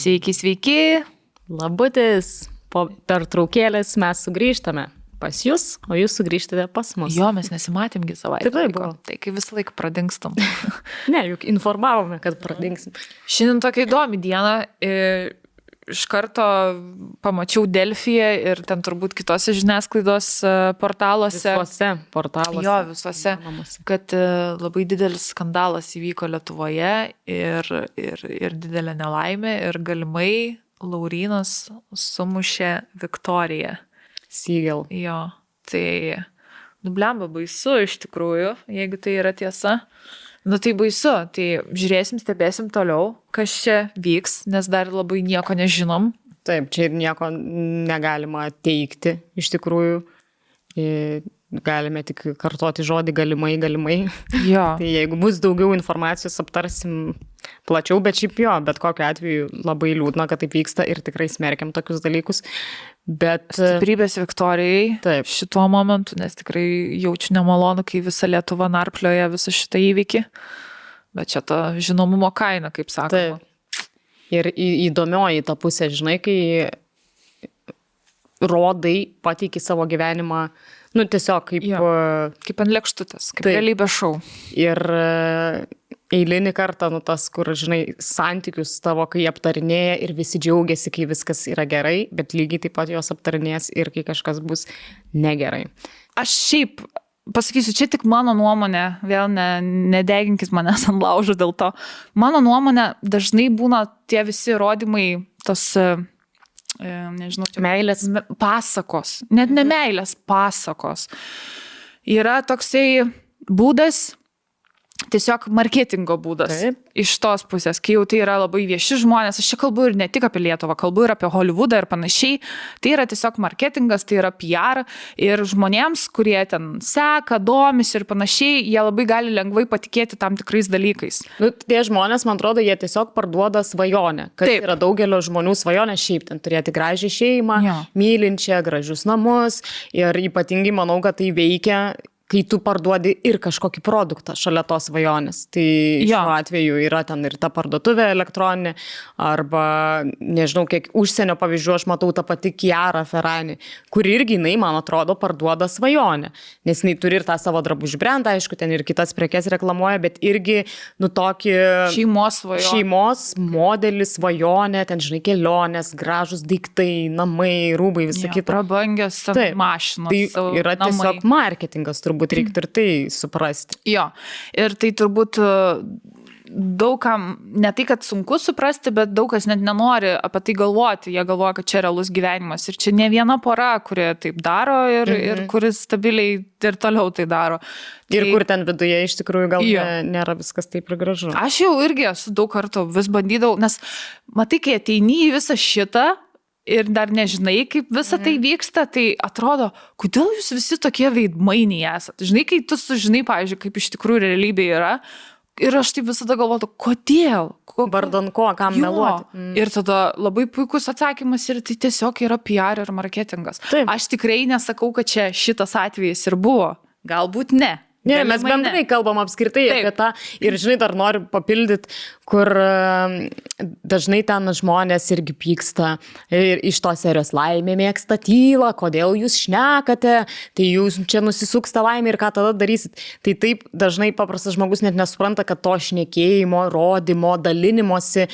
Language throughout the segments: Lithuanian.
Sveiki, sveiki. Labutis. Po pertraukėlės mes sugrįžtame pas jūs, o jūs sugrįžtate pas mus. Jo, mes nesimatėmgi savaitę. Taip, buvo. Tai kai visą laiką pradingstam. Ne, juk informavome, kad pradingsim. Šiandien tokia įdomi diena. Iš karto pamačiau Delfyje ir ten turbūt kitose žiniasklaidos portaluose. Visuose portaluose. Jo, visuose. Kad labai didelis skandalas įvyko Lietuvoje ir didelė nelaimė ir galimai Laurynas sumušė Viktoriją. Siegel. Jo, tai blemba baisu iš tikrųjų, jeigu tai yra tiesa. Nu tai baisu, tai žiūrėsim, stebėsim toliau, kas čia vyks, nes dar labai nieko nežinom. Taip, čia ir nieko negalima teikti iš tikrųjų. Galime tik kartoti žodį galimai. Jo. Tai jeigu bus daugiau informacijos, aptarsim plačiau, bet šiaip jo, bet kokiu atveju labai liūdna, kad taip vyksta ir tikrai smerkiam tokius dalykus. Bet stiprybės Viktorijai taip. Šituo momentu, nes tikrai jaučiu nemalonu, kai visa Lietuva narplioja visą šitą įvykį. Bet čia ta žinomumo kaina, kaip sakoma. Taip. Ir įdomioji ta pusė, žinai, kai rodai, pateiki savo gyvenimą, nu tiesiog kaip ant lėkštutės, kaip realybės šou. Ir eilinį kartą, nu tas, kur, žinai, santykius tavo, kai aptarinėja ir visi džiaugiasi, kai viskas yra gerai, bet lygiai taip pat jos aptarinės ir kai kažkas bus negerai. Aš šiaip pasakysiu, čia tik mano nuomonė, vėl nedeginkit manęs ant laužo dėl to. Mano nuomonė, dažnai būna tie visi įrodymai, tos nežinau, meilės pasakos, net ne meilės pasakos. Yra toksai būdas, tiesiog marketingo būdas. Taip. Iš tos pusės, kai jau tai yra labai vieši žmonės, aš čia kalbu ir ne tik apie Lietuvą, kalbu ir apie Hollywoodą ir panašiai. Tai yra tiesiog marketingas, tai yra PR ir žmonėms, kurie ten seka, domisi ir panašiai, jie labai gali lengvai patikėti tam tikrais dalykais. Nu, tie žmonės, man atrodo, jie tiesiog parduoda svajonę, kad Taip. yra daugelio žmonių svajonė šiaip ten turėti gražią šeimą, Jo. mylinčią, gražius namus ir ypatingai manau, kad tai veikia, kai tu parduodi ir kažkokį produktą šalia tos svajonės. Tai šiuo atveju yra ten ir ta parduotuvė elektroninė, arba, nežinau, kiek užsienio pavyzdžių aš matau tą patį Chiara Ferragni, kuri irgi, jinai, man atrodo, parduoda svajonę. Nes jinai turi ir tą savo drabužių brandą, aišku, ten ir kitas prekes reklamuoja, bet irgi, nu, tokį šeimos modelį, svajonę, ten, žinai, kelionės, gražus daiktai, namai, rūbai, visą kitą. Prabangios mašinos. Tai yra tiesiog marketingas, turbūt reiktų ir tai suprasti. Jo, ir tai turbūt daugam, ne tai, kad sunku suprasti, bet daug kas net nenori apie tai galvoti. Jie galvoja, kad čia realus gyvenimas. Ir čia ne viena pora, kurie taip daro ir kuris stabiliai ir toliau tai daro. Ir kur ten viduje iš tikrųjų gal nėra viskas taip ir gražu. Aš jau irgi esu daug kartų vis bandydavau, nes matai, kai ateini į visą šitą, ir dar nežinai, kaip visa tai vyksta, tai atrodo, kodėl jūs visi tokie veidmainiai esat. Žinai, kai tu sužinai, pavyzdžiui, kaip iš tikrųjų realybė yra, ir aš taip visada galvoju, kodėl? Vardan ko, kam meluoti. Ir tada labai puikus atsakymas ir tai tiesiog yra PR ir marketingas. Taip. Aš tikrai nesakau, kad čia šitas atvejis ir buvo. Galbūt ne. Ne, mes bendrai kalbam apskritai apie tą ir, žinai, dar noriu papildyti, kur dažnai ten žmonės irgi pyksta ir iš tos serijos laimė mėgsta tylą, kodėl jūs šnekate, tai jūs čia nusisuks tą laimę ir ką tada darysit. Tai taip dažnai paprastas žmogus net nesupranta, kad to šnekėjimo, rodymo, dalinimosi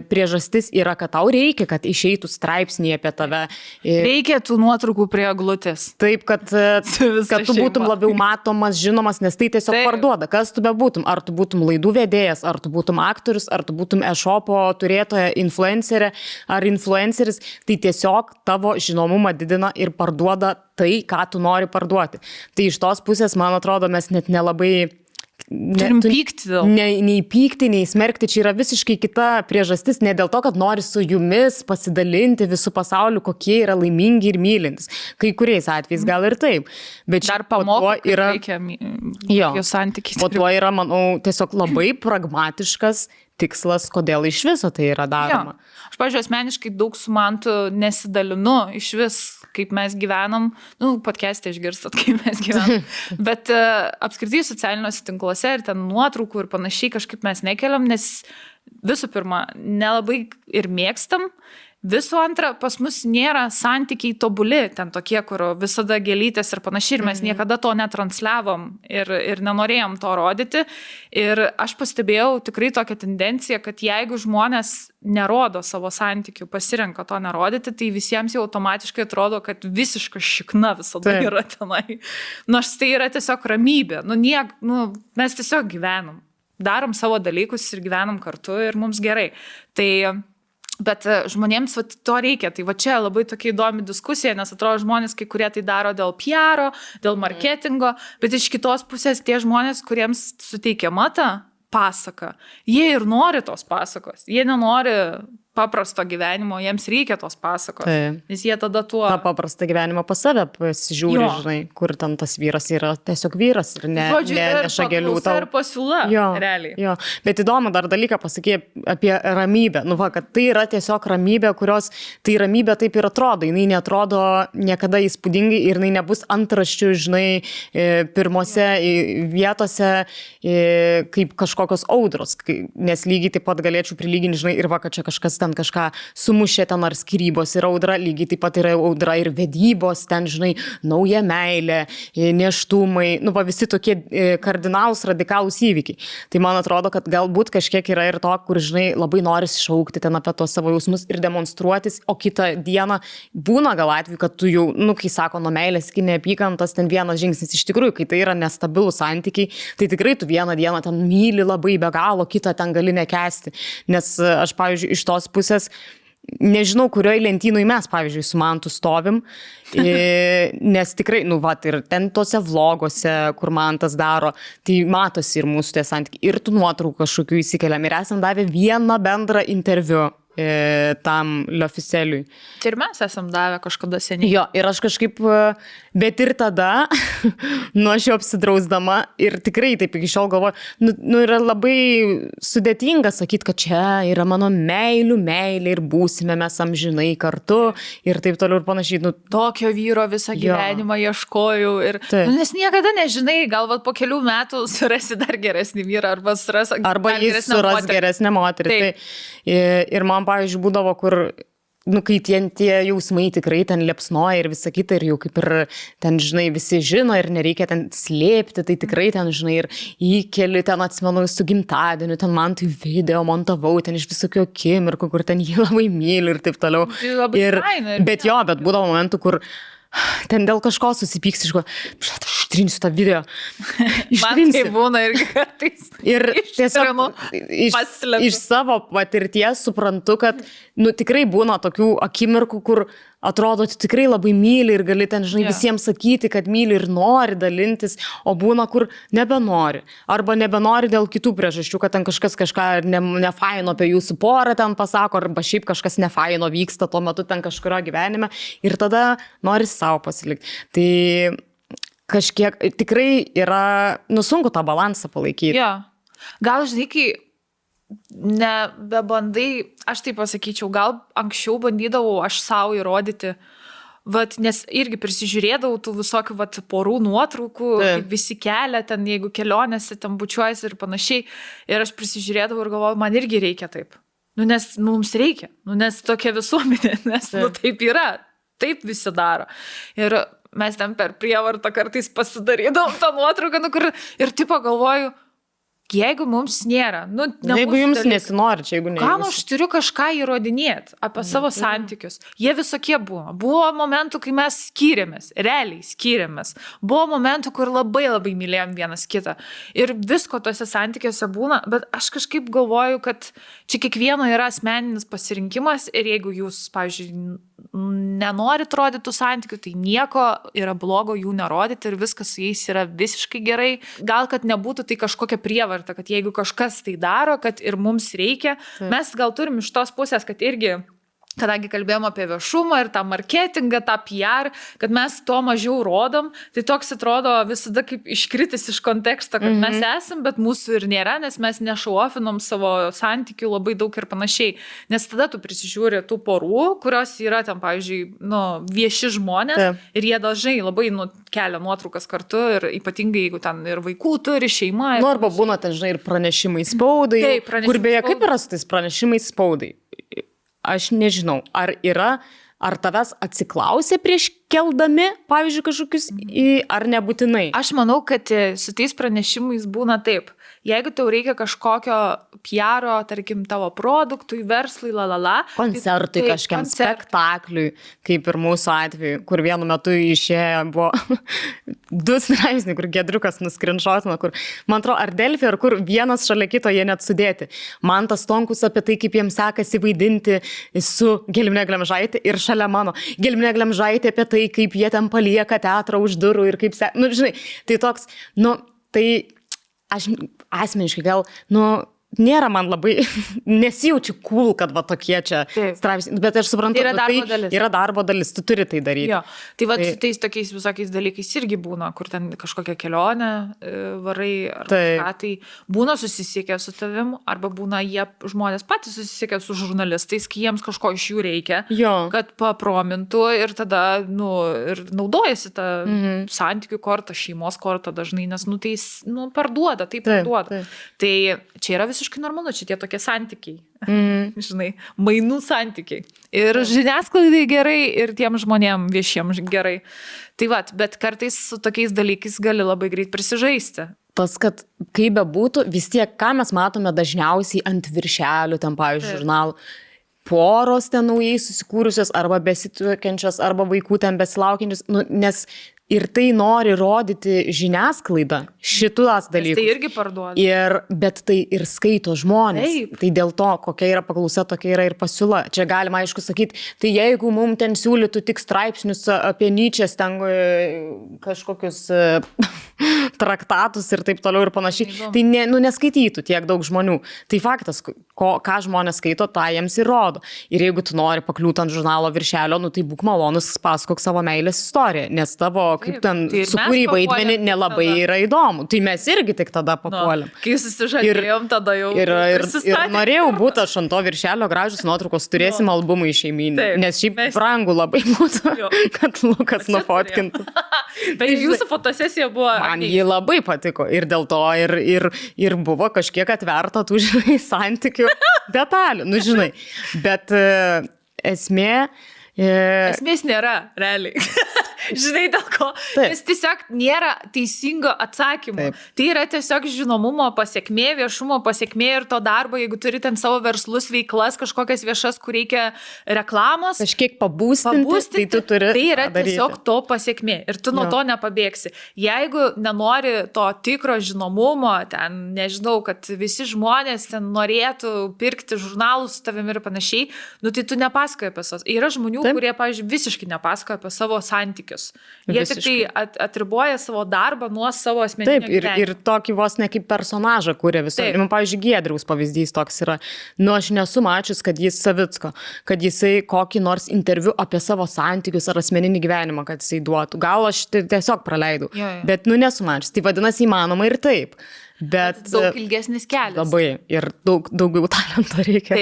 priežastis yra, kad tau reikia, kad išeitų straipsnį apie tave. Reikia tų nuotraukų prie eglutės. Taip, kad tu būtum labiau matomas, žinomas, nes tai tiesiog parduoda. Kas tu bebūtum? Ar tu būtum laidų vedėjas, ar tu būtum aktorius, ar tu būtum e-shopo turėtoja, influencerė ar influenceris, tai tiesiog tavo žinomumą didina ir parduoda tai, ką tu nori parduoti. Tai iš tos pusės, man atrodo, mes net nelabai turim pykti dėl. Nei pykti, nei smerkti, čia yra visiškai kita priežastis, ne dėl to, kad nori su jumis pasidalinti visų pasauliu, kokie yra laimingi ir mylintys. Kai kuriais atvejais gal ir taip. Bet dar pamoko, yra reikia jo santykiai. O tuo yra, manau, tiesiog labai pragmatiškas tikslas, kodėl iš viso tai yra daroma. Jo. Aš, pavyzdžiui, asmeniškai daug su Mantu nesidalinu iš vis, kaip mes gyvenam. Podcast'e išgirstat, kaip mes gyvenam. Bet apskritai socialiniuose tinkluose ir ten nuotraukų ir panašiai kažkaip mes nekeliam, nes visų pirma, nelabai ir mėgstam. Visų antra, pas mus nėra santykiai tobuli, ten tokie, kur visada gėlytės ir panašiai, ir mes niekada to netransliavom ir nenorėjom to rodyti. Ir aš pastebėjau tikrai tokią tendenciją, kad jeigu žmonės nerodo savo santykių, pasirenka to nerodyti, tai visiems jau automatiškai atrodo, kad visiška šikna visada yra tenai. Nors tai yra tiesiog ramybė. Mes tiesiog gyvenam. Darom savo dalykus ir gyvenam kartu ir mums gerai. Bet žmonėms to reikia. Tai čia labai tokia įdomi diskusija, nes atrodo žmonės, kai kurie tai daro dėl PR, dėl marketingo, bet iš kitos pusės tie žmonės, kuriems suteikiama ta pasaka, jie ir nori tos pasakos. Jie nenori paprasto gyvenimo, jiems reikia tos pasakos. Nes jie tada tuo... Ta paprastą gyvenimą pas save pasižiūri, žinai, kur ten tas vyras yra tiesiog vyras ir neša gėlių tau. Ir pasiūla, realiai. Jo. Bet įdomu dar dalyką pasakė apie ramybę. Kad tai yra tiesiog ramybė, kurios, tai ramybė taip ir atrodo. Jinai neatrodo niekada įspūdingai ir jinai nebus antraščių, žinai, pirmose vietose kaip kažkokios audros. Nes lygiai taip pat galėčiau prilyginti, žinai, ir kad čia kažkas ten kažką sumušė ten ar skyrybos yra audra, lygiai taip pat yra audra ir vedybos, ten, žinai, nauja meilė, nėštumai, visi tokie kardinalūs, radikalūs įvykiai. Tai man atrodo, kad galbūt kažkiek yra ir to, kur, žinai, labai noris šaukti ten apie tos savo jausmus ir demonstruotis, o kitą dieną būna gal atveju, kad tu jau, kai sako, nuo meilės iki neapykantos, ten vienas žingsnis. Iš tikrųjų, kai tai yra nestabilūs santykiai, tai tikrai tu vieną dieną ten myli labai be galo, kitą ten gali nekęsti. Nes aš, pavyzdžiui, iš tos pusės, nežinau, kurioje lentynoje mes, pavyzdžiui, su Mantu stovim, nes tikrai, ir ten tose vlogose, kur Mantas daro, tai matosi ir mūsų tie santykiai, ir tų nuotraukų kažkokių įsikeliam, ir esam davę vieną bendrą interviu tam L'Officieliui. Tai ir mes esam davę kažkada seniai. Jo, ir aš kažkaip, bet ir tada, aš jau apsidrausdama ir tikrai taip iki šiol galvoju, yra labai sudėtinga sakyti, kad čia yra mano meilė ir būsime mes amžinai kartu ir taip toliau ir panašiai. Tokio vyro visą gyvenimą ieškojau ir, nes niekada nežinai, gal po kelių metų surasi dar geresnį vyrą arba jis suras geresnę moterį. Ir man, pavyzdžiui, būdavo, kur, kai tie jausmai tikrai ten liepsnoja ir visa kita, ir jau kaip ir ten, žinai, visi žino ir nereikia ten slėpti, tai tikrai ten, žinai, ir įkeli ten, atsimenu, su gimtadieniu, ten man tai video montavau, ten iš visokių akimirkų, kur ten jį labai myli ir taip toliau. Bet būdavo momentų, kur ten dėl kažko susipyks, aš ištrinsiu tą video. Man tai būna irgi kartais. Ir tiesiog iš savo patirties suprantu, kad tikrai būna tokių akimirkų, kur atrodo, tu tikrai labai myli ir gali ten, žinai, visiems sakyti, kad myli ir nori dalintis, o būna, kur nebenori. Arba nebenori dėl kitų priežasčių, kad ten kažkas kažką nefaino apie jūsų porą ten pasako, arba šiaip kažkas nefaino vyksta tuo metu ten kažkurio gyvenime ir tada nori savo pasilikti. Tai kažkiek tikrai yra, sunku tą balansą palaikyti. Jo. Gal, žinai, kai nebebandai, aš taip pasakyčiau, gal anksčiau bandydavau aš savo įrodyti, nes irgi prisižiūrėdavau tų visokių porų nuotraukų, kaip visi kelia ten, jeigu kelionėse ten bučiuojasi ir panašiai, ir aš prisižiūrėdavau ir galvojau, man irgi reikia taip. Nes mums reikia, nes tokia visuomenė, nes taip yra, taip visi daro. Ir mes ten per prievartą kartais pasidarydavom tą nuotrauką, ir tipo galvoju, jeigu mums nėra, jeigu jums nesinori, čia jeigu ne. Kam aš turiu kažką įrodinėti apie savo santykius? Jie visokie buvo. Buvo momentų, kai mes skyrėmės, realiai skyrėmės. Buvo momentų, kur labai labai mylėjom vienas kitą. Ir visko tose santykiuose būna, bet aš kažkaip galvoju, kad čia kiekvieno yra asmeninis pasirinkimas ir jeigu jūs, pavyzdžiui, nenorit rodyti tų santykių, tai nieko yra blogo jų nerodyti ir viskas su jais yra visiškai gerai. Gal, kad nebūtų tai kažkokia prievarta, kad jeigu kažkas tai daro, kad ir mums reikia. Mes gal turim iš tos pusės, kad irgi kadangi kalbėjom apie viešumą ir tą marketingą, tą PR, kad mes to mažiau rodom, tai toks atrodo visada kaip iškritis iš konteksto, kad mes esam, bet mūsų ir nėra, nes mes nešauofinom savo santykių labai daug ir panašiai. Nes tada tu prisižiūri tų porų, kurios yra ten, pavyzdžiui, vieši žmonės ir jie dažnai labai kelia nuotraukas kartu ir ypatingai, jeigu ten ir vaikų turi, šeima. Arba būna ten, žinai, ir pranešimai spaudai, kur beje, kaip yra su tais pranešimais spaudai? Aš nežinau, ar tavęs atsiklausė prieš keldami, pavyzdžiui, kažkokius, ar nebūtinai? Aš manau, kad su tais pranešimais būna taip. Jeigu tau reikia kažkokio PR-o, tarkim, tavo produktui, verslui, koncertui, kažkiam spektakliui, kaip ir mūsų atveju, kur vienu metu išėjo buvo 2 straipsniai, kur Giedriukas nuskrinšotino, kur, man atrodo, ar Delfi, ar kur vienas šalia kito jie net sudėti. Mantas Tonkus apie tai, kaip jiems sekasi vaidinti su Gelminė Glemžaitė ir šalia mano Gelminė Glemžaitė apie tai, kaip jie ten palieka teatrą už durų ir kaip žinai, tai toks, tai aš asmeniškai gal, nėra man labai, nesijaučiu cool, kad va tokie čia straipsniai, bet aš suprantu, yra darbo dalis, tu turi tai daryti. Jo. Tai va, tais tokiais visokiais dalykais irgi būna, kur ten kažkokią kelionę varai, ar kažką, tai būna susisiekę su tavim, arba būna žmonės patys susisiekę su žurnalistais, kai jiems kažko iš jų reikia, kad papromintų ir tada, ir naudojasi tą santykių kortą, šeimos kortą dažnai, nes, tai parduoda, tai parduoda. Tai čia yra visiškai normalu, čia tie tokie santykiai, žinai, mainų santykiai. Ir žiniasklaidai gerai, ir tiem žmonėm viešiems gerai. Tai va, bet kartais su tokiais dalykais gali labai greit prisižaisti. Tas, kad kaip bebūtų, vis tiek, ką mes matome dažniausiai ant viršelių, ten, pavyzdžiui, žurnalų, poros ten naujai susikūrusios, arba besituokiančios, arba vaikų ten besilaukiančios, nes ir tai nori rodyti žiniasklaidą, šitus dalykus. Tai irgi parduoda. Bet tai ir skaito žmonės. Taip. Tai dėl to, kokia yra paklausa, tokia yra ir pasiūla. Čia galima, aišku, sakyti, tai jeigu mums ten siūlytų tik straipsnius apie Nyčės, ten kažkokius traktatus ir taip toliau ir panašiai, tai neskaitytų tiek daug žmonių. Tai faktas, ką žmonės skaito, tą jiems ir rodo. Ir jeigu tu nori pakliūti ant žurnalo viršelio, tai būk malonus, pasakok savo meilės istoriją, nes tavo kaip ten sukūrį vaidmenį nelabai yra įdomu. Tai mes irgi tik tada papuolėm. Kai susižadėjom, tada jau ir norėjau būti aš ant to viršelio gražius nuotraukos, turėsim albumą į šeiminį. Nes šiaip brangu labai būtų, kad Lukas nufotkintų. Bet jūsų fotosesija buvo... Man ji labai patiko. Ir dėl to ir buvo kažkiek atverta tų, žinai, santykių detalių. Žinai. Bet esmės nėra, realiai. Žinai, dėl ko? Nes tiesiog nėra teisingo atsakymo. Tai yra tiesiog žinomumo pasiekmė, viešumo pasiekmė ir to darbo, jeigu turi ten savo verslus, veiklas, kažkokias viešas, kur reikia reklamos. Kažkiek pabūstinti, tai tu turi. Tai yra tiesiog to pasiekmė ir tu nuo to nepabėgsi. Jeigu nenori to tikro žinomumo, ten, nežinau, kad visi žmonės ten norėtų pirkti žurnalus su tavimi ir panašiai, tai tu nepasakoji apie savo. Yra žmonių, kurie, pavyzdžiui, visiškai nepasakoja apie savo santykius. Jie tik tai atriboja savo darbą nuo savo asmeninio gyvenimo. Ir tokį vos ne kaip personažą kūrė visą. Pavyzdžiui, Giedriaus pavyzdys toks yra. Aš nesu mačius, kad jis Savicko, kad jisai kokį nors interviu apie savo santykius ar asmeninį gyvenimą, kad jisai duotų. Gal aš tiesiog praleidau. Bet nesu mačius. Tai vadinasi įmanoma ir taip. Bet daug ilgesnis kelias. Labai. Ir daugiau talento reikia.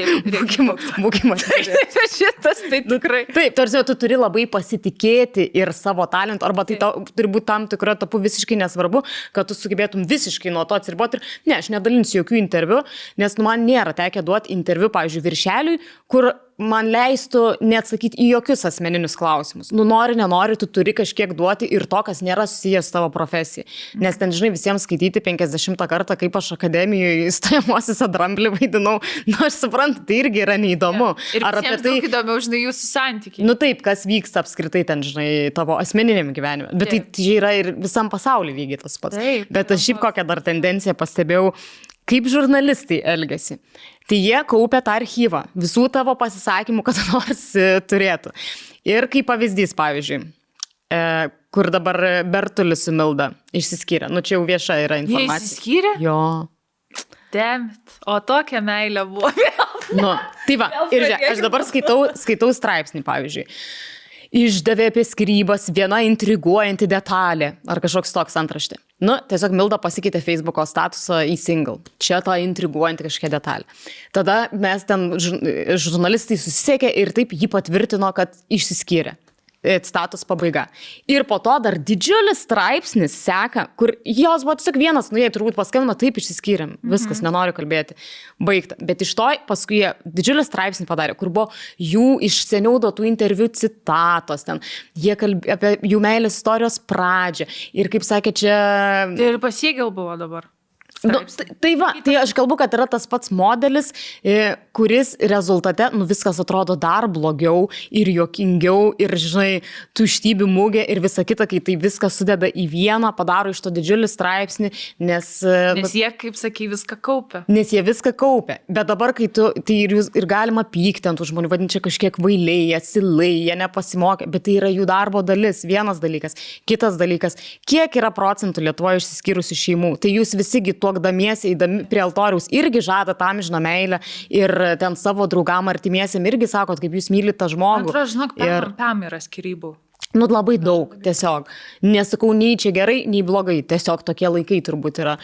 Būkime. Šitas tai tikrai. Taip, tarsi tu turi labai pasitikėti ir savo talentu, arba tai turi būti tam tikra tapu visiškai nesvarbu, kad tu sugebėtum visiškai nuo to atsiriboti. Ir aš nedalinsiu jokių interviu, nes man nėra tekę duoti interviu, pavyzdžiui, viršeliui, kur man leistų neatsakyti į jokius asmeninius klausimus. Nori, nenori, tu turi kažkiek duoti ir to, kas nėra susijęs tavo profesija. Nes ten, žinai, visiems skaityti 50 kartą, kaip aš akademijoje įstojamuosiuose Dramblį vaidinau. Aš suprantu, tai irgi yra neįdomu. Ir ar apie tai įdomiau, žinai, jūsų santykiai. Taip, kas vyksta apskritai ten, žinai, tavo asmeniniam gyvenime. Bet tai yra ir visam pasaulyje lygiai tas pats. Bet aš šiaip kokią dar tendenciją pastebėjau, kaip žurnalistai elgiasi. Tai jie kaupia tą archyvą, visų tavo pasisakymų, kad nors turėtų. Ir kaip pavyzdys, pavyzdžiui, kur dabar Bertulis su Milda išsiskyrė. Čia jau vieša yra informacija. Jie išsiskyrė? Jo. Damn it. O tokia meilė buvo vėl. Nu, tai va, ir žiūrėk, aš dabar skaitau straipsnį, pavyzdžiui. Išdavė apie skyrybas viena intriguojanti detalė. Ar kažkoks toks antraštė. Nu, tiesiog Milda pasikeitė Facebooko statusą į single. Čia ta intriguojanti kažkokia detalė. Tada mes ten žurnalistai susisiekė ir taip jį patvirtino, kad išsiskyrė. Status pabaiga. Ir po to dar didžiulis straipsnis seka, kur jos buvo tiesiog vienas, jie turbūt paskambino, taip išsiskyrėm, viskas, nenoriu kalbėti, baigta. Bet iš to paskui jie didžiulį straipsnį padarė, kur buvo jų iš seniau duotų interviu citatos, ten jie kalbėjo apie jų meilės istorijos pradžią. Ir kaip sakė, čia... Tai ir pasiegėl buvo dabar. Nu, tai va, tai aš kalbu, kad yra tas pats modelis, kuris rezultate, viskas atrodo dar blogiau ir juokingiau ir, žinai, tuštybių mugė ir visa kita, kai tai viskas sudeda į vieną, padaro iš to didžiulį straipsnį, nes jie, kaip sakai, viską kaupia. Nes jie viską kaupia. Bet dabar, kai tai ir galima pykti ant tų žmonių, vadinti čia kažkiek vailiai, atsilai, jie nepasimokė, bet tai yra jų darbo dalis, vienas dalykas. Kitas dalykas, kiek yra procentų Lietuvoje išsiskyrusių šeimų, tai jūs visigi tuokdamiesi, eidami prie altoriaus, irgi žada tam amžiną meilę ir ten savo draugam artimiesiam irgi sakot, kaip jūs mylite tą žmogų. Atrodo, žinok, pam yra skyrybų. Nu, labai daug, tiesiog. Nesakau, nei čia gerai, nei blogai, tiesiog tokie laikai turbūt yra.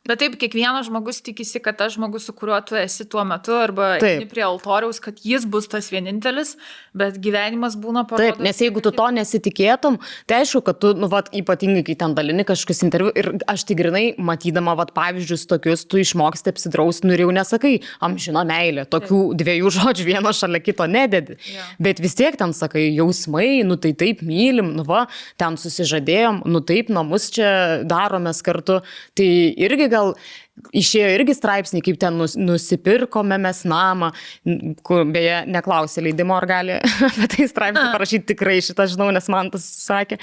Bet taip, kiekvienas žmogus tikisi, kad tas žmogus, su kuriuo tu esi tuo metu, arba prie altoriaus, kad jis bus tas vienintelis, bet gyvenimas būna parodas. Taip, nes jeigu tu to nesitikėtum, tai aišku, kad tu, ypatingai, kai ten dalini kažkokius interviu, ir aš tikrinai, matydama, pavyzdžius tokius, tu išmoksti apsidrausti, ir jau nesakai, amžina meilė, tokių dviejų žodžių vieno šalia kito nededi. Ja. Bet vis tiek ten sakai, jausmai, tai taip mylim, ten susižadėjom, taip, namus čia daromės kartu, tai irgi gal išėjo irgi straipsniai, kaip ten nusipirkome mes namą, kur beje neklausė leidimo, ar gali apie tai straipsnį parašyti, tikrai šitą žinau, nes man tas sakė,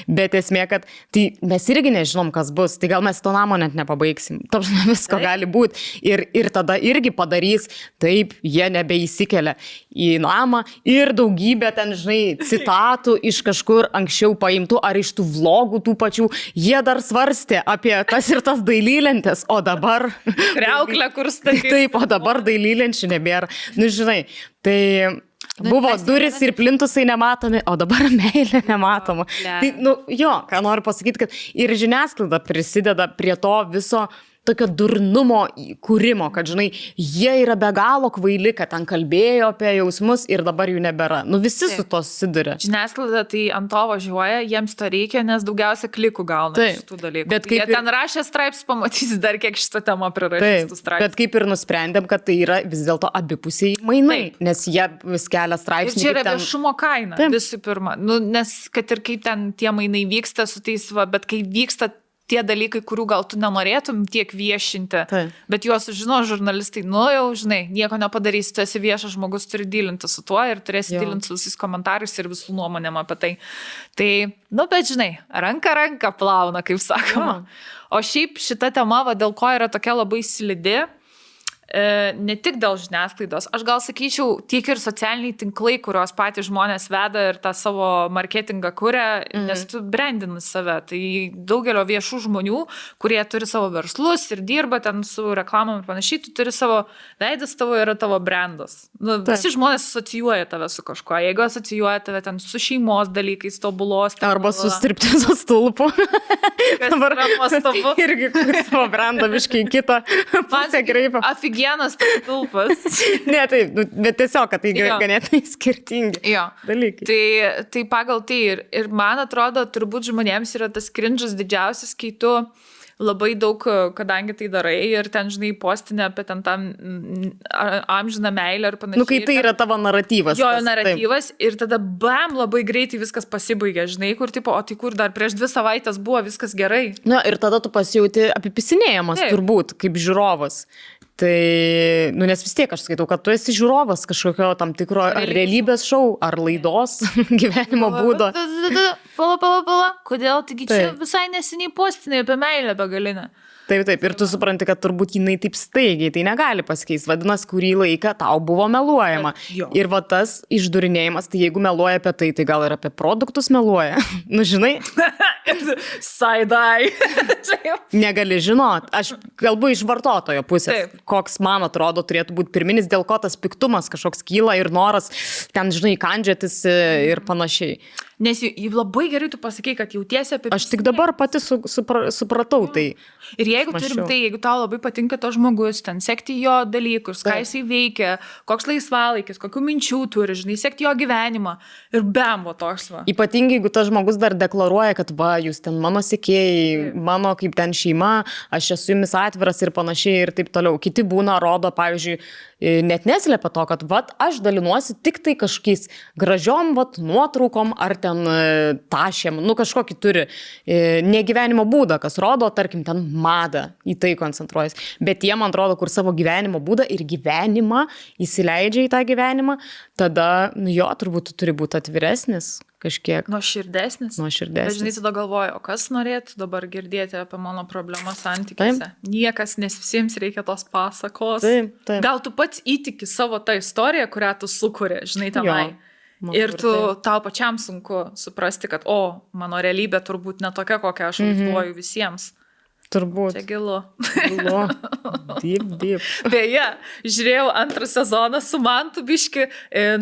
bet esmė, kad tai mes irgi nežinom, kas bus, tai gal mes to namo net nepabaigsim, visko gali būti ir tada irgi padarys, taip, jie nebeįsikelia į namą ir daugybė ten, žinai, citatų iš kažkur anksčiau paimtų ar iš tų vlogų tų pačių, jie dar svarstė apie tas ir tas dailylentės, o dabar kriauklę, kur statyti. Taip, o dabar dailylenčių nebėra. Žinai, tai buvo duris ir plintusai nematomi, o dabar meilė nematoma. Tai, ką noriu pasakyti, kad ir žiniasklaida prisideda prie to viso tokio durnumo kūrimo, kad, žinai, jie yra be galo kvaili, kad ten kalbėjo apie jausmus ir dabar jų nebėra. Visi su to susiduria. Žiniasklaida tai ant to važiuoja, jiems to reikia, nes daugiausia klikų gauna iš tų dalykų. Bet jie ten rašė straipsnius, pamatys dar kiek šitą temą prirašys tų straipsnių. Bet kaip ir nusprendėm, kad tai yra vis dėlto abipusiai mainai, nes jie vis kelia straipsnius. Ir čia yra viešumo kaina, visų pirma. Nes kad ir kaip ten tie mainai vyksta su tais, bet kai vyksta tie dalykai, kurių gal tu nenorėtum tiek viešinti, bet juos žino žurnalistai, jau žinai, nieko nepadarysi, tu esi viešas žmogus, turi dylinti su tuo ir turėsi dylinti su visais komentarais ir visų nuomonėm apie tai. Tai, bet žinai, ranka plauna, kaip sakoma. O šiaip šita tema, dėl ko yra tokia labai slidi, ne tik dėl žiniasklaidos, aš gal sakyčiau, tiek ir socialiniai tinklai, kurios patys žmonės veda ir tą savo marketingą kuria, nes tu brandini save. Tai daugelio viešų žmonių, kurie turi savo verslus ir dirba ten su reklamom ir panašiai, tu turi savo veidas, tavo yra tavo brandas. Visi žmonės asocijuoja tave su kažkuo. Jeigu asocijuoja tave ten su šeimos dalykais, tobulos. Arba su striptizo stulpu. Kas yra nuostabu. Irgi savo brandą biškai kitą pusę kreipia. Vienas tulpas. Ne, taip, bet tiesiog, kad tai ganėtinai skirtingi dalykai. Tai pagal tai ir man atrodo, turbūt žmonėms yra tas cringe'as didžiausias, kai tu labai daug, kadangi tai darai ir ten, žinai, postinė apie ten tą amžiną meilę ir panašiai. Kai tai yra tavo naratyvas. Jo, naratyvas ir tada labai greitai viskas pasibaigia, žinai, kur tipo, o tai kur dar prieš 2 savaitės buvo viskas gerai. Ir tada tu pasijauti apipisinėjamas turbūt, kaip žiūrovas. Tai, nes vis tiek aš skaitau, kad tu esi žiūrovas kažkokio tam tikro ar realybės šou, ar laidos gyvenimo būdo. Pala, kodėl? Taigi čia visai neseniai postinė apie meilę begalinę. Taip, ir tu supranti, kad turbūt jinai taip staigiai, tai negali pasikeisti. Vadinasi, kurį laiką tau buvo meluojama. Ir tas išdurinėjimas, tai jeigu meluoja apie tai gal ir apie produktus meluoja. Žinai? Side-eye. Negali žinot. Aš kalbu iš vartotojo pusės. koks man atrodo turėtų būti pirminis, dėl ko tas piktumas kažkoks kyla ir noras ten, žinai, kandžiotis ir panašiai. Nes labai gerai tu pasakai, kad jautiesi apie... Aš tik dabar pati supratau tai. Ir jeigu turim tai, jeigu tau labai patinka to žmogus, ten sekti jo dalykus, ką jisai veikia, koks laisvalaikis, kokių minčių turi, žinai, sekti jo gyvenimą ir bemvo toks va. Ypatingai, jeigu tas žmogus dar deklaruoja, kad va, jūs ten mano sekėjai, mano kaip ten šeima, aš esu jumis atviras ir panašiai ir taip toliau. Kiti būna, rodo, pavyzdžiui, net neslėpia to, kad vat, aš dalinuosi tik tai kažkokiais gražiom vat, nuotraukom ar ten tašėm, nu kažkokį turi negyvenimo būdą, kas rodo, tarkim, ten madą, į tai koncentruojas. Bet jie, man atrodo, kur savo gyvenimo būdą ir gyvenimą įsileidžia į tą gyvenimą, tada, nu jo, turbūt turi būti atviresnis kažkiek. Nuoširdesnis. Nuoširdesnis. Bet žinai, tada galvoju, o kas norėtų dabar girdėti apie mano problemą santykiuose? Niekas, nes visiems reikia tos pasakos. Taip. Gal tu pats įtiki savo tą istoriją, kurią tu sukuri, žinai, tenai. Ir tau pačiam sunku suprasti, kad, mano realybė turbūt ne tokia, kokią aš vaizduoju visiems. Turbūt. Čia gilu. Deep. Beje, žiūrėjau antrą sezoną su Mantu biški,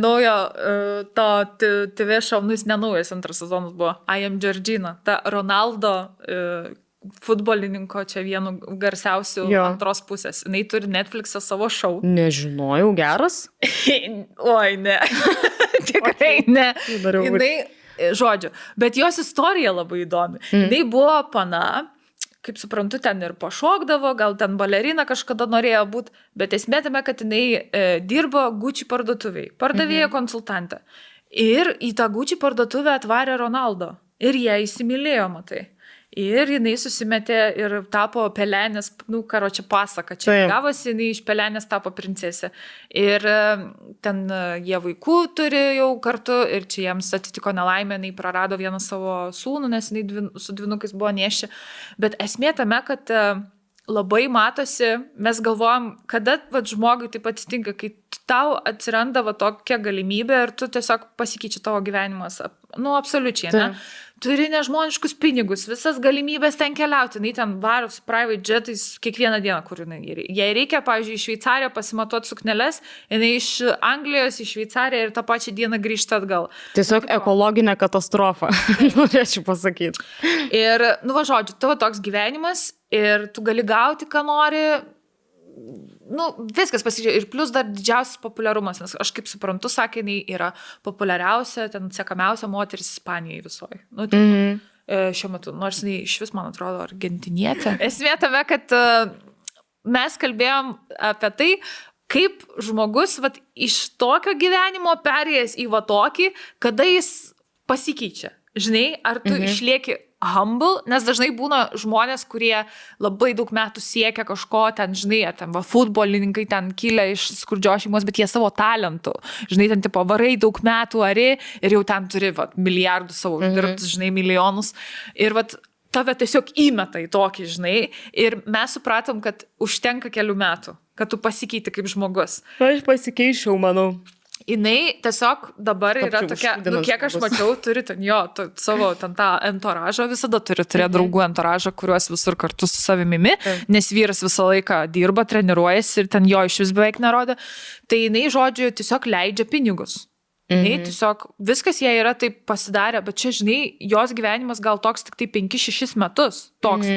naujo to TV šou, nu jis nenaujas antras sezonas buvo, I Am Georgina, ta Ronaldo futbolininko čia vienu garsiausių antros pusės. Jinai turi Netflix'e savo šou. Nežinojau, geras? Oi, ne. Tikrai ne. Jinai, žodžiu, bet jos istorija labai įdomi. Jinai buvo pana, kaip suprantu, ten ir pašokdavo, gal ten balerina kažkada norėjo būti, bet esmė tame, kad jinai dirbo Gucci parduotuviai, pardavėja konsultantė. Ir į tą Gucci parduotuvę atvarė Ronaldo. Ir jie įsimylėjo, matai. Ir jinai susimetė ir tapo pelenės, nu, karočią pasaka. Čia gavosi, jinai iš pelenės tapo princesė. Ir ten jie vaikų turi jau kartu ir čia jiems atitiko nelaimė, jinai prarado vieną savo sūnų, nes jinai su dvynukais buvo nešė. Bet esmė tame, kad labai matosi, mes galvojam, kada žmogui taip atsitinka, kai tau atsiranda tokia galimybė ir tu tiesiog pasikeičia tavo gyvenimas. Nu, absoliučiai, ne? Turi nežmoniškus pinigus, visas galimybės ten keliauti, jinai ten varo su private jetais kiekvieną dieną, kur jinai. Jei reikia, pavyzdžiui, iš Šveicariją pasimatuoti sukneles, jinai iš Anglijos į Šveicariją ir tą pačią dieną grįžta atgal. Tiesiog ekologinė katastrofa, norėčiau pasakyti. Ir, nu va, žodžiu, tavo toks gyvenimas ir tu gali gauti, ką nori. Nu, viskas pasižiūrėjo. Ir plus dar didžiausias populiarumas, nes aš kaip suprantu, sakė, jinai yra populiariausia, ten sekamiausia moteris Ispanijai visoje. Nu, šiuo metu, nors jinai iš vis, man atrodo, argentinietė. Esmė tame, kad mes kalbėjom apie tai, kaip žmogus iš tokio gyvenimo perėjęs į tokį, kada jis pasikeičia. Žinai, ar tu išlieki humble, nes dažnai būna žmonės, kurie labai daug metų siekia kažko, ten, žinai, ten futbolininkai ten kilę iš skurdžios šeimos, bet jie savo talentų, žinai, ten tipo varai daug metų ari ir jau ten turi milijardų savo uždirbtus, žinai, milijonus ir tave tiesiog įmeta į tokį, žinai, ir mes supratom, kad užtenka kelių metų, kad tu pasikeiti kaip žmogus. Aš pasikeičiau, manau. Jinai tiesiog dabar yra tokia, nu, kiek aš mačiau, turi ten savo ten tą entoražą, visada turi turėti draugų entoražą, kuriuos visur kartu su savimimi, nes vyras visą laiką dirba, treniruojasi ir ten jo iš vis beveik nerodo. Tai jinai, žodžiu, tiesiog leidžia pinigus. Jinai tiesiog, viskas jai yra taip pasidarę, bet čia, žinai, jos gyvenimas gal toks tik tai 5-6 metus, toks.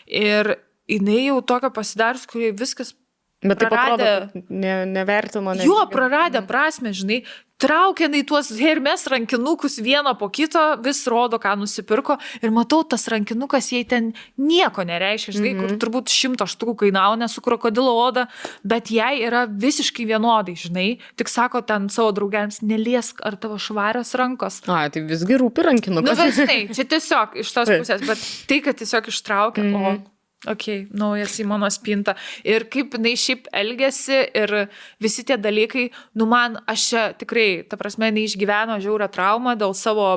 Ir jinai jau tokio pasidarius, kurie viskas bet taip atrodo, nevertino. Jo, praradę prasme, žinai, traukia tuos Hermes rankinukus vieną po kito, vis rodo, ką nusipirko ir matau, tas rankinukas jai ten nieko nereiškia, žinai, kur turbūt 100 štukų kainavo, su krokodilo oda, bet jai yra visiškai vienodai, žinai, tik sako ten savo draugėms, neliesk ar tavo švarios rankos. A, tai visgi rūpi rankinukas. Nu, bet žinai, čia tiesiog iš tos pusės, bet tai, kad tiesiog ištraukia, naujas į mano spintą. Ir kaip jinai šiaip elgiasi ir visi tie dalykai, nu man, aš čia tikrai, ta prasme, neišgyveno žiaurią traumą dėl savo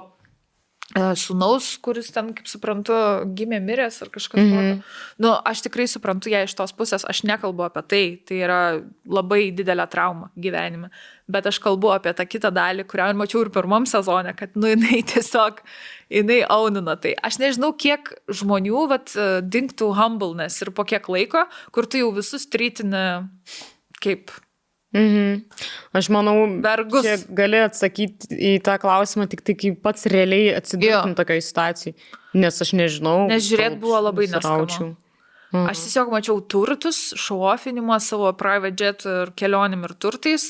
sūnaus, kuris ten, kaip suprantu, gimė miręs ar kažkas tokio. Nu, aš tikrai suprantu ją iš tos pusės, aš nekalbu apie tai, tai yra labai didelė trauma gyvenime, bet aš kalbu apie tą kitą dalį, kurią mačiau ir pirmam sezone, kad, nu, jinai tiesiog jinai aunina tai. Aš nežinau, kiek žmonių dingtų humbleness ir po kiek laiko, kur tu jau visus trytini kaip... Aš manau, vergus. Čia gali atsakyti į tą klausimą tik tai, kai pats realiai atsidurtum tokioj situacijai. Nes aš nežinau. Nes žiūrėt buvo labai neskanu. Aš tiesiog mačiau turtus, šauofinimą savo private jet ir kelionim ir turtais.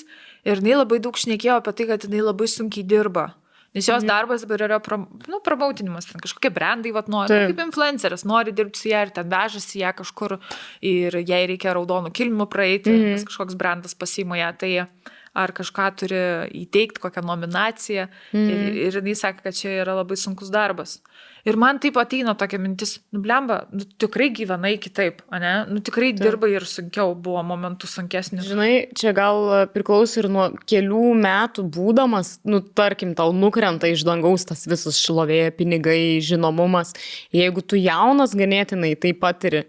Ir jinai labai daug šnekėjo apie tai, kad jinai labai sunkiai dirba. Nes jos darbas dabar yra promoutinimas, ten kažkokie brandai nori, kaip influenceris, nori dirbti su ją ir ten vežasi ją kažkur ir jai reikia raudonų kilmų praeiti, nes kažkoks brandas pasiima ją, tai ar kažką turi įteikti, kokią nominaciją ir jinai sakė, kad čia yra labai sunkus darbas. Ir man taip ateina tokia mintis, blemba, tikrai gyvenai kitaip, ane? Tikrai dirbai ir sunkiau, buvo momentų sunkesnis. Žinai, čia gal priklauso ir nuo kelių metų būdamas, tarkim, tau nukrenta iš dangaus tas visas šlovė, pinigai, žinomumas. Jeigu tu jaunas ganėtinai tai patiri,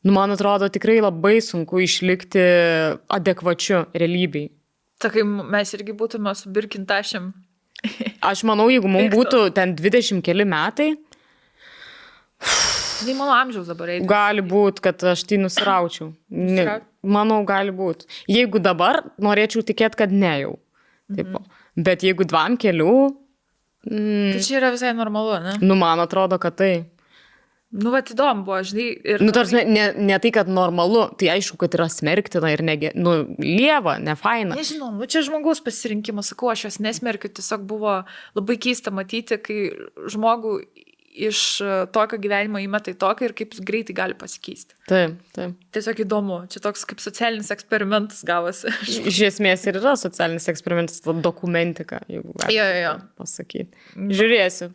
man atrodo tikrai labai sunku išlikti adekvačiu realybei. Takai mes irgi būtume su Birkintašėm. Aš manau, jeigu mums būtų ten 20 keli metai, tai mano amžiaus dabar eiti. Gali būti, kad aš tai nusiraučiau. Manau, gali būti. Jeigu dabar, norėčiau tikėti, kad ne jau. Tipo. Bet jeigu 2 kelių... Tai čia yra visai normalu, ne? Man atrodo, kad tai. Įdomu buvo, žinai. Ir... tarsi, ne tai, kad normalu, tai aišku, kad yra smerktina ir lieva, ne faina. Nežinau, čia žmogaus pasirinkimas, sakau, aš jos nesmerkiu, tiesiog buvo labai keista matyti, kai žmogų iš tokio gyvenimo įmeta į tokį ir kaip greitai gali pasikeisti. Taip. Tiesiog įdomu, čia toks kaip socialinis eksperimentas gavosi. Iš esmės ir yra socialinis eksperimentas, dokumentika, jeigu galima pasakyti. Pažiūrėsiu.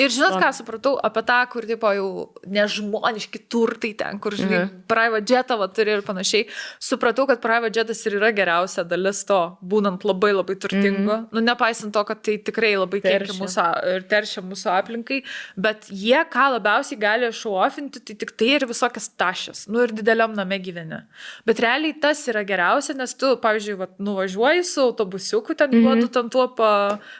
Ir žinot, ką supratau apie tą, kur tipo jau nežmoniški turtai ten, kur žinai, private jetą turi ir panašiai. Supratau, kad private jetas ir yra geriausia dalis to, būnant labai labai turtingu. Nepaisant to, kad tai tikrai labai teršia mūsų aplinkai, bet jie, ką labiausiai gali šauofinti, tai tik tai ir visokias tašės. Ir dideliam name gyveni. Bet realiai tas yra geriausia, nes tu, pavyzdžiui, nuvažiuoji su autobusiuku, ten juodu ten tuo,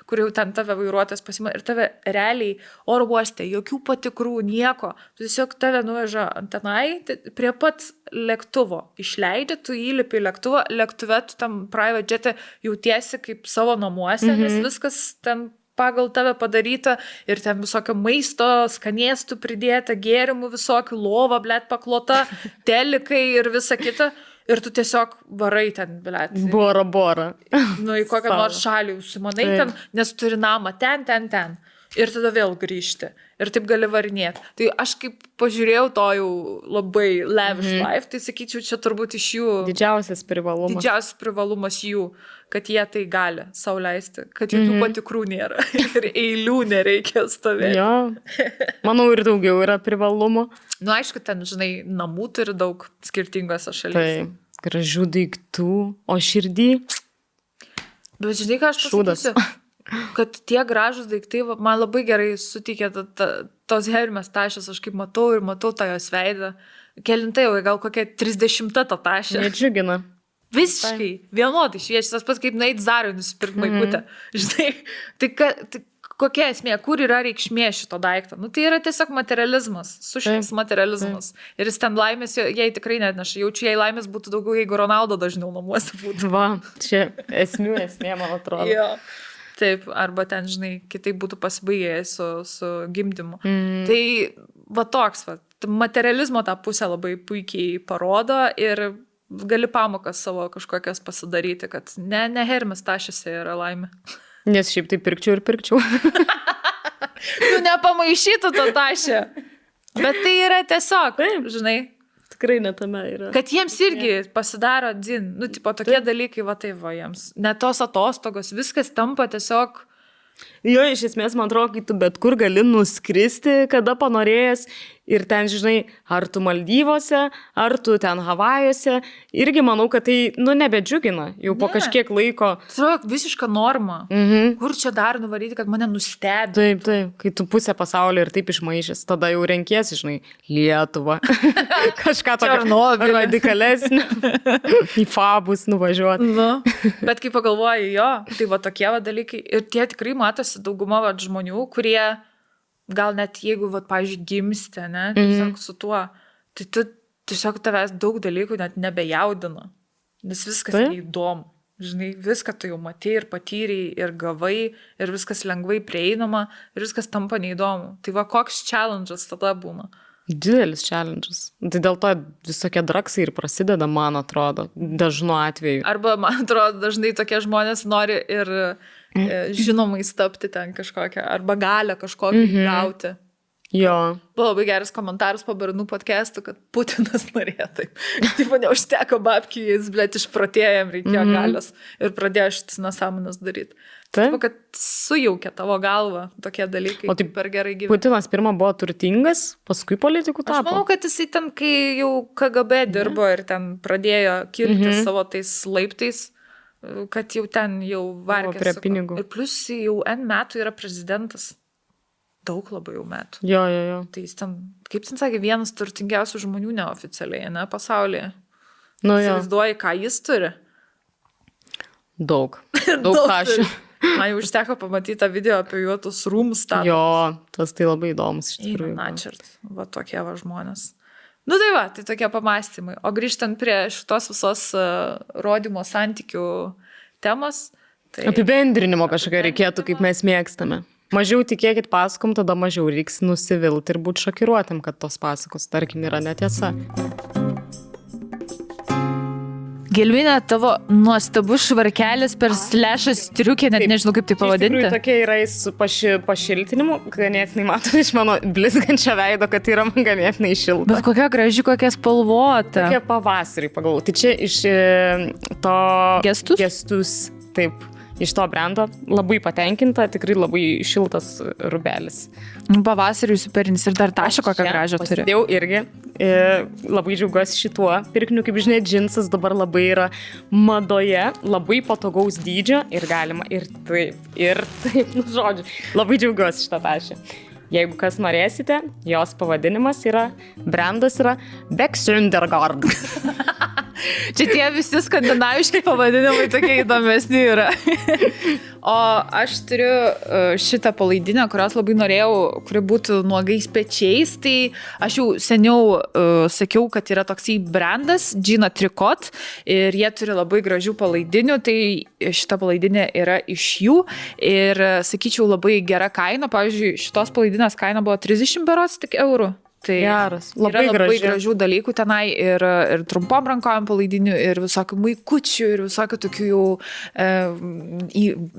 kur jau ten tave vairuotojas pasima ir tave realiai oro uoste, jokių patikrų, nieko. Tu tiesiog tave nuveža ant tenai, prie pat lėktuvo. Išleidžia, tu įlipi į lėktuvą, lėktuve tu tam private jet'e jautiesi kaip savo namuose, nes viskas ten pagal tave padaryta ir ten visokio maisto, skanėstų pridėta, gėrimų visokių, lova, paklota, telikai ir visa kita. Ir tu tiesiog varai ten, Bora. Į kokią nors šalį užsimanai ten, nes turi namą ten. Ir tada vėl grįžti. Ir taip gali varinėti. Tai aš kaip pažiūrėjau to jau labai lavish life, tai sakyčiau, čia turbūt iš jų... Didžiausias privalumas jų, kad jie tai gali sau leisti. Kad jokių patikrų nėra. Ir eilių nereikia stovėti. Jo. Manau, ir daugiau yra privalumo. Aišku, ten, žinai, namų turi daug skirtingose šalyse. Tai gražių daiktų, o širdį... Bet žinai, ką aš pasakysiu? Kad tie gražus daiktai man labai gerai suteikė tos Hermes tašės, aš kaip matau tą jos veidą. Kelintai jau, gal kokia 30 ta tašė. Nedžiugina. Visiškai, vienodai šviečia, tas pats kaip nueit Zarui nusipirkti maikutę. Žinai, tai kokia esmė, kur yra reikšmė šito daikto? Tai yra tiesiog materializmas, sušis materializmas. Ir jis ten laimės, jai tikrai netneša. Jaučiu, jei laimės būtų daugiau, jeigu Ronaldo dažniau namuose būtų. Čia esmė, man atrodo. Jo. Taip, arba ten, žinai, kitaip būtų pasibaigę su gimdymu. Tai toks, materializmo tą pusę labai puikiai parodo ir gali pamokas savo kažkokias pasidaryti, kad ne Hermes tašėse yra laimė. Nes šiaip tai pirkčiau. Nepamaišytų tą tašę. Bet tai yra tiesiog, žinai. Tikrai netame yra. Kad jiems irgi pasidaro dzin. Tipo tokie dalykai, jiems. Net tos atostogos, viskas tampa tiesiog... Jo, iš esmės, man atrodo, kai tu bet kur gali nuskristi, kada panorėjęs ir ten, žinai, ar tu Maldyvose, ar tu ten Havajuose, irgi manau, kad tai, nebedžiugina jau po kažkiek laiko. Tai yra visiška norma. Kur čia dar nuvaryti, kad mane nustebė? Taip, kai tu pusę pasaulio ir taip išmaišęs, tada jau renkiesi, žinai, Lietuvą. Kažką tokio radikalesnio. Į Fabus nuvažiuoti. Bet kai pagalvoji, jo, tai tokie dalykai. Ir tie tikrai matosi dauguma žmonių, kurie gal net jeigu, vat, pavyzdžiui, gimsti, ne, tiesiog su tuo, tai tu tiesiog tavęs daug dalykų net nebejaudina, nes viskas įdomu. Žinai, viską tu jau matei ir patyrei, ir gavai, ir viskas lengvai prieinama, ir viskas tampa neįdomu. Tai va, koks challenge'as tada būna? Didelis challenge'as. Tai dėl to visokie draksai ir prasideda, man atrodo, dažnu atveju. Arba, man atrodo, dažnai tokie žmonės nori ir žinomais tapti ten kažkokią, arba galę kažkokią gauti. Jo. Buvo labai geras komentaras po Bernų podcastų, kad Putinas norėjo taip. Taip, neužteko babkių, jis, blėt, išprotėjo, jam reikėjo galios ir pradėjo šitas nesąmones daryti. Taip, kad sujaukia tavo galvą tokie dalykai, taip per gerai gyvena. Putinas pirmą buvo turtingas, paskui politikų tapo. Aš manau, kad jisai ten, kai jau KGB dirbo ir ten pradėjo kilti savo tais laiptais, kad jau ten jau vargės. Prie pinigų. Ir plus jau N metų yra prezidentas. Daug labai jau metų. Jo. Tai jis ten, kaip ten sakė, vienas turtingiausių žmonių neoficialiai, ne, pasaulyje. Nu, įsivaizduoji, ką jis turi? Daug kašių. Man jau užteko pamatyti tą video apie juotus rūmus. Jo, tas tai labai įdomus iš tikrųjų. Načert, va tokie va žmonės. Nu tai va, tai tokie pamastymai. O grįžtant prie šitos visos rodymo santykių temos. Tai... Apibendrinimo kažkokio reikėtų, kaip mes mėgstame. Mažiau tikėkit pasakom, tada mažiau reiks nusivilti ir būti šokiruotam, kad tos pasakos, tarkim, yra netiesa. Gelminė, tavo nuostabus švarkelis per slešą striukę, net nežinau, kaip tai pavadinti. Iš tikrųjų, tokie yra su pašiltinimu, ganėtinai matau iš mano blizgančio veido, kad yra man ganėtinai šilta. Bet kokia graži, kokia spalvota. Tokie pavasarį pagalvojau. Tai čia iš to... Gestus, taip. Iš to brendo labai patenkinta, tikrai labai šiltas rubelis. Pavasariui superinis ir dar tašą kokią gražią turi. Pasidėjau irgi, labai džiaugiuosi šituo pirkiniu, kaip žinia, džinsas dabar labai yra madoje, labai patogaus dydžio ir galima ir taip, nu žodžiu, labai džiaugiuosi šitą tašę. Jeigu kas norėsite, jos pavadinimas brandas yra Beksundergard. Čia tie visi skandinaviški pavadinimai tokie įdomesni yra. O aš turiu šitą palaidinę, kurios labai norėjau, kuri būtų nuogais pečiais. Tai aš jau seniau sakiau, kad yra toksai brandas, Gina Tricot, ir jie turi labai gražių palaidinių. Tai šita palaidinė yra iš jų ir, sakyčiau, labai gera kaina. Pavyzdžiui, šitos palaidinės kaina buvo 30 berods tik eurų. Tai geras, labai gražių dalykų tenai ir trumpom rankojom palaidinių, ir visokių maikučių, ir visokių tokių jau,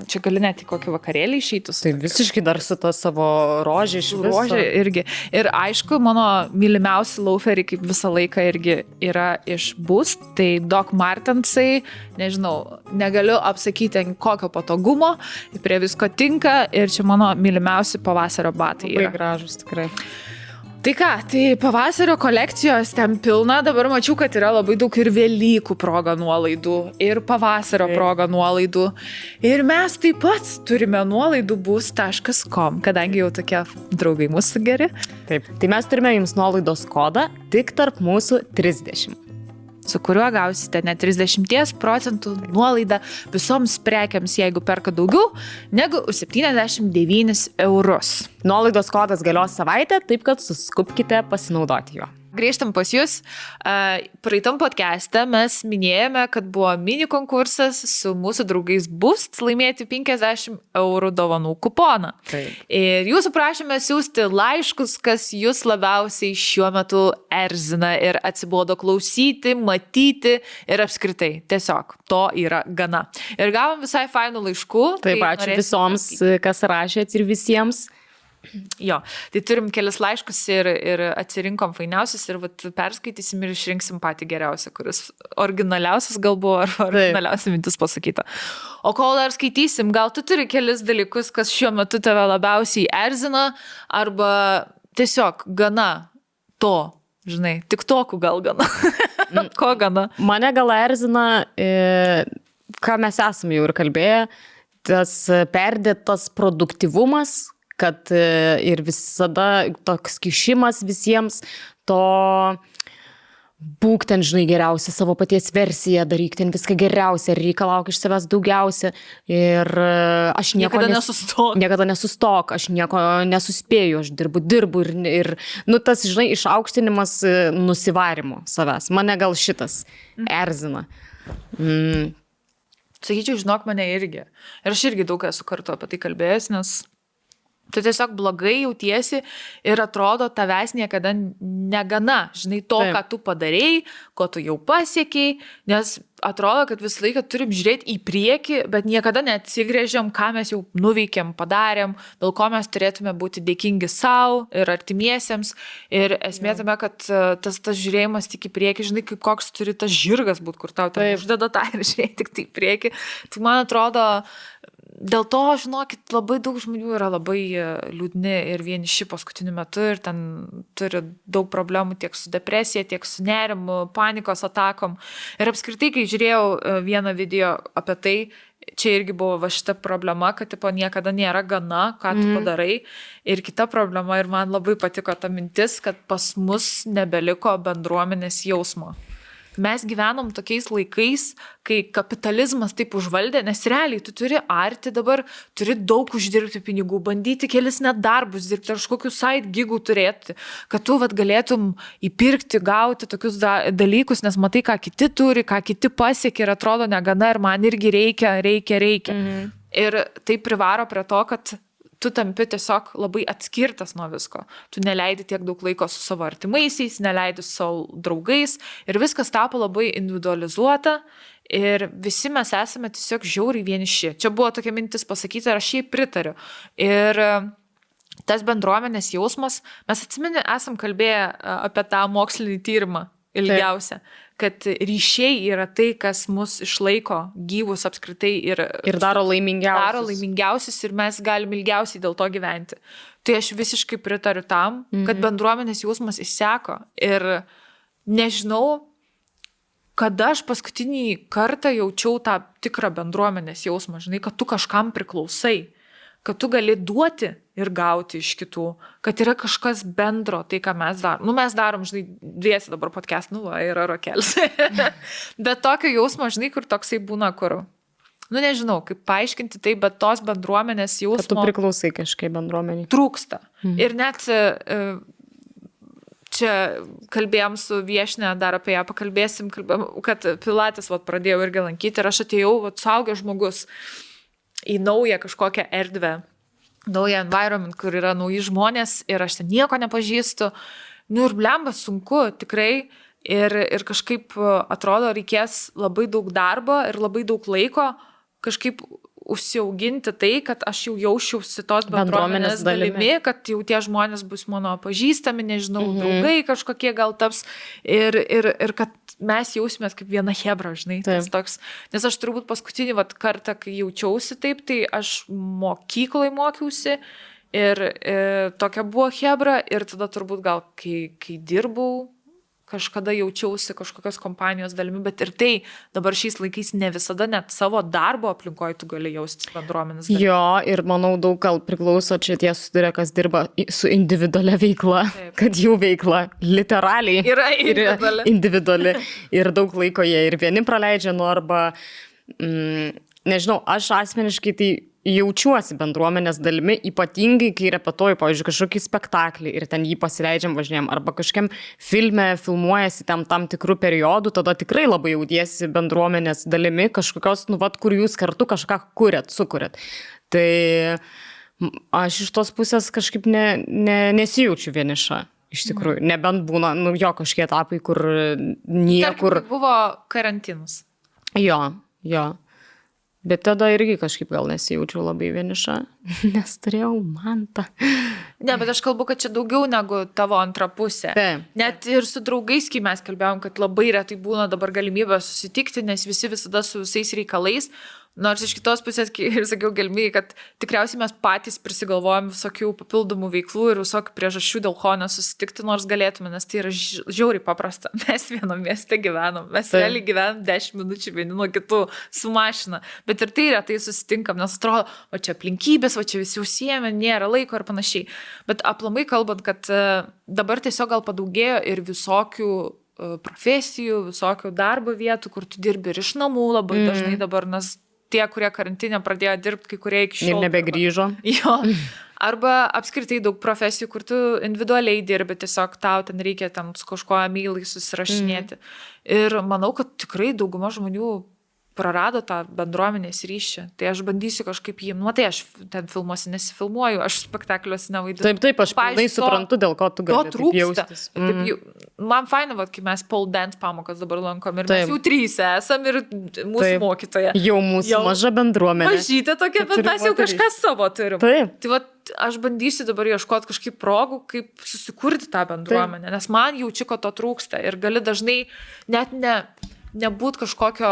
čia gali net į kokį vakarėlį išeitus. Tai visiškai dar su ta savo rožė iš viso. Rožė irgi. Ir aišku, mano mylimiausi lauferiai kaip visą laiką irgi yra iš Boost, tai Doc Martensai, nežinau, negaliu apsakyti kokio patogumo, prie visko tinka ir čia mano mylimiausi pavasario batai yra. Labai gražus tikrai. Tai ką, tai pavasario kolekcijos ten pilna, dabar mačiau, kad yra labai daug ir Velykų proga nuolaidų, ir pavasario proga nuolaidų. Ir mes taip pat turime nuolaidų boost.com, kadangi jau tokie draugai mūsų geri. Taip, tai mes turime jums nuolaidos kodą tik tarp mūsų 30. Su kuriuo gausite net 30% nuolaidą visoms prekiams, jeigu perka daugiau negu 79 eurus. Nuolaidos kodas galios savaitę, taip kad suskubkite pasinaudoti juo. Grįžtam pas jūs. Praeitam podcast'e mes minėjome, kad buvo mini konkursas su mūsų draugais Boost laimėti 50 eurų dovanų kuponą. Taip. Ir jūsų prašėme siųsti laiškus, kas jūs labiausiai šiuo metu erzina ir atsibodo klausyti, matyti ir apskritai. Tiesiog to yra gana. Ir gavom visai fainų laiškų. Taip, ačiū visoms, kas rašėt ir visiems. Jo, tai turim kelis laiškus ir atsirinkom fainiausius ir perskaitysim ir išrinksim patį geriausią, kuris originaliausias gal buvo, ar originaliausia mintis pasakyta. O kol dar skaitysim, gal tu turi kelis dalykus, kas šiuo metu tave labiausiai erzina, arba tiesiog gana to, žinai, tik toku gal gana. Ko gana? Mane gal erzina, ką mes esame jau ir kalbėję, tas perdėtas produktyvumas, kad ir visada toks kišimas visiems, to būk ten, žinai, geriausia savo paties versiją, daryk ten viską geriausia, reikalauk iš savęs daugiausia. Ir aš niekada nesustok, aš nieko nesuspėju, aš dirbu ir tas, žinai, išaukštinimas nusivarimo savęs. Mane gal šitas erzina. Sakyčiau, žinok, mane irgi. Ir aš irgi daug esu kartu apie tai kalbėjęs, nes tu tiesiog blogai jautiesi ir atrodo tavęs niekada negana, žinai, to, ką tu padarėjai, ko tu jau pasiekiai, nes atrodo, kad visą laiką turim žiūrėti į priekį, bet niekada neatsigrėžiam, ką mes jau nuveikėm, padarėm, dėl ko mes turėtume būti dėkingi savo ir artimiesiems. Ir esmė tame, kad tas žiūrėjimas tik į priekį, žinai, kaip koks turi tas žirgas būti, kur tau ten uždeda tą ir žiūrėti tik tai į priekį. Tai man atrodo, dėl to, žinokit, labai daug žmonių yra labai liūdni ir vieniši paskutiniu metu ir ten turi daug problemų tiek su depresija, tiek su nerimu, panikos atakom. Ir apskritai, kai žiūrėjau vieną video apie tai, čia irgi buvo va šita problema, kad tipo, niekada nėra gana, ką tu padarai. Ir kita problema, ir man labai patiko ta mintis, kad pas mus nebeliko bendruomenės jausmo. Mes gyvenom tokiais laikais, kai kapitalizmas taip užvaldė, nes realiai tu turi arti dabar, turi daug uždirbti pinigų, bandyti kelis net darbus dirbti, ar kažkokius side gigų turėti, kad tu galėtum įpirkti, gauti tokius dalykus, nes matai, ką kiti turi, ką kiti pasiekia ir atrodo negana ir man irgi reikia. Ir tai privaro prie to, kad tu tampi tiesiog labai atskirtas nuo visko. Tu neleidi tiek daug laiko su savo artimaisiais, neleidi su savo draugais ir viskas tapo labai individualizuota ir visi mes esame tiesiog žiauriai vieniši. Čia buvo tokia mintis pasakyti ir aš jai pritariu. Ir tas bendruomenės jausmas, mes atsimeni, esam kalbėję apie tą mokslinį tyrimą ilgiausią, kad ryšiai yra tai, kas mus išlaiko gyvus apskritai ir daro laimingiausius ir mes galim ilgiausiai dėl to gyventi. Tai aš visiškai pritariu tam, kad bendruomenės jausmas išseko ir nežinau, kada aš paskutinį kartą jaučiau tą tikrą bendruomenės jausmą, žinai, kad tu kažkam priklausai, kad tu gali duoti ir gauti iš kitų, kad yra kažkas bendro, tai ką mes darom. Mes darom, žinai, dviesi dabar podcast, yra rokelis. Bet tokio jausmo, žinai, kur toksai būna, kur, nežinau, kaip paaiškinti tai, bet tos bendruomenės jausmo... Kad tu priklausai kažkaip bendruomeniai. Trūksta. Ir net čia kalbėjom su viešne, dar apie ją pakalbėsim, kad pilates pradėjau irgi lankyti ir aš atėjau, suaugęs žmogus į naują kažkokią erdvę, naują environment, kur yra nauji žmonės ir aš ten nieko nepažįstu. Ir blemba sunku tikrai ir kažkaip atrodo reikės labai daug darbo ir labai daug laiko kažkaip užsiauginti tai, kad aš jau jausčiausi tos bendruomenės dalimi, kad jau tie žmonės bus mano pažįstami, nežinau, draugai kažkokie gal taps ir kad mes jausimės kaip viena chebra, žinai. Toks, nes aš turbūt paskutinį kartą, kai jaučiausi taip, tai aš mokyklai mokiausi ir tokia buvo chebra ir tada turbūt gal, kai dirbau, kažkada jaučiausi kažkokios kompanijos dalimi, bet ir tai dabar šiais laikais ne visada net savo darbo aplinkoje tu gali jaustis bendruomenės dalimi. Jo, ir manau daug gal priklauso čia tie susiduria, kas dirba su individualia veikla, kad jų veikla literaliai yra individuali ir daug laiko jie ir vieni praleidžia, arba, nežinau, aš asmeniškai tai jaučiuosi bendruomenės dalimi, ypatingai, kai repetuoju, pavyzdžiui, kažkokį spektaklį ir ten jį pasileidžiam, važinėjam, arba kažkiam filme filmuojasi tam tikrų periodų, tada tikrai labai jautiesi bendruomenės dalimi, kažkokios, kur jūs kartu kažką sukuriat. Tai aš iš tos pusės kažkaip nesijaučiu vieniša. Iš tikrųjų, nebent būna, kažkie etapai, kur niekur... Tarkim, buvo karantinas. Jo. Bet tada irgi kažkaip gal nesijaučiau labai vieniša, nes turėjau mantą. Ne, bet aš kalbu, kad čia daugiau negu tavo antra pusė. Net ir su draugais, kai mes kalbėjom, kad labai retai būna dabar galimybė susitikti, nes visi visada su visais reikalais. Nors iš kitos pusės, ir sakiau galimybė, kad tikriausiai mes patys prisigalvojam visokių papildomų veiklų ir visokių priežasčių, dėl ko nesusitikti, nors galėtume, nes tai yra žiauriai paprasta. Mes vienam mieste gyvenam, mes realiai gyvenam 10 minučių vieni nuo kitų su mašina, bet ir tai retai susitinkam, nes atrodo, o čia aplinkybės, o čia visi užsiėmė, nėra laiko ir panašiai. Bet aplamai kalbant, kad dabar tiesiog gal padaugėjo ir visokių profesijų, visokių darbo vietų, kur tu dirbi ir iš namų labai dažnai dabar, nes tie, kurie karantinė pradėjo dirbti, kai kurie iki šiol. Ir nebegrįžo. Jo. Arba apskritai daug profesijų, kur tu individualiai dirbi, tiesiog tau ten reikia ten su kažko emailai susirašinėti. Ir manau, kad tikrai dauguma žmonių prarado tą bendruomenės ryšį. Tai aš bandysiu kažkaip jį, tai aš ten filmuosi nesifilmuoju, aš spektakliuose nevaidinu. Taip, aš pilnai suprantu, dėl ko tu gali taip jaustis. Man faina, kai mes pole dance pamokas dabar lankom ir mes jau 3 esam ir mūsų mokytoja. Jau mūsų maža bendruomenė. Mažytė tokia, bet mes jau kažką savo turim. Taip. Tai aš bandysiu dabar ieškoti kažkaip progų, kaip susikurti tą bendruomenę, nes man jaučiu, kad to trūksta ir gali dažnai net nebūt kažkokio,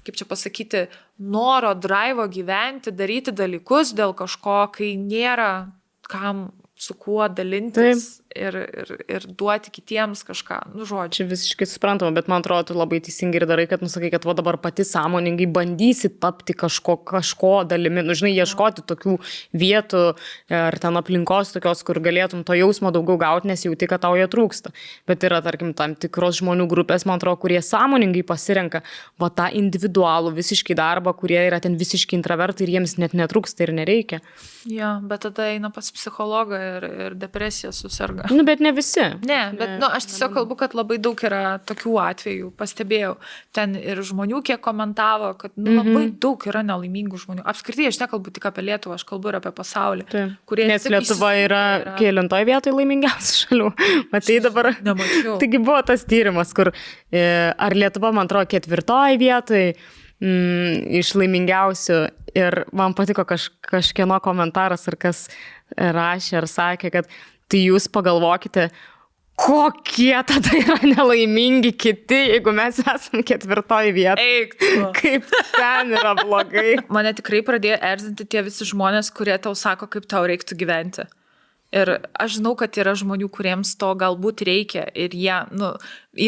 kaip čia pasakyti, noro, drivo gyventi, daryti dalykus dėl kažko, kai nėra kam su kuo dalintis ir duoti kitiems kažką, žodžiu. Čia visiškai suprantama, bet man atrodo, tu labai teisingai ir darai, kad nusakai, kad dabar pati sąmoningai bandysi tapti kažko dalimi, žinai, ieškoti tokių vietų ar ten aplinkos tokios, kur galėtum to jausmo daugiau gauti, nes jauti, kad tau jo trūksta. Bet yra, tarkim, tam tikros žmonių grupės, man atrodo, kurie sąmoningai pasirenka tą individualų visiškai darbą, kurie yra ten visiškai intravertai ir jiems net netrūksta ir nereikia. Jo, bet tada eina pas psichologą ir depresija susirga. Bet ne visi. Ne, bet aš tiesiog kalbu, kad labai daug yra tokių atvejų, pastebėjau. Ten ir žmonių, kiek komentavo, kad labai daug yra nelaimingų žmonių. Apskritai, aš nekalbu tik apie Lietuvą, aš kalbu ir apie pasaulį. Nes Lietuva yra kelintoj vietoj laimingiausių šalių. Matai dabar. Nemačiau. Taigi buvo tas tyrimas, kur ar Lietuva, man atrodo, 4 vietoj iš laimingiausių. Ir man patiko kažkieno komentaras, ar kas rašė, ar sakė, kad tai jūs pagalvokite, kokie tada yra nelaimingi kiti, jeigu mes esam 4 vietoje. Eik. Kaip ten yra blogai. Mane tikrai pradėjo erzinti tie visi žmonės, kurie tau sako, kaip tau reiktų gyventi. Ir aš žinau, kad yra žmonių, kuriems to galbūt reikia ir jie,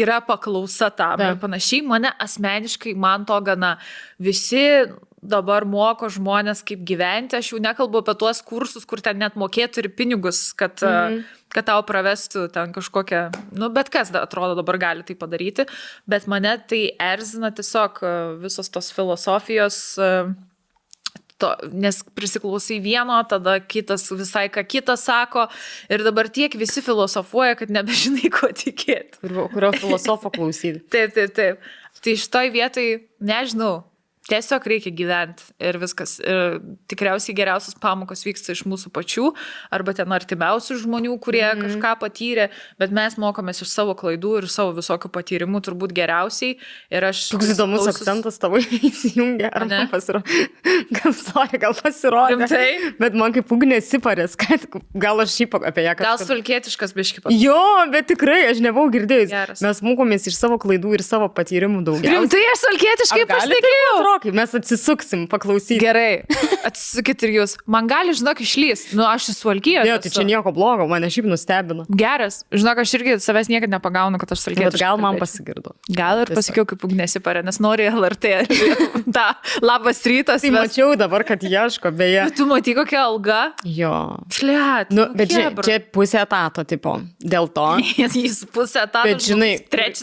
yra paklausa tam ir panašiai. Mane asmeniškai, man to gana visi dabar moko žmonės, kaip gyventi. Aš jau nekalbu apie tuos kursus, kur ten net mokėtų ir pinigus, kad tau pravestų ten kažkokią, bet kas atrodo dabar gali tai padaryti. Bet mane tai erzina tiesiog visos tos filosofijos, nes prisiklausai vieno, tada kitas visai ką kitas sako ir dabar tiek visi filosofuoja, kad nebežinai, ko tikėti. Kurio filosofo klausyti. Taip. Tai šitoj vietoj, nežinau, tiesiog reikia gyventi ir viskas. Ir tikriausiai geriausios pamokos vyksta iš mūsų pačių arba ten artimiausių žmonių, kurie kažką patyrė, bet mes mokomės iš savo klaidų ir savo visokių patyrimų turbūt geriausiai. Ir aš... Toks įdomus akcentas tavo įsijungia, ar man pasirodė? Gal pasirodė. Rimtai? Bet man kaip ugnė siparės, kad gal aš šiaip apie ją kažką... Gal svalkietiškas biški pasakė. Jo, bet tikrai, aš nebuvau girdėjus. Geras. Mes mokomės iš savo klaidų ir savo patyrimų daugiausiai. Rimtai, aš svalkietiškai pasakiau. Mes atsisuksim, paklausyti. Gerai, atsisukit ir jūs. Man gali, žinok, išlys. Aš suvalkijos. Ne, tai čia nieko blogo, mane šiaip nustebino. Geras. Žinok, aš irgi savęs niekada nepagaunu, kad aš suvalkietiškai. Bet gal man pasigirdo. Gal ir pasakiau, kaip ugnesi parė, nes nori LRT. Ta, labas rytas. Tai mačiau dabar, kad ieško, beje. Bet tu matai, kokia alga? Jo. Fliat. Bet čia pusė etato, tipo. Dėl to. Jis pusė etato. Bet žinai,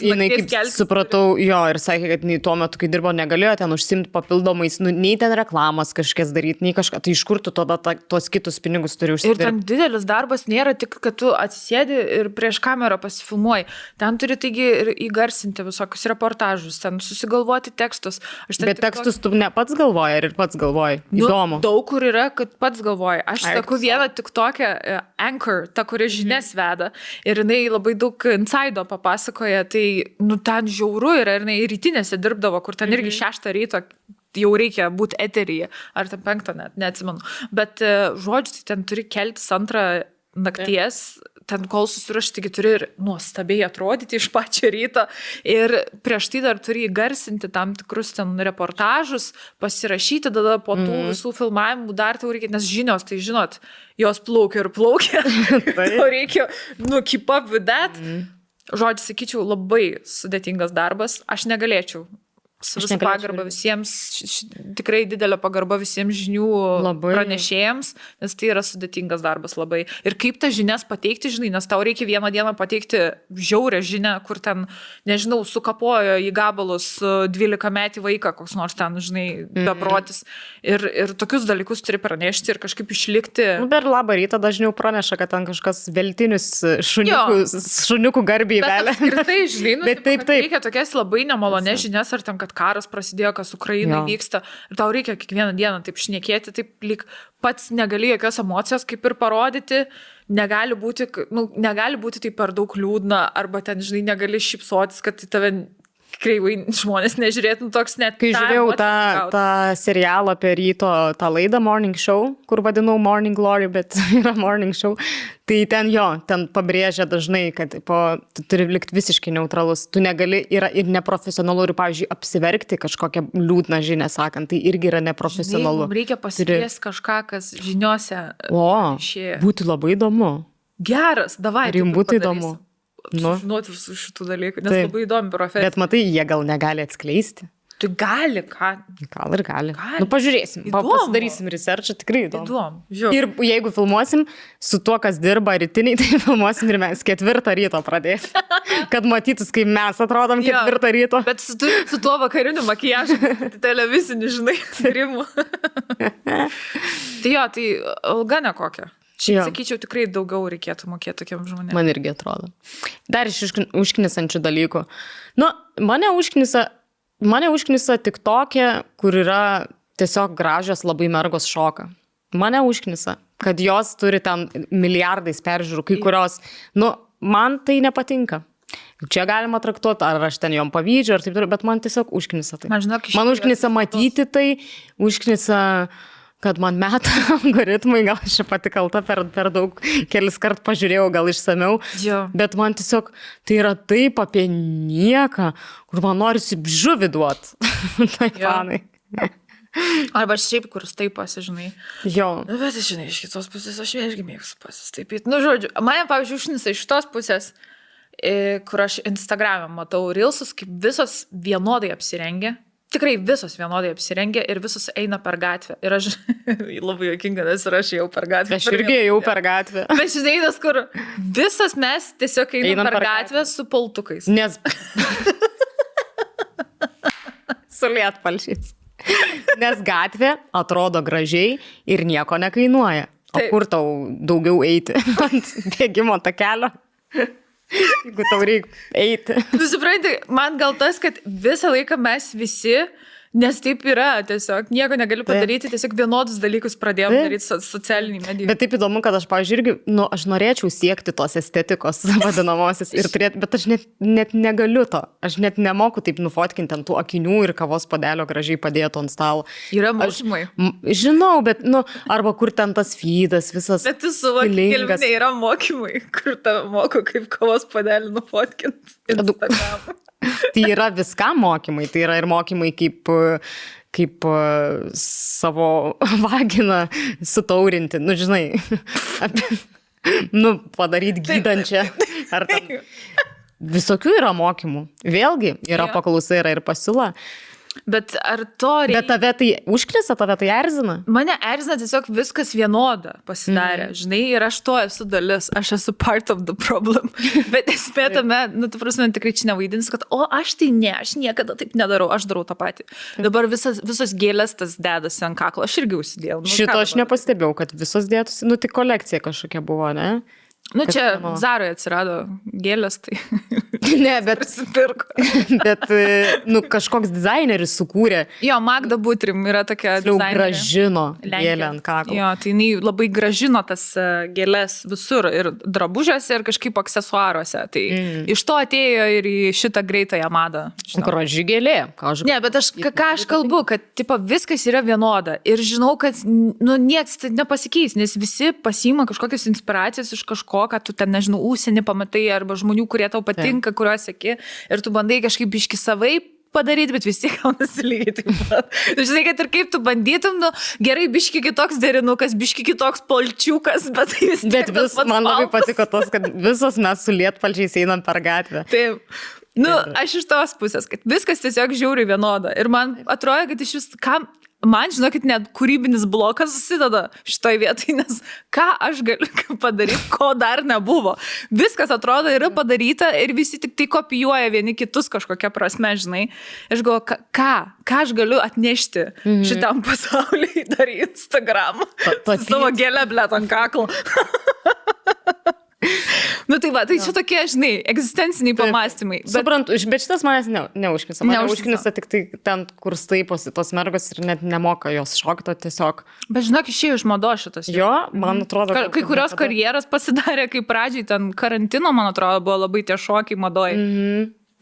jinai kaip supratau, jo, ir sakė, kad tuo metu, kai dirbo, negalėjo ten užsimti papildomais, nei ten reklamas kažkas daryti, nei kažką, tai iš kur tu tada tuos kitus pinigus turi užsidirbti. Ir ten didelis darbas nėra tik, kad tu atsisėdi ir prieš kamerą pasifilmuoji. Ten turi taigi ir įgarsinti visokius reportažus, ten susigalvoti tekstus. Bet tekstus tu ne pats galvoji ir pats galvoji. Įdomu. Daug kur yra, kad pats galvoji. Aš saku vieną tik tokią Anchor, ta, kuri žinias veda. Ir jinai labai daug insaido papasakoja, tai ten žiauru yra, ir jinai rytinėse dirbdavo, kur ten irgi 6 ryto jau reikia būti eteryje, ar ten 5 net, neatsimenu. Bet žodžiu, tai ten turi keltis 2 nakties, ten kol susirašti, taigi turi ir nuostabiai atrodyti iš pačio ryto. Ir prieš tai dar turi įgarsinti tam tikrus ten reportažus, pasirašyti, tada po tų visų filmavimų dar tau reikia, nes žinios, tai žinot, jos plaukia ir plaukia. Tau reikia, keep up with that. Žodžiu, sakyčiau, labai sudėtingas darbas. Aš negalėčiau su visą pagarbą visiems, tikrai didelė pagarba visiems žinių pranešėjams, nes tai yra sudėtingas darbas labai. Ir kaip tas žinias pateikti, žinai, nes tau reikia vieną dieną pateikti žiaurę žinią, kur ten, nežinau, sukapojo į gabalus 12 metį vaiką, koks nors ten, žinai, beprotis. Ir tokius dalykus turi pranešti ir kažkaip išlikti. Per labą rytą dažniau praneša, kad ten kažkas veltinius šuniukų garbiai velia. Apskritai, žinai, bet taip. Reikia tokias labai nemalonės žinias, ar ten, kad karas prasidėjo, kas Ukrainai vyksta. Ir tau reikia kiekvieną dieną taip šnekėti, taip lyg pats negali jokios emocijos kaip ir parodyti. Negali būti tai per daug liūdna, arba ten, žinai, negali šypsotis, kad į tave kreivai žmonės nežiūrėtų toks net. Kai žiūrėjau tą serialą apie ryto, tą laidą Morning Show, kur vadinau Morning Glory, bet yra Morning Show, tai ten pabrėžia dažnai, kad tu turi likti visiškai neutralus. Tu negali, yra ir neprofesionalu, ir, pavyzdžiui, apsiverkti kažkokią liūdną žinią sakant, tai irgi yra neprofesionalu. Žinai, reikia pasikviesti kažką, kas žiniuose išėjo. Būtų labai įdomu. Geras, davai. Ir jums būtų įdomu. Sužinoti visų šitų dalykų, nes labai įdomi profesija. Bet matai, jie gal negali atskleisti. Tu gali, ką? Gal ir gali. Pažiūrėsim, pasidarysim researchą, tikrai įdomu. Ir jeigu filmuosim su tuo, kas dirba rytiniai, tai filmuosim ir mes 4 ryto pradėsim. Kad matytus, kaip mes atrodom 4 ryto. Bet su tuo vakariniu makijažu, televizinį, žinai, tyrimų. Tai alga nekokia. Šiaip sakyčiau, tikrai daugiau reikėtų mokėti tokiam žmonėm. Man irgi atrodo. Dar iš užknisančių dalykų. Mane užknisa tik tokia, kur yra tiesiog gražios labai mergos šoka. Mane užknisa, kad jos turi ten milijardais peržiūrų, kai kurios, man tai nepatinka. Čia galima traktuoti, ar aš ten jom pavydžiu, ar taip toliau, bet man tiesiog užknisa tai. Man užknisa matyti tai, užknisa... kad man meta algoritmai, gal aš čia pati kalta per daug, kelis kart pažiūrėjau, gal išsamiau, bet man tiesiog tai yra taip apie nieką, kur man norisi žuvį duot. Tai fanai. Arba šiaip, kur taip pasižinai. Bet, žinai, iš kitos pusės aš irgi mėgstu pasistaipyti. Žodžiu, mane, pavyzdžiui, užnisa iš tos pusės, kur aš Instagram'e matau reelsus, kaip visos vienodai apsirengia. Tikrai visos vienodai apsirengia ir visos eina per gatvę. Ir aš labai juokinga, nes ir aš jau per gatvę. Aš irgi jau per gatvę. Bet žinai, nes kur visos mes tiesiog einam per gatvę su paltukais. Nes... su lietpalčiais. Nes gatvė atrodo gražiai ir nieko nekainuoja. O kur tau daugiau eiti ant bėgimo takelio? Jeigu tau reikia eiti. Supranti, man gal tas, kad visą laiką mes visi, nes taip yra, tiesiog nieko negaliu padaryti, tiesiog vienodus dalykus pradėjom daryti socialiniai medijai. Bet taip įdomu, kad aš, pavyzdžiui, irgi, aš norėčiau siekti tos estetikos vadinamosios ir turėti, bet aš net negaliu to. Aš net nemoku taip nufotkinti ant tų akinių ir kavos puodelio gražiai padėtų ant stalo. Yra mokymai. Žinau, bet, arba kur ten tas feedas, visas. Bet tu suvoki, Kelvinė, yra mokymai, kur tave moko, kaip kavos puodelį nufotkinti Instagramą. Tai yra viskam mokymai, tai yra ir mokymai kaip savo vaginą sutaurinti, žinai, padaryti gydančią. Ar tam. Visokių yra mokymų. Vėlgi, yra paklausa, yra ir pasiūla. Bet ar to reikia? Bet tave tai užkrisa, tave tai erzina? Mane erzina tiesiog viskas vienoda pasidarė, žinai, ir aš to esu dalis, aš esu part of the problem. Bet esmė tame, tu prasme, tikrai čia nevaidins, kad, aš tai ne, aš niekada taip nedarau, aš darau tą patį. Dabar visos gėlės tas dedasi ant kaklo, aš irgi užsidėjau. Šito aš nepastebėjau, kad visos dėtusi, tik kolekcija kažkokia buvo, ne? Čia Zaroje atsirado gėlės, tai ne, bet kažkoks dizaineris sukūrė. Magda Butrim yra tokia dizainerė. Gražino gėlę ant kaklo. Tai jinai labai gražino tas gėlės visur ir drabužiuose ir kažkaip aksesuaruose. Tai iš to atėjo ir į šitą greitąją madą. Graži gėlė. Ne, bet ką aš kalbu, kad viskas yra vienoda. Ir žinau, kad nieks nepasikeis, nes visi pasiima kažkokias inspiracijas iš kažko, kad tu ten, nežinau, užsienį pamatai arba žmonių, kurie tau patinka, kuriuos seki, ir tu bandai kažkaip biški savai padaryti, bet vis tiek gaunasi lygiai taip pat. Tu žinai, kad ir kaip tu bandytum, gerai, biški kitoks derinukas, biški kitoks polčiukas, bet tai vis tiek. Bet man labai patiko tos, kad visos mes su lietpalčiais einam per gatvę. Taip. Nu, aš iš tos pusės, kad viskas tiesiog žiauriai vienoda. Ir man atrodo, kad iš vis, man, žinokit, net kūrybinis blokas susideda šitoj vietoj, nes ką aš galiu padaryti, ko dar nebuvo. Viskas atrodo yra padaryta ir visi tik tai kopijuoja vieni kitus kažkokia prasme, žinai. Aš galvoju, ką aš galiu atnešti šitam pasauliui dar į Instagram. Savo gėlę, blėt, ant kaklo. Nu tai va, tai čia tokie, žinai, egzistenciniai pamąstymai. Suprantu, bet šitas manęs neužknisa. Mane užknisa tik tai ten, kur staiposi tos mergos ir net nemoka jos šokto tiesiog. Bet žinok, išėjo iš mados šitas. Jo, man atrodo. Kai kurios karjeras pasidarė, kai pradžiai ten karantino, man atrodo, buvo labai tie šokiai madoje.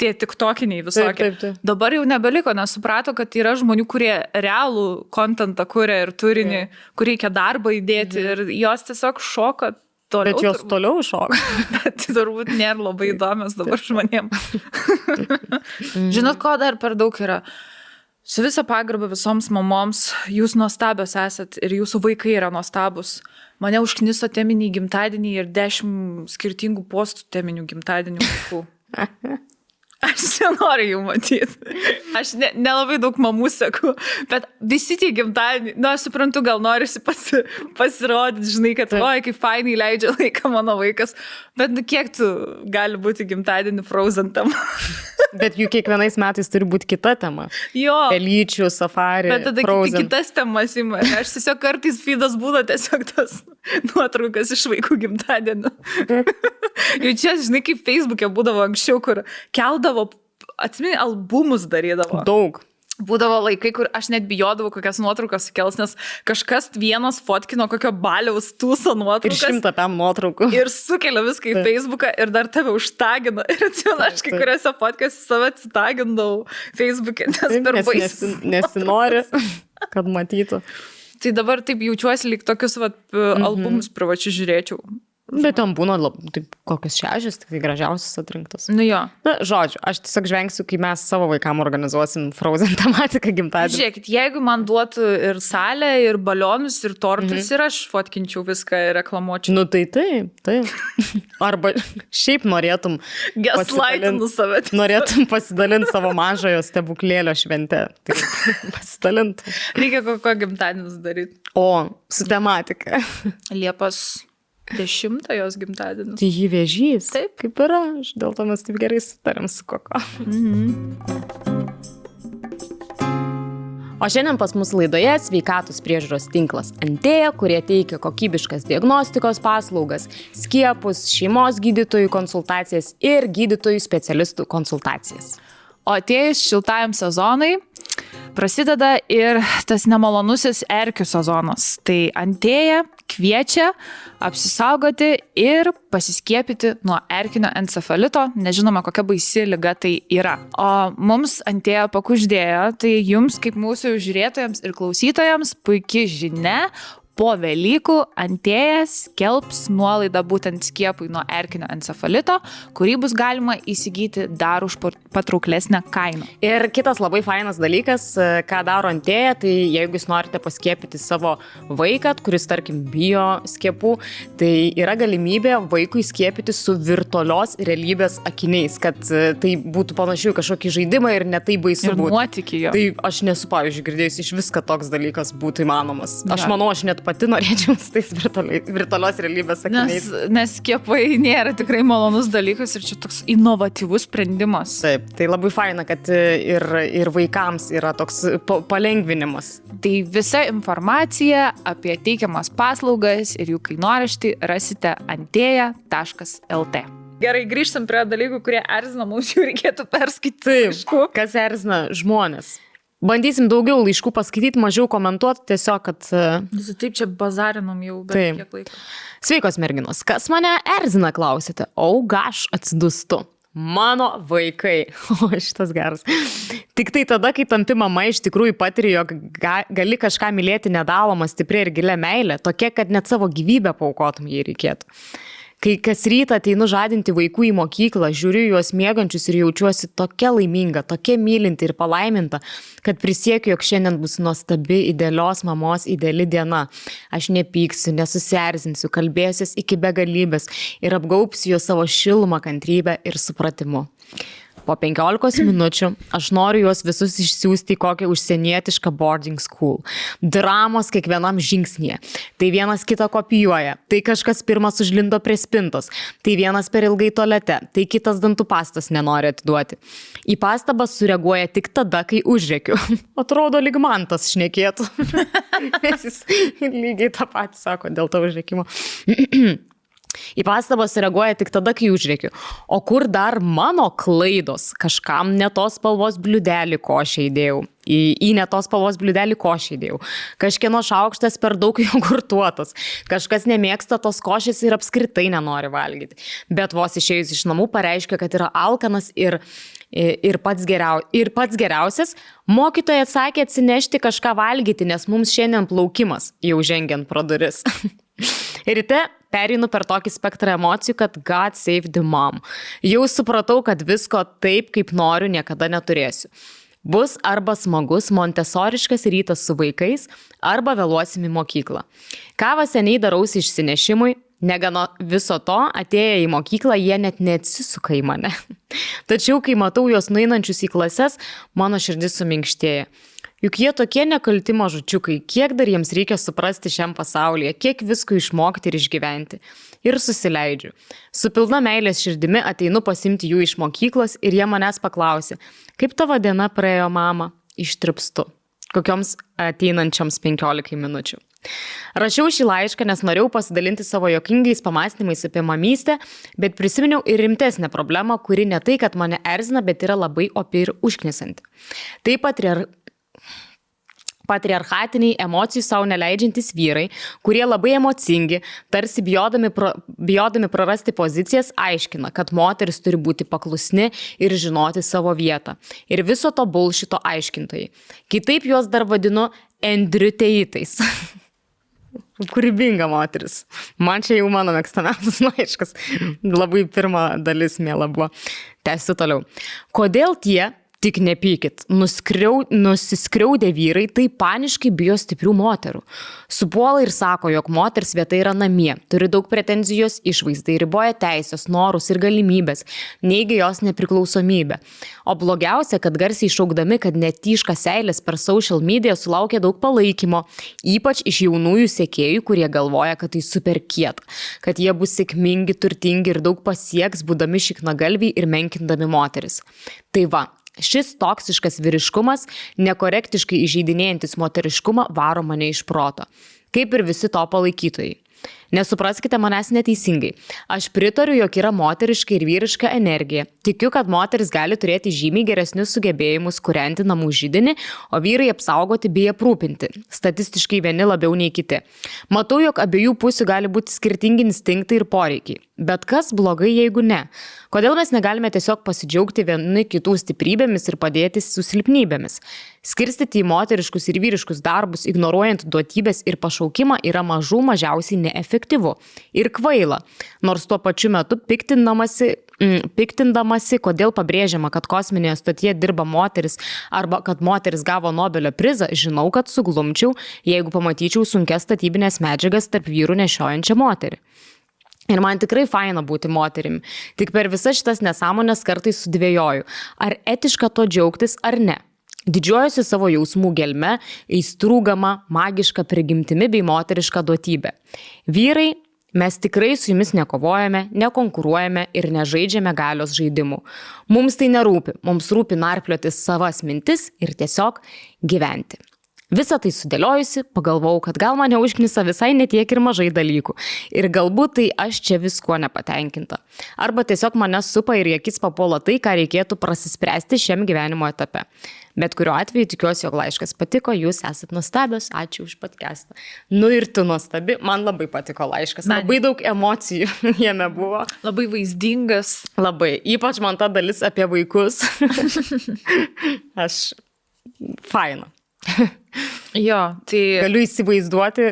Tie tiktokiniai visokie. Taip. Dabar jau nebeliko, nes suprato, kad yra žmonių, kurie realų kontentą kuria ir turinį, kur reikia darbą įdėti ir jos tiesiog šoka. Bet jos toliau šoka. Bet turbūt nėra labai įdomios dabar žmonėm. Žinot, ko dar per daug yra? Su visa pagarba visoms mamoms, jūs nuostabios esat ir jūsų vaikai yra nuostabus. Mane užkniso teminiai gimtadieniai ir 10 skirtingų postų teminių gimtadienių vaikų. Aš nenoriu jų matyti. Aš nelabai daug mamų seku, bet visi tie gimtadieniai, aš suprantu, gal norisi pasirodyti, žinai, kad oi, kaip fainai leidžia laiką mano vaikas, bet kiek tu gali būti gimtadienį Frozen tema? Bet jų kiekvienais metais turi būti kita tema. Jo. Pelyčių, safari, bet tada Frozen. Kitas temas ima. Aš tiesiog kartais feedas būna tiesiog tas nuotraukas iš vaikų gimtadienio. Jau čia, žinai, kaip Facebook'e būdavo anksčiau, kur keldavo, atsimeni, albumus darydavo. Daug. Būdavo laikai, kur aš net bijodavau kokias nuotraukas sukels, nes kažkas vienas fotkino kokio baliaus tūso nuotraukas. Ir 100 PM nuotraukų. Ir sukelia viską į Facebooką ir dar tave užtagina. Ir atsimenu, aš kai kuriuose fotkose save atsitagindavau Facebook'e, nes per baisų. Nesinori, kad matytų. Tai dabar taip jaučiuosi, lyg tokius albumus privačius žiūrėčiau. Bet ten būna taip, kokios 6, tik tai gražiausias atrinktos. Nu jo. Na, žodžiu, aš tiesiog žvengsiu, kai mes savo vaikam organizuosim Frozen tematiką gimtadienį. Žiūrėkit, jeigu man duotų ir salę, ir balionus, ir tortus, ir aš fotkinčiau viską ir reklamuočiau. Nu tai taip. Arba šiaip norėtum pasidalinti savo mažojo stebuklėlio šventę. Tai pasidalinti. Reikia kokio gimtadienis daryti. O, su tematika. Liepos 10 jos gimtadienis. Tai jį vėžys. Taip. Kaip ir aš. Dėl to mes taip gerai sutarėm su Koko. O šiandien pas mus laidoje sveikatos priežiūros tinklas Antėja, kurie teikia kokybiškas diagnostikos paslaugas, skiepus, šeimos gydytojų konsultacijas ir gydytojų specialistų konsultacijas. O atėjus šiltajam sezonui prasideda ir tas nemalonusis erkių sezonas. Tai Antėja kviečia apsisaugoti ir pasiskiepyti nuo erkinio encefalito. Nežinoma, kokia baisi liga tai yra. O mums Antėja pakuždėjo, tai jums kaip mūsų žiūrėtojams ir klausytojams puikia žinia. Po Velykų Antėja skelbs nuolaidą būtent skiepui nuo erkinio encefalito, kurį bus galima įsigyti dar už patrauklesnę kainą. Ir kitas labai fainas dalykas, ką daro Antėja, tai jeigu jūs norite paskiepyti savo vaiką, kuris, tarkim, bijo skiepų, tai yra galimybė vaikui skiepyti su virtualios realybės akiniais, kad tai būtų panašiai kažkokį žaidimą ir ne tai baisu būtų. Ir nuotykį jo. Tai aš nesu, pavyzdžiui, girdėjus iš viską toks dalykas būtų įmanomas. Aš Ja. manau, aš net pati norėčiau su tais virtualios realybės akiniais. Nes skiepai nėra tikrai malonus dalykas ir čia toks inovatyvus sprendimas. Taip, tai labai faina, kad ir vaikams yra toks palengvinimas. Tai visa informacija apie teikiamas paslaugas ir jų kainoraštį rasite antėja.lt. Gerai, grįžtam prie dalykų, kurie erzina, mums jau reikėtų perskaityti. Taip, kas erzina žmonės. Bandysim daugiau laiškų paskaityti, mažiau komentuoti, tiesiog, kad... Taip, čia bazarinom jau, bet Taip. kiek laiko. Sveikos merginos, kas mane erzina, klausite? Gaš atsidustu. Mano vaikai. O, šitas geras. Tik tai tada, kai tampi mama, iš tikrųjų patiri, jog gali kažką mylėti nedalomą, stipriai ir gilią meilę, tokia, kad net savo gyvybę paaukotum, jei reikėtų. Kai kas rytą ateinu žadinti vaikų į mokyklą, žiūriu juos miegančius ir jaučiuosi tokia laiminga, tokia mylinti ir palaiminta, kad prisiekiu, jog šiandien bus nuostabi, idealios mamos ideali diena. Aš nepyksiu, nesusierzinsiu, kalbėsiuos iki begalybės ir apgaubsiu juos savo šilumą, kantrybę ir supratimu. Po 15 minučių aš noriu juos visus išsiųsti į kokią užsienietišką boarding school. Dramos kiekvienam žingsnėje. Tai vienas kitą kopijuoja, tai kažkas pirmas užlindo prie spintos, tai vienas per ilgai tualete, tai kitas dantų pastos nenori atiduoti. Į pastabas sureaguoja tik tada, kai užrėkiu. Atrodo, lyg man tas šnekėtų. Nes jis lygiai tą patį sako dėl to užrėkimo. Į pastabas reaguoja tik tada, kai užrėkiu. O kur dar mano klaidos? Kažkam ne tos spalvos bliūdelį košę įdėjau. Į ne tos spalvos bliūdelį košę įdėjau. Kažkieno šaukštas per daug jogurtuotas. Kažkas nemėgsta tos košės ir apskritai nenori valgyti. Bet vos išėjus iš namų pareiškia, kad yra alkanas ir pats geriausias. Mokytoja atsakė atsinešti kažką valgyti, nes mums šiandien plaukimas, jau žengiant pro duris. Ryte pereinu per tokį spektrą emocijų, kad God save the mom. Jau supratau, kad visko taip, kaip noriu, niekada neturėsiu. Bus arba smagus montesoriškas rytas su vaikais, arba vėluosim į mokyklą. Kavą seniai darausi išsinešimui, negana viso to, atėję į mokyklą, jie net neatsisuka į mane. Tačiau, kai matau juos nueinančius į klases, mano širdis suminkštėja. Juk jie tokie nekalti mažučiukai, kiek dar jiems reikia suprasti šiam pasaulyje, kiek visko išmokti ir išgyventi. Ir susileidžiu. Su pilna meilės širdimi ateinu pasimti jų iš mokyklos ir jie manęs paklausė, kaip tavo diena praėjo, mama? Ištripstu. Kokioms ateinančioms 15 minučių. Rašiau šį laišką, nes norėjau pasidalinti savo juokingais pamąstymais apie mamystę, bet prisiminiau ir rimtesnę problemą, kuri ne tai, kad mane erzina, bet yra labai opi ir užknisanti. Tai patriarchatiniai, emocijų savo neleidžiantys vyrai, kurie labai emocingi, tarsi bijodami prarasti pozicijas, aiškina, kad moteris turi būti paklusni ir žinoti savo vietą. Ir viso to bullshito aiškintojai. Kitaip juos dar vadinu endriuteitais. Kūrybinga moteris. Man čia jau mano mėgstamiausias laiškas. Labai pirma dalis mėla buvo. Tęsiu toliau. Kodėl tie, tik nepykit, nusiskriaudę vyrai tai paniškai bijo stiprių moterų. Supuola ir sako, jog moters vieta yra namie, turi daug pretenzijos išvaizdai, riboja teisės, norus ir galimybės, neigia jos nepriklausomybę. O blogiausia, kad garsiai šaukdami, kad netyška seilės per social media sulaukia daug palaikymo, ypač iš jaunųjų sekėjų, kurie galvoja, kad tai super kieta, kad jie bus sėkmingi, turtingi ir daug pasieks, būdami šiknagalviai ir menkindami moteris. Tai va. Šis toksiškas vyriškumas, nekorektiškai įžeidinėjantis moteriškumą, varo mane iš proto. Kaip ir visi to palaikytojai. Nesupraskite manęs neteisingai. Aš pritariu, jog yra moteriška ir vyriška energija. Tikiu, kad moteris gali turėti žymiai geresnius sugebėjimus kūrenti namų židinį, o vyrai apsaugoti bei aprūpinti. Statistiškai vieni labiau nei kiti. Matau, jog abiejų pusių gali būti skirtingi instinktai ir poreikiai. Bet kas blogai, jeigu ne? Kodėl mes negalime tiesiog pasidžiaugti vieni kitų stiprybėmis ir padėti su silpnybėmis? Skirstyti į moteriškus ir vyriškus darbus, ignoruojant duotybės ir pašaukimą, yra mažiausiai neefektyvu ir kvaila. Nors tuo pačiu metu piktindamasi, kodėl pabrėžiama, kad kosminėje stotyje dirba moteris arba kad moteris gavo Nobelio prizą, žinau, kad suglumčiau, jeigu pamatyčiau sunkias statybinės medžiagas tarp vyrų nešiojančią moterį. Ir man tikrai faina būti moterimi. Tik per visas šitas nesąmonės kartais sudvėjoju, ar etiška to džiaugtis ar ne. Didžiuojuosi savo jausmų gelme, aistrūgama, magiška prigimtimi bei moteriška duotybė. Vyrai, mes tikrai su jumis nekovojame, nekonkuruojame ir nežaidžiame galios žaidimų. Mums tai nerūpi, mums rūpi narplioti savas mintis ir tiesiog gyventi. Visą tai sudėliojusi, pagalvojau, kad gal mane užknisa visai netiek ir mažai dalykų. Ir galbūt tai aš čia viskuo nepatenkinta. Arba tiesiog mane supa ir į akis papuola tai, ką reikėtų prasispręsti šiam gyvenimo etape. Bet kuriuo atveju tikiuosi, jog laiškas patiko, jūs esat nuostabios, ačiū už podcastą. Nu ir tu nuostabi, man labai patiko laiškas, labai daug emocijų jame buvo. Labai vaizdingas. Labai, ypač man ta dalis apie vaikus. Faina. Jo, tai... Galiu įsivaizduoti,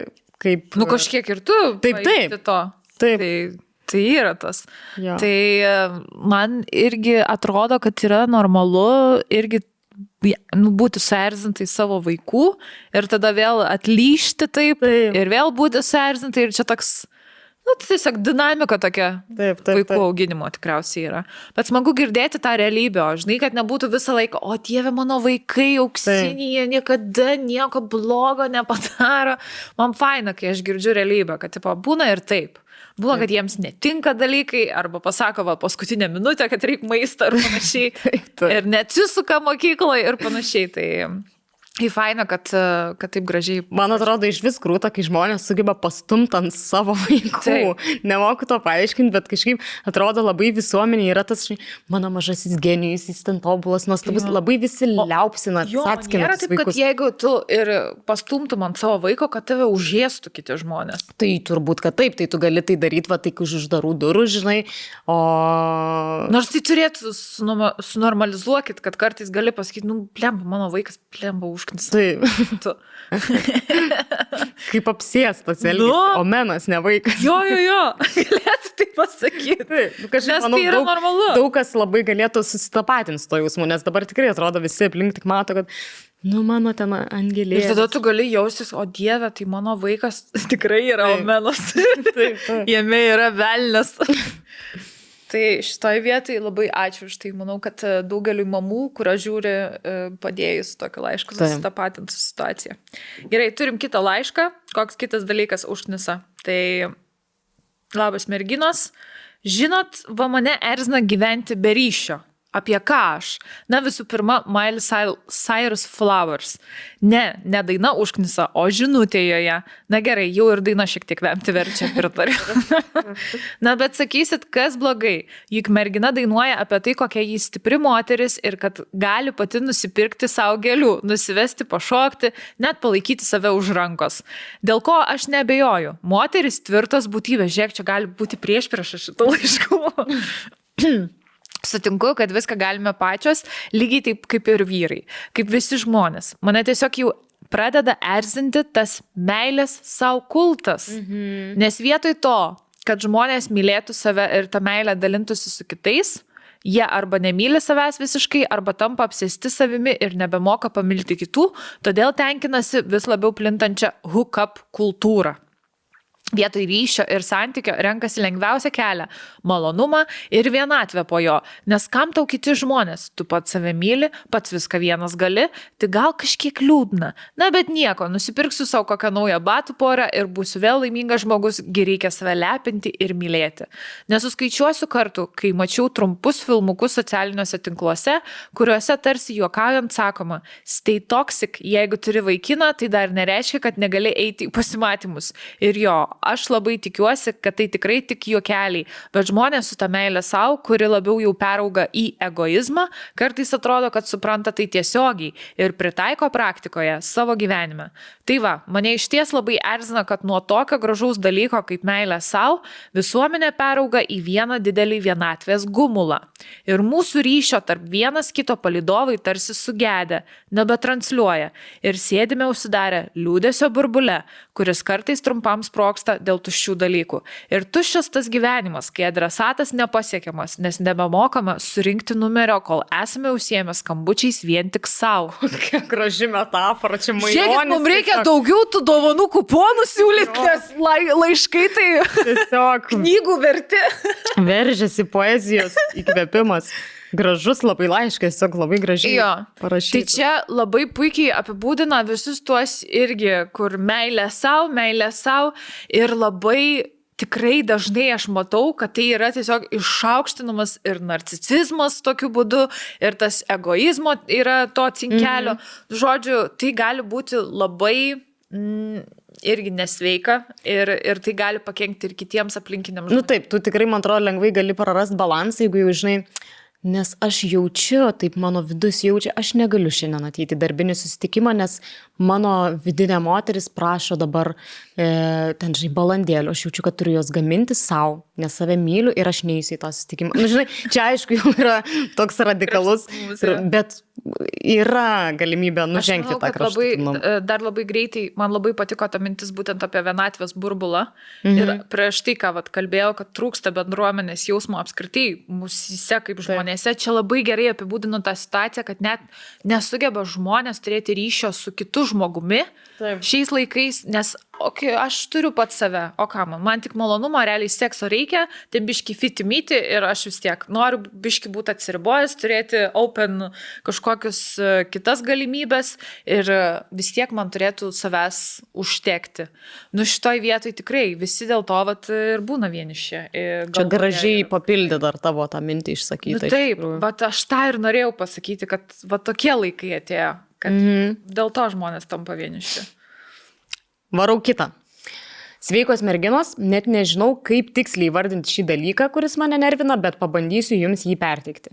kaip... Nu kažkiek ir tu taip. To. Taip. Tai yra tas. Jo. Tai man irgi atrodo, kad yra normalu irgi būti suerzintai savo vaikų ir tada vėl atlyžti taip. Ir vėl būti suerzintai ir čia toks Nu, tai tiesiog dinamika tokia vaikų taip. auginimo tikriausiai yra. Bet smagu girdėti tą realybę, o žinai, kad nebūtų visą laiką, o Dieve, mano vaikai auksiniai, jie niekada nieko blogo nepadaro. Man faina, kai aš girdžiu realybę, kad tipo, būna ir taip. Būna, kad jiems netinka dalykai, arba pasako, va, paskutinę minutę, kad reikia maistą ir panašiai. Ir neatsisuka mokykloje ir panašiai. Tai faina, kad taip gražiai. Man atrodo, iš vis krūta, kai žmonės sugeba pastumti ant savo vaikų. Taip. Nemoku to paaiškinti, bet kažkaip atrodo labai visuomenė yra tas, mano mažasis genijus, jis ten tobulas, nuostabus, labai visi liaupsina, atskina tas vaikus. Kad jeigu tu ir pastumtum ant savo vaiko, kad tave užėstų kiti žmonės. Tai turbūt, kad taip, tai tu gali tai daryti, va, tai už uždarų durų, žinai, o... Nors tai turėtų sunormalizuokit, kad kartais gali pasakyti, nu, plemba, mano vaikas plemba užknisa. Taip. Kaip apsėstas elgis, o menas, ne vaikas. Jo, galėtų tai pasakyti. Taip, nes manau, tai yra normalu. Daug kas labai galėtų susitapatinti su to jausmu, nes dabar tikrai atrodo visi aplink tik mato, kad, nu, mano ten angelė. Ir tada tu gali jaustis, o Dieve, tai mano vaikas tikrai yra omenas. Taip. Jame yra velnias. Tai šitoj vietai labai ačiū už tai. Manau, kad daugeliu mamų, kurio žiūri, padėjus tokį laišką susitapatinti su situacija. Gerai, turim kitą laišką. Koks kitas dalykas užknisa? Tai labas merginos. Žinot, va mane erzina gyventi be ryšio. Apie ką aš? Na, visų pirma, Miley Cyrus Flowers. Ne daina užknisa, o žinutė joje. Na gerai, jau ir daina šiek tiek vemti verčia, pritariu. Na, bet sakysit, kas blogai? Juk mergina dainuoja apie tai, kokia jį stipri moteris ir kad gali pati nusipirkti savo gėlių, nusivesti, pašokti, net palaikyti save už rankos. Dėl ko aš neabejoju. Moteris tvirtos būtybės. Žiūrėk, čia gali būti priešprieša šito laiško. Sutinku, kad viską galime pačios, lygiai taip kaip ir vyrai, kaip visi žmonės. Mane tiesiog jau pradeda erzinti tas meilės savo kultas. Nes vietoj to, kad žmonės mylėtų save ir tą meilę dalintųsi su kitais, jie arba nemyli savęs visiškai, arba tampa apsėsti savimi ir nebemoka pamilti kitų, todėl tenkinasi vis labiau plintančią hook-up kultūrą. Vietoj ryšio ir santykio renkasi lengviausią kelią – malonumą ir vienatvę po jo. Nes kam tau kiti žmonės? Tu pats save myli, pats viską vienas gali, tai gal kažkiek liūdna. Na, bet nieko, nusipirksiu savo kokią naują batų porą ir būsiu vėl laimingas žmogus, gi reikia save lepinti ir mylėti. Nesuskaičiuosiu kartų, kai mačiau trumpus filmukus socialiniuose tinkluose, kuriuose tarsi juokaujant sakoma, stay toxic, jeigu turi vaikiną, tai dar nereiškia, kad negali eiti į pasimatymus. Ir jo, aš labai tikiuosi, kad tai tikrai tik juokeliai, bet žmonės su ta meilė savo, kuri labiau jau perauga į egoizmą, kartais atrodo, kad supranta tai tiesiogiai ir pritaiko praktikoje savo gyvenime. Tai va, mane išties labai erzina, kad nuo tokio gražaus dalyko kaip meilė savo visuomenė perauga į vieną didelį vienatvės gumulą. Ir mūsų ryšio tarp vienas kito palydovai tarsi sugedę, nebetransliuoja ir sėdime užsidarę liūdesio burbule, kuris kartais trumpam sproksta dėl tuščių dalykų. Ir tuščias tas gyvenimas, kai adresatas nepasiekiamas, nes nebemokame surinkti numerio, kol esame užsiėmę skambučiais vien tik savo. Kokia graži metafora, čia majonis. Žiūrėkit, mums reikia daugiau tų dovanų kuponų siūlyti, nes laiškai tai tiesiog knygų verti. Veržiasi poezijos įkvėpimas. Gražus labai laiškas, tiesiog labai gražiai parašytas. Tai čia labai puikiai apibūdina visus tuos irgi, kur meilė savo ir labai tikrai dažnai aš matau, kad tai yra tiesiog išaukštinamas ir narcisizmas tokiu būdu, ir tas egoizmo yra to cinkelio. Žodžiu, tai gali būti labai irgi nesveika ir tai gali pakenkti ir kitiems aplinkiniams žmonėms. Nu taip, tu tikrai, man atrodo, lengvai gali prarasti balansą, jeigu jau žinai, nes aš jaučiu, taip mano vidus jaučia, aš negaliu šiandien ateiti į darbinį susitikimą, nes mano vidinė moteris prašo dabar ten, žinai, balandėlių. Aš jaučiu, kad turiu jos gaminti savo, nes save myliu ir aš neįsiu į tą susitikimą. Nu, žinai, čia aišku jau yra toks radikalus, bet yra galimybė nužengti tą kraštutinumą. Dar labai greitai, man labai patiko ta mintis būtent apie vienatvės burbulą. Ir prieš tai, ką kalbėjau, kad trūksta bendruomenės jausmo apskritai mūsise kaip žmonėse, čia labai gerai apibūdino tą situaciją, kad net nesugeba žmonės turėti ryšio su kitu žmogumi šiais laikais, nes okay, aš turiu pat save, o ką man tik malonumo, realiai sekso reikia, tai biški fitimyti ir aš vis tiek noriu biški būti atsiribojęs, turėti open kažkokius kitas galimybės ir vis tiek man turėtų savęs užtekti. Nu šitoj vietoj tikrai visi dėl to vat, ir būna vieniši. Čia gražiai papildė dar tavo tą mintį išsakyti. Nu, taip, vat aš tą ir norėjau pasakyti, kad vat tokie laikai atėjo, kad dėl to žmonės tampa vieniši. Varau kitą. Sveikos merginos, net nežinau, kaip tiksliai įvardinti šį dalyką, kuris mane nervina, bet pabandysiu jums jį perteikti.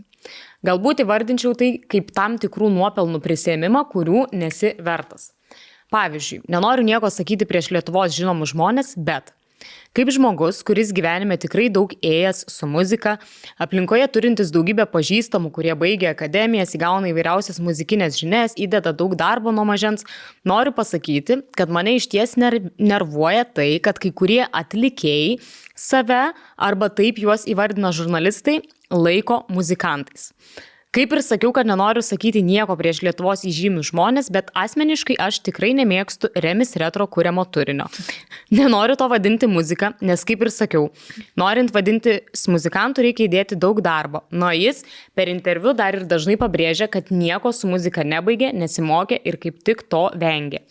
Galbūt įvardinčiau tai kaip tam tikrų nuopelnų prisėmimą, kurių nesi vertas. Pavyzdžiui, nenoriu nieko sakyti prieš Lietuvos žinomus žmonės, bet kaip žmogus, kuris gyvenime tikrai daug ėjęs su muzika, aplinkoje turintis daugybę pažįstamų, kurie baigia akademijas, įgauna įvairiausias muzikinės žinias, įdeda daug darbo nuo mažens, noriu pasakyti, kad mane išties nervuoja tai, kad kai kurie atlikėjai save, arba taip juos įvardina žurnalistai, laiko muzikantais. Kaip ir sakiau, kad nenoriu sakyti nieko prieš Lietuvos įžymius žmonės, bet asmeniškai aš tikrai nemėgstu Remis Retro kuriamo turinio. Nenoriu to vadinti muzika, nes kaip ir sakiau, norint vadinti muzikantų reikia įdėti daug darbo. Nuo jis per interviu dar ir dažnai pabrėžia, kad nieko su muzika nebaigė, nesimokė ir kaip tik to vengė.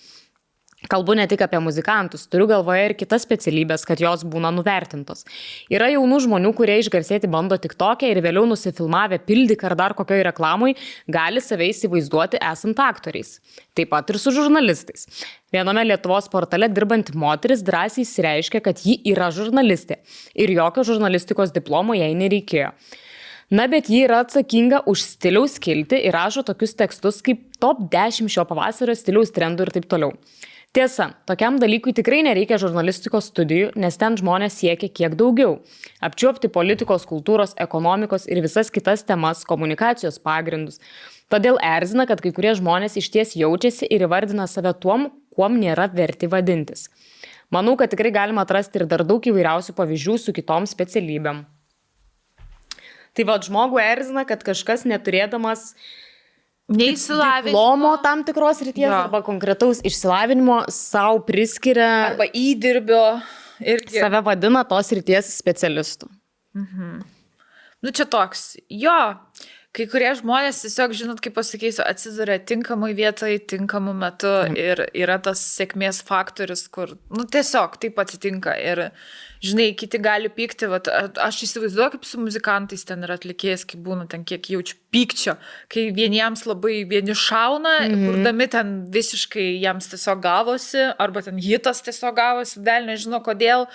Kalbu ne tik apie muzikantus, turiu galvoje ir kitas specialybės, kad jos būna nuvertintos. Yra jaunų žmonių, kurie išgarsėti bando TikTok'e ir vėliau nusifilmavę pildyk ar dar kokioj reklamoj, gali save įsivaizduoti esant aktoriais. Taip pat ir su žurnalistais. Viename Lietuvos portale dirbanti moteris drąsiai išsireiškė, kad ji yra žurnalistė ir jokio žurnalistikos diplomo jai nereikėjo. Na, bet ji yra atsakinga už stiliaus skiltį ir rašo tokius tekstus kaip top 10 šio pavasario stiliaus trendų ir taip toliau. Tiesa, tokiam dalykui tikrai nereikia žurnalistikos studijų, nes ten žmonės siekia kiek daugiau. Apčiuopti politikos, kultūros, ekonomikos ir visas kitas temas, komunikacijos pagrindus. Todėl erzina, kad kai kurie žmonės išties jaučiasi ir įvardina save tuom, kuom nėra verti vadintis. Manau, kad tikrai galima atrasti ir dar daug įvairiausių pavyzdžių su kitom specialybėm. Tai va, žmogų erzina, kad kažkas neturėdamas diplomo tam tikros ryties arba konkretaus išsilavinimo savo priskiria arba įdirbio ir save vadina tos ryties specialistų. Nu čia toks, jo, kai kurie žmonės tiesiog, žinot, kaip pasakysiu, atsiduria tinkamai vietoj, tinkamu metu ir yra tas sėkmės faktorius, kur, nu tiesiog taip atsitinka ir, žinai, kiti gali pykti, vat, aš įsivaizduoju, kaip su muzikantais ten yra atlikėjęs, kaip būna ten kiek jaučiu pykčio, kai vieniems labai vieni šauna, kurdami ten visiškai jiems tiesiog gavosi, arba ten hitas tiesiog gavosi, dėl nežino kodėl,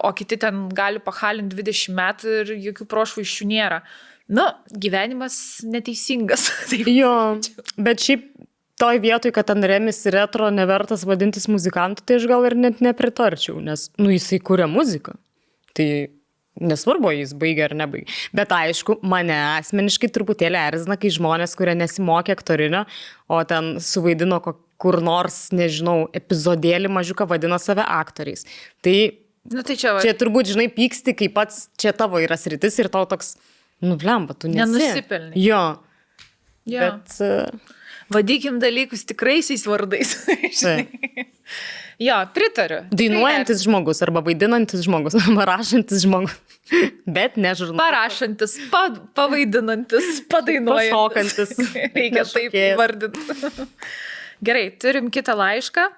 o kiti ten gali pahalinti 20 metų ir jokių prošvaiščių nėra. Nu, gyvenimas neteisingas. Jo, bet šiaip toj vietoj, kad ten Remis Retro nevertas vadintis muzikantu, tai aš gal ir net nepritarčiau, nes, nu, jisai kuria muziką. Tai nesvarbu, jis baigia ar nebaigia. Bet aišku, mane asmeniškai truputėlį erzina, kai žmonės, kurie nesimokė aktorinio, o ten suvaidino kur nors, nežinau, epizodėlį mažiuką vadina save aktoriais. Tai, nu, tai čia turbūt, žinai, pyksti, kai pats čia tavo yra sritis ir tau toks, nu, blemba, tu nesi. Nenusipelni. Jo. Bet vadykim dalykus tikraisiais vardais. Jo, pritariu. Dainuojantis žmogus arba vaidinantis žmogus, arba rašantis žmogus. Bet ne žurnalas. Parašantis, pavaidinantis, padainuojantis. Pašokantis. Reikia taip vardinti. Gerai, turim kitą laišką.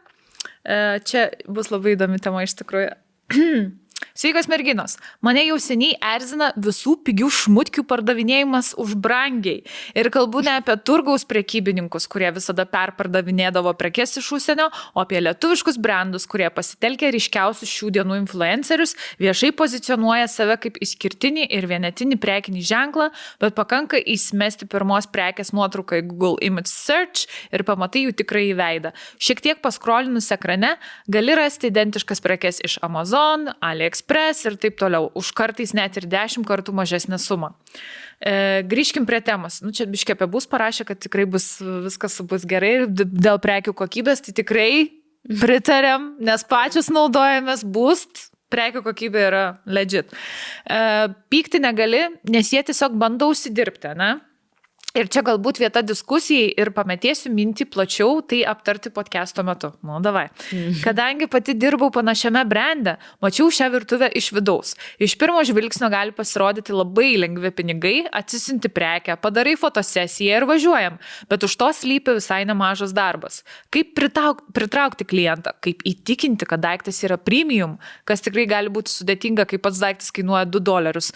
Čia bus labai įdomi tema iš tikrųjų. Sveikos merginos, mane jau seniai erzina visų pigių šmutkių pardavinėjimas už brangiai. Ir kalbu ne apie turgaus prekybininkus, kurie visada perpardavinėdavo prekes iš užsienio, o apie lietuviškus brandus, kurie pasitelkia ryškiausius šių dienų influencerius, viešai pozicionuoja save kaip išskirtinį ir vienetinį prekinį ženklą, bet pakanka įsimesti pirmos prekės nuotrauką į Google Image Search ir pamatai jų tikrąjį veidą. Šiek tiek paskrolinus ekrane gali rasti identiškas prekes iš Amazon, AliExpress ir taip toliau, už kartais net ir 10 kartų mažesnę sumą. Grįžkim prie temos. Nu, čia biškė apie bus parašė, kad tikrai viskas bus gerai ir dėl prekių kokybės, tai tikrai pritariam, nes pačius naudojamės Boost, prekių kokybė yra legit. Pykti negali, nes jie tiesiog bando užsidirbti, ne? Ir čia galbūt vieta diskusijai ir pametėsiu mintį plačiau, tai aptarti podcast'o metu. Nu, davai. Kadangi pati dirbau panašiame brande, mačiau šią virtuvę iš vidaus. Iš pirmo žvilgsnio gali pasirodyti labai lengvi pinigai, atsisinti prekę, padarai fotosesiją ir važiuojam, bet už to slypi visai nemažas darbas. Kaip pritraukti klientą, kaip įtikinti, kad daiktas yra premium, kas tikrai gali būti sudėtinga, kai pats daiktas kainuoja $2.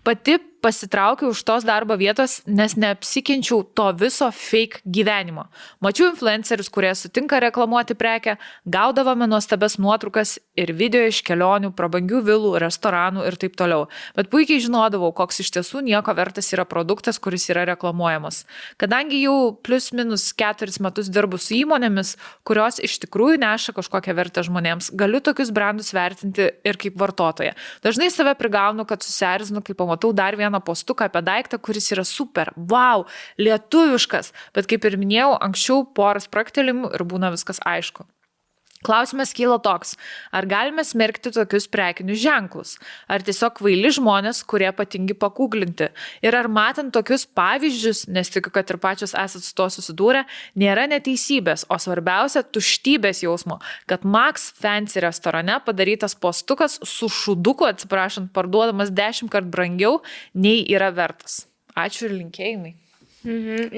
Pati pasitraukiau už tos darbo vietos, nes neapsikenčiau to viso fake gyvenimo. Mačiau influencerius, kurie sutinka reklamuoti prekę, gaudavome nuostabes nuotraukas ir video iš kelionių, prabangių vilų, restoranų ir taip toliau. Bet puikiai žinodavau, koks iš tiesų nieko vertas yra produktas, kuris yra reklamuojamas. Kadangi jau plius minus 4 metus dirbu su įmonėmis, kurios iš tikrųjų neša kažkokią vertę žmonėms, galiu tokius brandus vertinti ir kaip vartotoja. Dažnai save prigaunu, kad susierzinu, kai pamatau dar vieną postuką apie daiktą, kuris yra super, wow, lietuviškas, bet kaip ir minėjau, anksčiau porą spraktelimų ir būna viskas aišku. Klausimas kyla toks, ar galime smerkti tokius prekinius ženklus, ar tiesiog kvaili žmonės, kurie patingi pakūglinti, ir ar matant tokius pavyzdžius, nes tikiu, kad ir pačios esat su to susidūrę, nėra neteisybės, o svarbiausia tuštybės jausmo, kad Max Fancy restorane padarytas postukas su šuduku, atsiprašant, parduodamas 10 kart brangiau, nei yra vertas. Ačiū ir linkėjimai.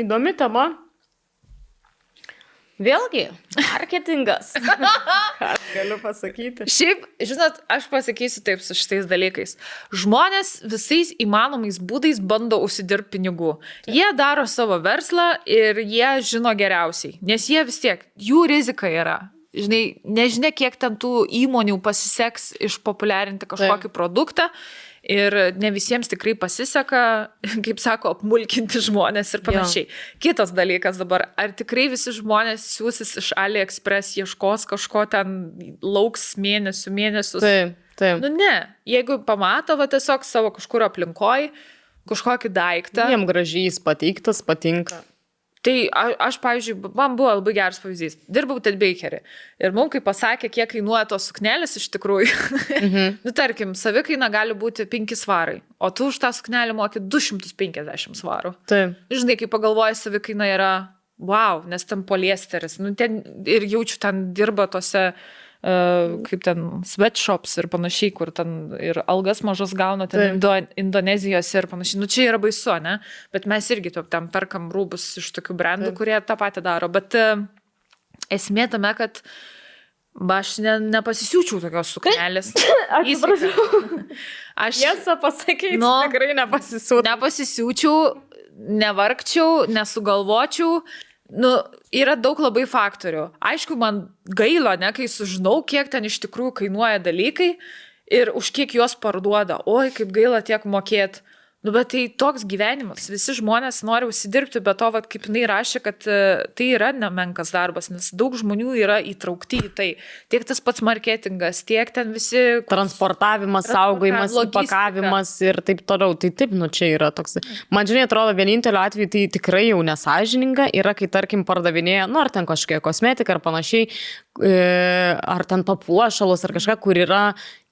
Įdomi tema. Vėlgi, marketingas. Ką galiu pasakyti? Šiaip, žinot, aš pasakysiu taip su šitais dalykais. Žmonės visais įmanomais būdais bando užsidirbti pinigų. Jie daro savo verslą ir jie žino geriausiai, nes jie vis tiek, jų rizika yra. Žinai, nežinia, kiek ten tų įmonių pasiseks išpopuliarinti kažkokį produktą. Ir ne visiems tikrai pasiseka, kaip sako, apmulkinti žmonės ir panašiai. Kitas dalykas dabar, ar tikrai visi žmonės siūsis iš AliExpress, ieškos kažko ten, lauks mėnesius? Taip. Nu ne, jeigu pamato va, tiesiog savo kažkur aplinkoj, kažkokį daiktą. Jiem gražiai jis pateiktas, patinka. Tai aš, pavyzdžiui, man buvo labai geras pavyzdys. Dirbau Ted Bakery. Ir mums, kai pasakė, kiek kainuoja tos suknelės iš tikrųjų, nu, tarkim, savikaina gali būti 5 svarai, o tu už tą suknelę moki 250 svarų. Taip. Žinai, kai pagalvoji, savikaina yra, wow, nes ten poliesteris. Nu, ten ir jaučiu, ten dirba tose kaip ten sweatshops ir panašiai, kur ten ir algas mažas gauna, ten Indonezijos ir panašiai. Nu, čia yra baisu, ne? Bet mes irgi ten perkam rūbus iš tokių brandų, kurie tą patį daro. Bet esmė tame, kad aš nepasisiūčiau tokios suknelės. Aš tiesą pasakyti, tikrai nepasisiūčiau. Nepasisiūčiau, nevargčiau, nesugalvočiau. Nu, yra daug labai faktorių. Aišku, man gaila, ne, kai sužinau, kiek ten iš tikrųjų kainuoja dalykai ir už kiek juos parduoda. Oi, kaip gaila tiek mokėti. Nu, bet tai toks gyvenimas. Visi žmonės nori užsidirbti, bet to, vat, kaip jinai rašė, kad tai yra nemenkas darbas, nes daug žmonių yra įtraukti į tai. Tiek tas pats marketingas, tiek ten visi... Transportavimas, saugojimas, pakavimas ir taip toliau. Tai taip, nu čia yra toks... Man žinai, atrodo, vienintelio atveju tai tikrai jau nesąžininga yra, kai tarkim pardavinėja, nu ar ten kažkokia kosmetika ar panašiai, ar ten papuošalos ar kažką, kur yra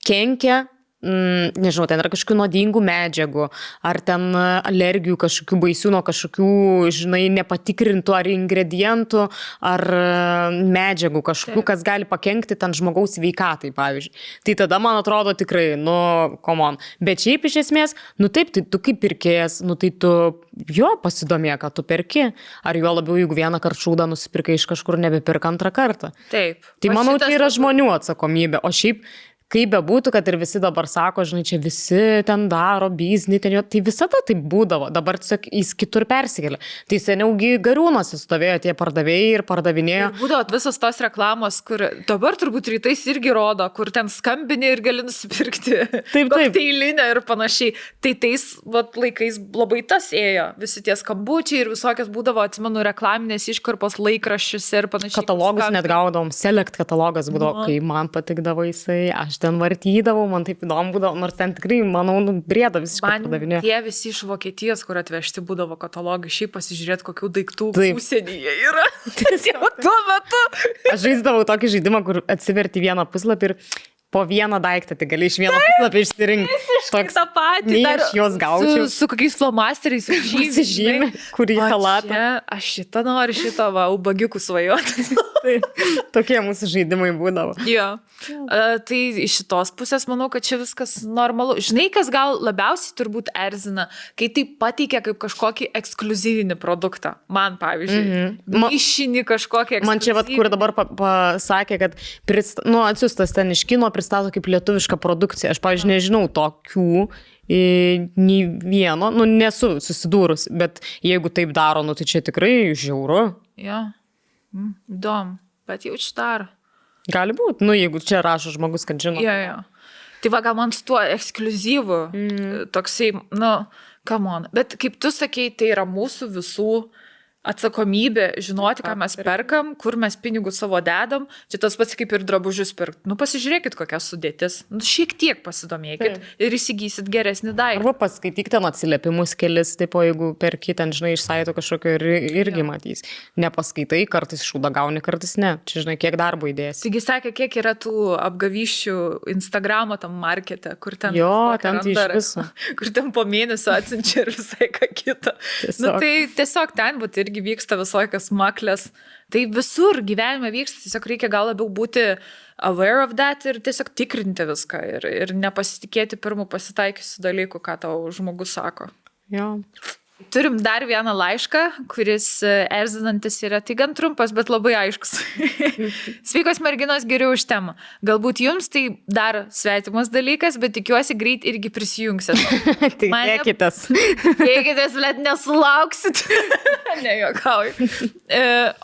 kenkia, nežinau, ten yra kažkokių nuodingų medžiagų, ar ten alergijų kažkokių baisių nuo kažkokių, žinai, nepatikrintų ar ingredientų, ar medžiagų kažkokių, kas gali pakenkti ten žmogaus sveikatai, pavyzdžiui. Tai tada, man atrodo, tikrai, nu, come on. Bet šiaip iš esmės, nu taip, tai tu kaip pirkėjas, nu tai tu jo pasidomė, kad tu perki. Ar jo labiau, jeigu vieną kartą šūdą nusipirkai iš kažkur, nebepirk antrą kartą. Taip. Tai manau, tai yra žmonių atsakomybė. O šiaip, kaip bebūtų, kad ir visi dabar sako, žinai, čia visi ten daro biznį, ten jo, tai visada taip būdavo, dabar tiesiog jis kitur persikėlė. Tai seniaugi Gariūnuose stovėjo tie pardavėjai ir pardavinėjo. Ir būdavo visos tos reklamos, kur dabar turbūt rytais irgi rodo, kur ten skambini ir gali nusipirkti kokteilinę ir panašiai. Tai tais laikais labai tas ėjo, visi tie skambučiai ir visokios būdavo, atsimenu, reklaminės iškarpos laikraščiuose ir panašiai. Katalogus net gaudavom, Select katalogas būdavo, kai man patikdavo jisai, aš ten vartydavau, man taip įdomu būdavo, nors ten tikrai, manau, brėda visiškai pardavinėjo. Tie visi iš Vokietijos, kur atvežti būdavo katalogai, šiaip pasižiūrėti, kokių daiktų užsienyje yra. Tuo metu. Aš žaisdavau tokį žaidimą, kur atsiverti vieną puslapį ir po vieną daiktą, tai gali iš vieno puslapio išsirinkti. Toks tą patį. Nei aš juos gaučiau. Su kokiais flomasteriais Pasižymė, kurį halatą. Aš šitą noriu, šitą va, ubagiukų svajoti. Tai tokie mūsų žaidimai būdavo. Jo. Tai iš šitos pusės manau, kad čia viskas normalu. Žinai, kas gal labiausiai turbūt erzina, kai tai pateikia kaip kažkokį ekskliuzyvinį produktą. Man, pavyzdžiui, mišinį kažkokį ekskliuzyvinį. Man čia, vat, kur dabar pasakė, kad atsiustas ten iš kino pristato kaip lietuvišką produkciją. Aš, pavyzdžiui, nežinau tokių nei vieno, nesu susidūrus, bet jeigu taip daro, tai čia tikrai žiauru. Jo, įdomu, bet jau čia daro. Gali būti, jeigu čia rašo žmogus, kad žino. Jo. Tai va, gal man su tuo ekskliuzyvu, toksai, come on. Bet kaip tu sakei, tai yra mūsų visų atsakomybė žinoti, ką mes perkam, kur mes pinigus savo dedam. Čia tas pats kaip ir drabužius pirkti. Pasižiūrėkit, kokia sudėtis. Šiek tiek pasidomėkit ir įsigysit geresnį daiktą. Arba paskaityk ten atsiliepimus kelis, tipo, jeigu perki ten, žinai, iš saito kažkokio irgi matys. Nepaskaitai, kartais šūdą gauni, kartais ne. Čia, žinai, kiek darbo įdėsi. Taigi sakė, kiek yra tų apgavyščių Instagramo tam markete, kur ten... Jo, ten tai iš viso. Kur ten po mėnesio atsinčia ir visai ką kitą. Tai tiesiog ten būt irgi vyksta visokios maklės. Tai visur gyvenime vyksta, tiesiog reikia gal labiau būti aware of that ir tiesiog tikrinti viską ir nepasitikėti pirmų pasitaikiusių dalykų, ką tau žmogus sako. Jo. Turim dar vieną laišką, kuris erzinantis yra, tai gan trumpas, bet labai aiškus. Sveikos merginos, geriau už temą. Galbūt jums tai dar svetimas dalykas, bet tikiuosi greit irgi prisijungsit. Tikėkitės. Tikėkitės, bet nesulauksit. Nejuokauju.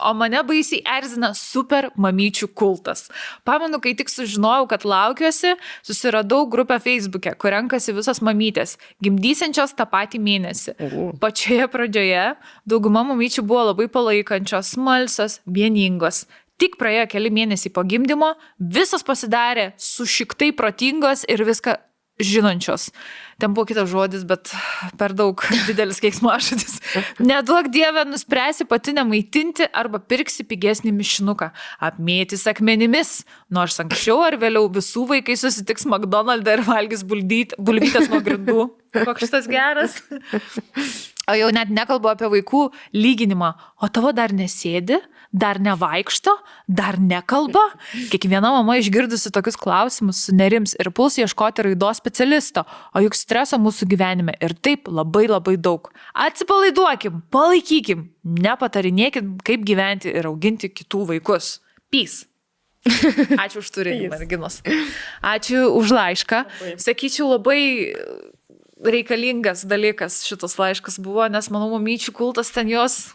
O mane baisiai erzina super mamyčių kultas. Pamenu, kai tik sužinojau, kad laukiuosi, susiradau grupę Facebook'e, kur renkasi visos mamytės, gimdysiančios tą patį mėnesį. Pačioje pradžioje dauguma mamyčių buvo labai palaikančios, smalsios, vieningos. Tik praėjo keli mėnesiai po gimdymo, visos pasidarė sušiktai protingos ir viską žinančios. Ten buvo kitas žodis, bet per daug didelis keiksmažodis. Neduok Dieve, nuspręsi pati nemaitinti arba pirksi pigesnį mišinuką. Apmėtys akmenimis, nors anksčiau ar vėliau visų vaikai susitiks McDonald'e ir valgys bulvytės nuo grindų. Koks šitas geras. O jau net nekalbu apie vaikų lyginimą. O tavo dar nesėdi, dar nevaikšto, dar nekalba. Kiekviena mama išgirdusi tokius klausimus sunerims ir puls ieškoti raidos specialisto. O juk streso mūsų gyvenime ir taip labai labai daug. Atsipalaiduokim, palaikykim, nepatarinėkim, kaip gyventi ir auginti kitų vaikus. Peace. Ačiū už turinį, merginos. Ačiū už laišką. Sakyčiau, labai reikalingas dalykas šitas laiškas buvo, nes manau, mamyčių kultas ten jos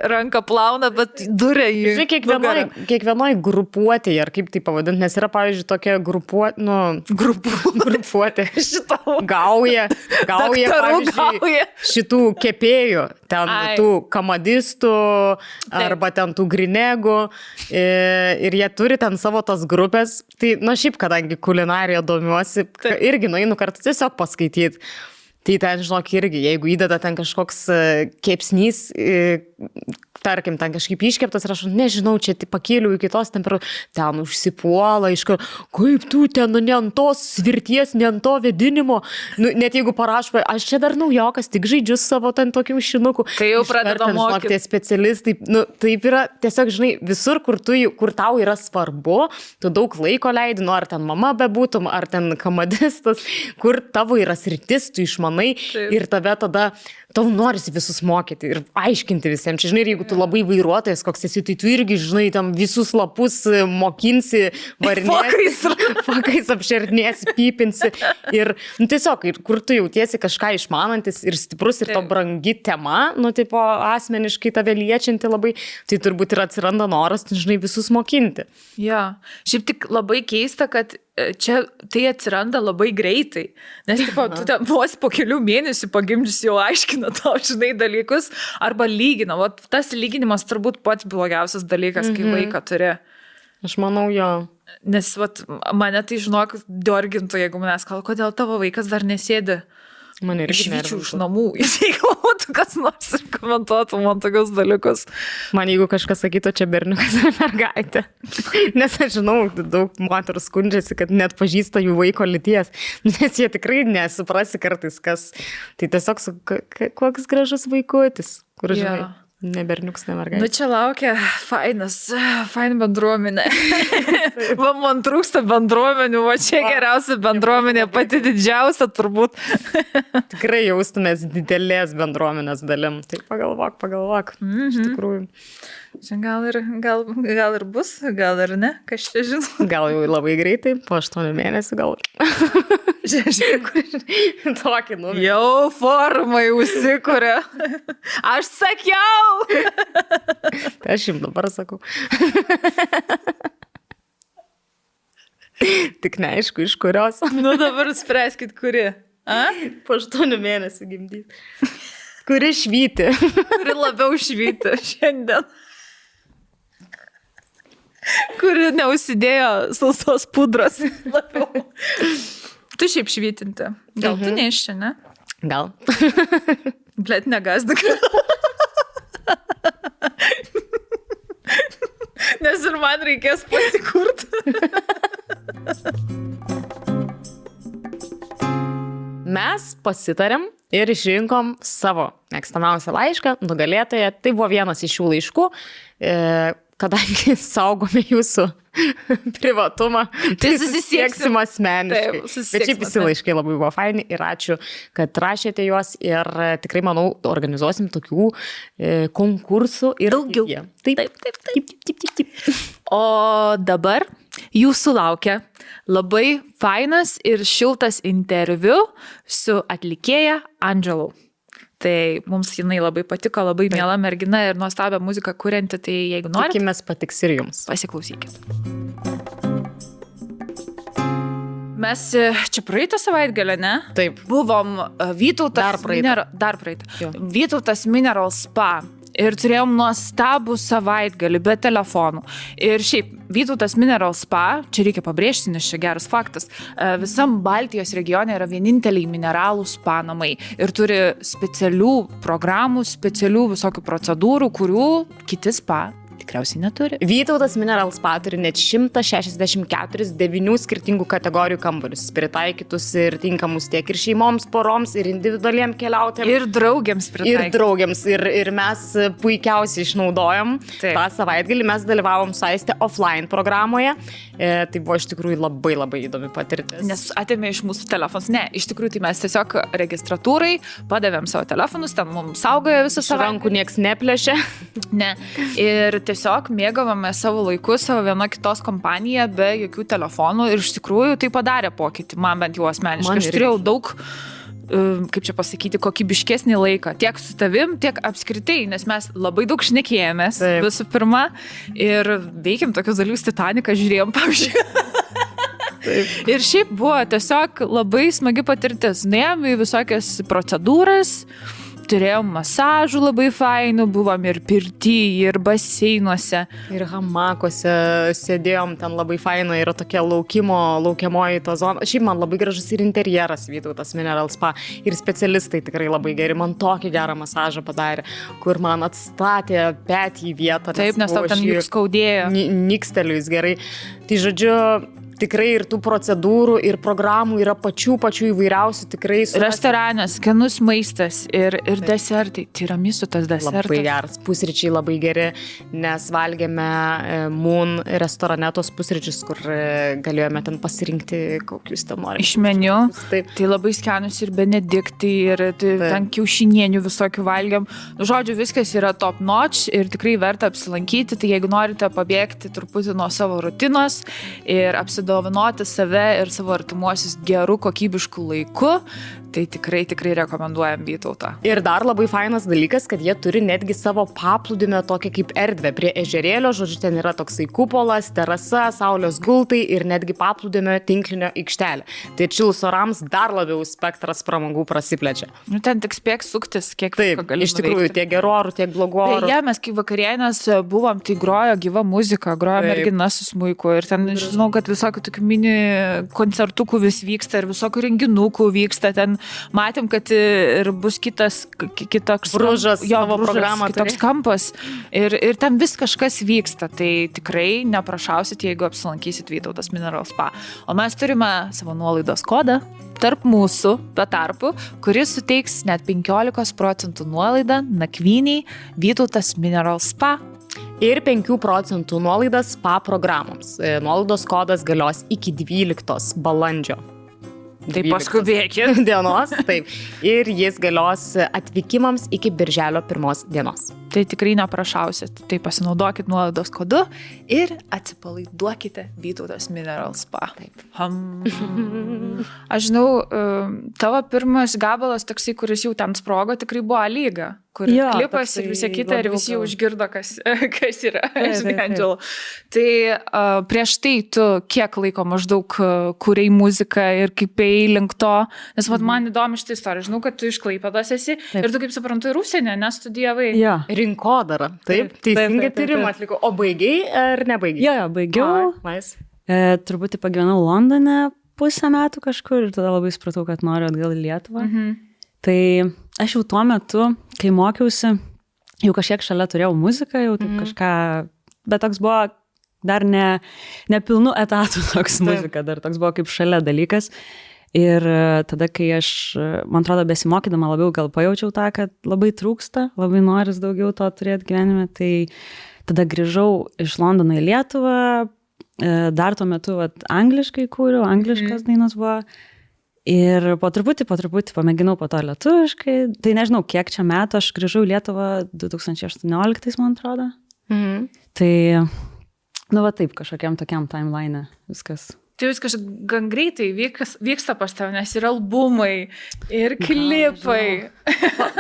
ranką plauna, bet duria jį. Žiūrėk, kiekvienoj grupuotėje, ar kaip tai pavadinti, nes yra, pavyzdžiui, tokia grupuotė. Gauja, pavyzdžiui, šitų kepėjų, ten tų kamadistų, arba ten tų grinegų, ir jie turi ten savo tas grupės. Tai, šiaip, kadangi kulinarija domiuosi, irgi nueinu kartu tiesiog paskaityti. Tai ten, žinok, irgi, jeigu įdeda ten kažkoks kepsnys, tarkim, ten kažkaip iškeptas ir aš nežinau, čia pakėliau iki tos temperatūros, ten užsipuola, kaip tu ten, ne ant tos svirties, ne ant to vėdinimo, net jeigu parašo, aš čia dar naujokas, tik žaidžiu savo ten tokių šinukų. Tai jau pradeda mokyti. Tie specialistai, taip yra, tiesiog, žinai, visur, kur tau yra svarbu, tu daug laiko leidi, ar ten mama bebūtum, ar ten kamadistas, kur tavo yra sritis, tu išmanai ir tave tada tau norisi visus mokyti ir aiškinti visiems. Čia, žinai, jeigu tu labai vairuotojas koks esi, tai tu irgi, žinai, tam visus lapus mokinsi, varinėsi, fakais apšernėsi, pypinsi. Ir, tiesiog, kur tu jautiesi kažką išmanantis ir stiprus ir to brangi tema, tipo, asmeniškai tave liečianti labai, tai turbūt ir atsiranda noras, žinai, visus mokinti. Ja, šiaip tik labai keista, kad čia tai atsiranda labai greitai, nes tipo, tu ten vos po kelių mėnesių pagimdžius jau aiškina tau, žinai, dalykus, arba lygina. O tas lyginimas turbūt pats blogiausias dalykas, kai vaiką turi. Aš manau, jo. Nes mane tai, žinok, diorgintų, jeigu manęs kalba, kodėl tavo vaikas dar nesėdi. Man irgi išvyčiau iš namų, jeigu būtų kas nors ir komentuotų man tokius dalykus. Man jeigu kažkas sakytų, čia berniukas ar mergaitė. Nes aš žinau, daug moterų skundžiasi, kad net pažįsta jų vaiko lyties. Nes jie tikrai nesuprasi kartais, kas. Tai tiesiog koks gražus vaikutis, kur žinai. Ne berniuks, ne mergaitė. Nu čia laukia faina bendruomenė. Va, man trūksta bendruomenių, va čia geriausia bendruomenė, pati didžiausia turbūt. Tikrai jaustumės didelės bendruomenės dalim. Tai pagalvok. Iš tikrųjų. Čia gal ir bus, gal ir ne, kas čia žino. Gal jau labai greitai, po 8 mėnesių gal. Žiūrėk, Tokį numerį. jau formai užsikuria. Aš sakiau. Tai aš jums dabar sakau. Tik neaišku, iš kurios. Nu dabar spręskit, kuri. A? Po 8 mėnesių gimdyti. Kuri švyti. Kuri labiau švyti šiandien. Kuri neužsidėjo sausos pudros labiau. Tu šiaip švytinti. Gal tu neiščia, ne? Gal. Blet, negazdik. Nes ir man reikės pasikurti. Mes pasitarėm ir išrinkom savo mėgstamiausią laišką, nugalėtoją. Tai buvo vienas iš šių laiškų. Kadangi saugome jūsų privatumą, tai susisieksim asmeniškai. Bet šiaip visi laiškai labai buvo faini ir ačiū, kad rašėte juos ir tikrai, manau, organizuosim tokių konkursų ir daugiau. Taip. O dabar jūsų laukia labai fainas ir šiltas interviu su atlikėja Andželu. Tai mums jinai labai patiko, labai miela mergina ir nuostabią muziką kurianti, tai jeigu norite, tikimės patiks ir jums. Pasiklausykit. Mes čia praeitą savaitgalę, ne? Taip. Buvom Vytautas Dar praeitą. Vytautas Mineral Spa. Ir turėjom nuostabų savaitgalį be telefonų. Ir šiaip, Vytautas Mineral Spa, čia reikia pabrėžti, nes čia geras faktas, visam Baltijos regione yra vieninteliai mineralų spa namai. Ir turi specialių programų, specialių visokių procedūrų, kurių kiti spa tikriausiai neturi. Vytautas Mineral Spa turi net 164 9 skirtingų kategorijų kambarius, pritaikytus ir tinkamus tiek ir šeimoms, poroms, ir individualiem keliautėms. Ir draugiams pritaikytus. Ir mes puikiausiai išnaudojom tą savaitgalį. Mes dalyvavom su Aiste offline programoje. Tai buvo iš tikrųjų labai labai įdomi patirtis. Nes atėmė iš mūsų telefonus. Ne, iš tikrųjų tai mes tiesiog registratūrai padavėm savo telefonus, ten mums saugojo visą savaitgalį. Rankų nieks neplėšė. Ne. Ir tiesiog mėgavome savo laiku, savo viena kitos kompaniją be jokių telefonų ir iš tikrųjų tai padarė pokytį, man bent jau asmeniškai. Aš turėjau daug, kaip čia pasakyti, kokybiškesnį laiką, tiek su tavim, tiek apskritai, nes mes labai daug šnekėjomės visų pirma ir veikėm tokius dalykus, Titaniką žiūrėjom, pavyzdžiui. Ir šiaip buvo tiesiog labai smagi patirtis. Nuėjom į visokias procedūras, turėjom masažų labai fainų, buvom ir pirty, ir baseinuose. Ir hamakuose sėdėjom, ten labai faina, yra tokia laukiamoji to zona. Šiaip man labai gražus ir interjeras Vytautas Mineral Spa. Ir specialistai tikrai labai geri. Man tokį gerą masažą padarė, kur man atstatė petį į vietą. Taip, nes tau ten juk skaudėjo. Niksteliu jis gerai. Tai žodžiu, tikrai ir tų procedūrų, ir programų yra pačių įvairiausių tikrai. Restoranas, skanus maistas ir desertai. Tiramisu tas desertas. Labai geras, pusryčiai labai geri, nes valgėme Moon restorane tos pusryčius, kur galėjome ten pasirinkti, kokius ten norime. Iš meniu. Taip. Tai labai skanus ir benediktai, ir ten kiaušinienių visokių valgėm. Žodžiu, viskas yra top notch ir tikrai verta apsilankyti. Tai jeigu norite pabėgti truputį nuo savo rutinos ir apsidovanoti save ir savo artimuosius gerų kokybiškų laiku, tai tikrai rekomenduojam Vytautą. Ir dar labai fainas dalykas, kad jie turi netgi savo paplūdimio tokią kaip erdvę prie ežerėlio, žodžiu, ten yra toksai kupolas, terasa, saulės gultai ir netgi paplūdimio tinklinio aikštelė. Tai atšilus orams dar labiau spektras pramogų prasiplečia. Nu, ten tik spėk suktis, kiek visko gali nuveikti. Iš tikrųjų, tiek gerų orų, tiek blogų orų. Beje, mes kai vakarienės buvom, tai grojo gyva muzika, grojo mergina su smuiku ir ten, žinau, kad visokių tokių mini koncertukų vis vyksta ir visokių renginukų vyksta ten. matėm, kad ir bus kitoks Bružas, savo programą kitoks kampas ir ten vis kažkas vyksta, tai tikrai neprašausit, jeigu apsilankysit Vytautas Mineral Spa. O mes turime savo nuolaidos kodą tarp mūsų, be tarpų, kuris suteiks net 15% nuolaidą nakvyniai Vytautas Mineral Spa. Ir 5% nuolaidas spa programoms. Nuolaidos kodas galios iki 12 balandžio. Tai paskubėkit. Dienos, taip. Ir jis galios atvykimams iki birželio 1 dienos. Tai tikrai neprašausit. Tai pasinaudokit nuolaidos kodu ir atsipalaiduokite Vytautas Mineral Spa. Taip. Aš žinau, tavo pirmas gabalas toksai, kuris jau ten sprogo, tikrai buvo Lyga, kur klipas ir visi kita ir visi jau užgirdo, kas yra. Angelo. Tai prieš tai tu kiek laiko maždaug kūrei muziką ir kaip ėjai link to, nes man įdomi šitą istoriją. Žinau, kad tu iš Klaipėdos esi ir tu, kaip suprantu, ir užsienį nestudijavai. Rinkodara. Taip, teisingai tyrimą atlikau. O baigiai ar nebaigiai? Jo, baigiau. Truputį pagyvenau Londone pusę metų kažkur ir tada labai supratau, kad noriu atgal į Lietuvą. Tai aš jau tuo metu, kai mokiausi, jau kažkiek šalia turėjau muziką, jau taip kažką, bet toks buvo dar ne pilnų etatų toks muzika, dar toks buvo kaip šalia dalykas. Ir tada, kai aš, man atrodo, besimokydama labiau gal pajaučiau tą, kad labai trūksta, labai noris daugiau to turėti gyvenime, tai tada grįžau iš Londono į Lietuvą, dar tuo metu angliškai kūriau, angliškas dainos buvo. Ir po truputį pamėginau po to lietuviškai. Tai nežinau, kiek čia metų, aš grįžau į Lietuvą 2018, man atrodo. Tai, taip, kažkokiam tokiam timeline viskas. Tai viskas gan greitai vyksta pas tave, nes ir albumai, ir klipai.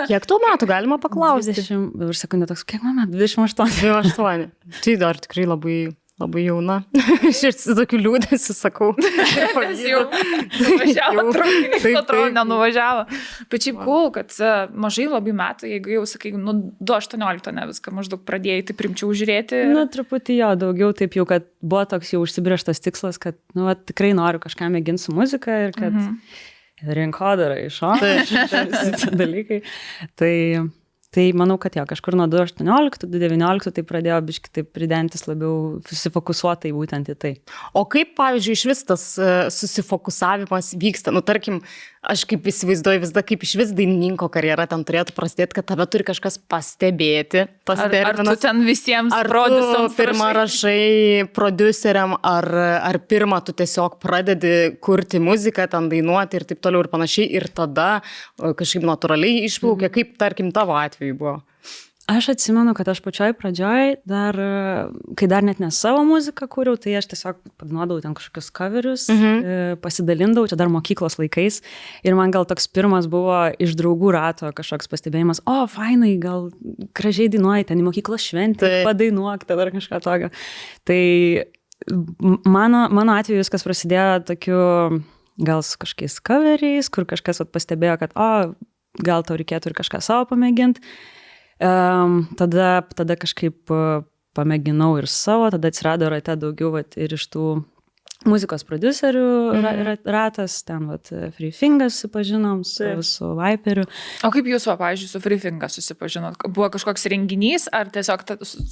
Kiek tų metų galima paklausti? 20, dabar sekundę toks, kiek man metų? 28. 28. Tai dar tikrai labai jauna. Aš ir su tokiu liūdėsiu sakau. Jis jau nuvažiavo, traukinys atrodo nenuvažiavo. Bet šiaip cool, kad mažai labai metų, jeigu jau sakai, 2018 ne viską maždaug pradėjai, tai primčiau žiūrėti. Truputį jo, daugiau taip jau, kad buvo toks jau užsibrėžtas tikslas, kad tikrai noriu kažką mėginti su muzika ir kad rinkodara iššoka šitą dalykai. Tai manau, kad kažkur nuo 2018, 2019 tai pradėjo biškai taip pridentis labiau susifokusuotai būtent į tai. O kaip, pavyzdžiui, iš vis tas susifokusavimas vyksta? Tarkim, aš kaip įsivaizduoju visada, kaip iš vis dainininko karjera ten turėtų prasidėti, kad tave turi kažkas pastebėti. Ar tu ten visiems prodiusams pirmą rašai prodiuseriam, ar pirmą tu tiesiog pradedi kurti muziką, ten dainuoti ir taip toliau ir panašiai, ir tada kažkaip natūraliai išplaukia, kaip, tarkim, tavo atveju buvo? Aš atsimenu, kad aš pačioj pradžioj, kai dar net ne savo muziką kūriau, tai aš tiesiog padainuodavau ten kažkokius coverius, pasidalindavau, čia dar mokyklos laikais. Ir man gal toks pirmas buvo iš draugų rato kažkoks pastebėjimas, fainai, gal gražiai dainuoji, ten į mokyklos šventę, padainuok, tada ar kažką tokio. Tai mano atveju viskas prasidėjo tokiu, gal su kažkokiais coveriais, kur kažkas pastebėjo, kad gal tau reikėtų ir kažką savo pamėginti. Tada kažkaip pamėginau ir savo, tada atsirado rate daugiau ir iš tų muzikos prodiuserių ratas, ten Free Fingers susipažinom su Viperiu. O kaip jūs, pavyzdžiui, su Free Fingers susipažinot? Buvo kažkoks renginys, ar tiesiog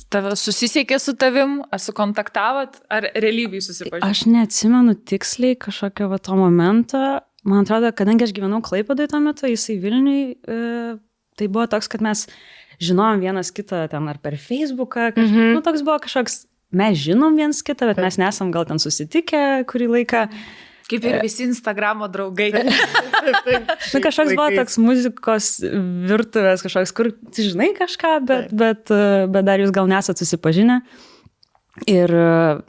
tave susisiekė su tavim, ar sukontaktavot, ar realybėj susipažinot? Aš neatsimenu tiksliai kažkokio to momento. Man atrodo, kadangi aš gyvenau Klaipėdoj tuo metu, jisai Vilniui, tai buvo toks, kad mes žinom vienas kitą ten ar per Facebooką, toks buvo kažkoks, mes žinom vienas kitą, bet mes nesam gal ten susitikę kurį laiką. Kaip ir visi Instagramo draugai. Kažkoks buvo toks muzikos virtuvės, kažkoks, kur žinai kažką, bet dar jūs gal nesat susipažinę. Ir,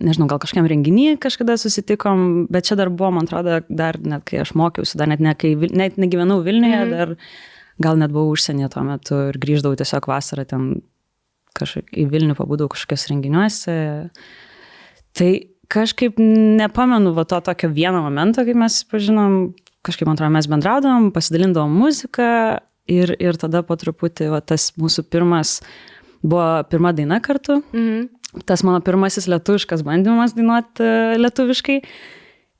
nežinau, gal kažkiam renginį kažkada susitikom, bet čia dar buvo, man atrodo, dar net kai aš mokiausi, dar net negyvenau Vilniuje, dar gal net buvau užsienyje tuo metu ir grįždavau tiesiog vasarą ten į Vilnių, pabūdavau kažkokios renginiuose. Tai kažkaip nepamenu to tokio vieno momento, kai mes pažinom, kažkaip, man atrodo, mes bendraudavom, pasidalindavom muziką ir tada po truputį tas mūsų buvo pirma daina kartu. Tas mano pirmasis lietuviškas bandymas dainuoti lietuviškai.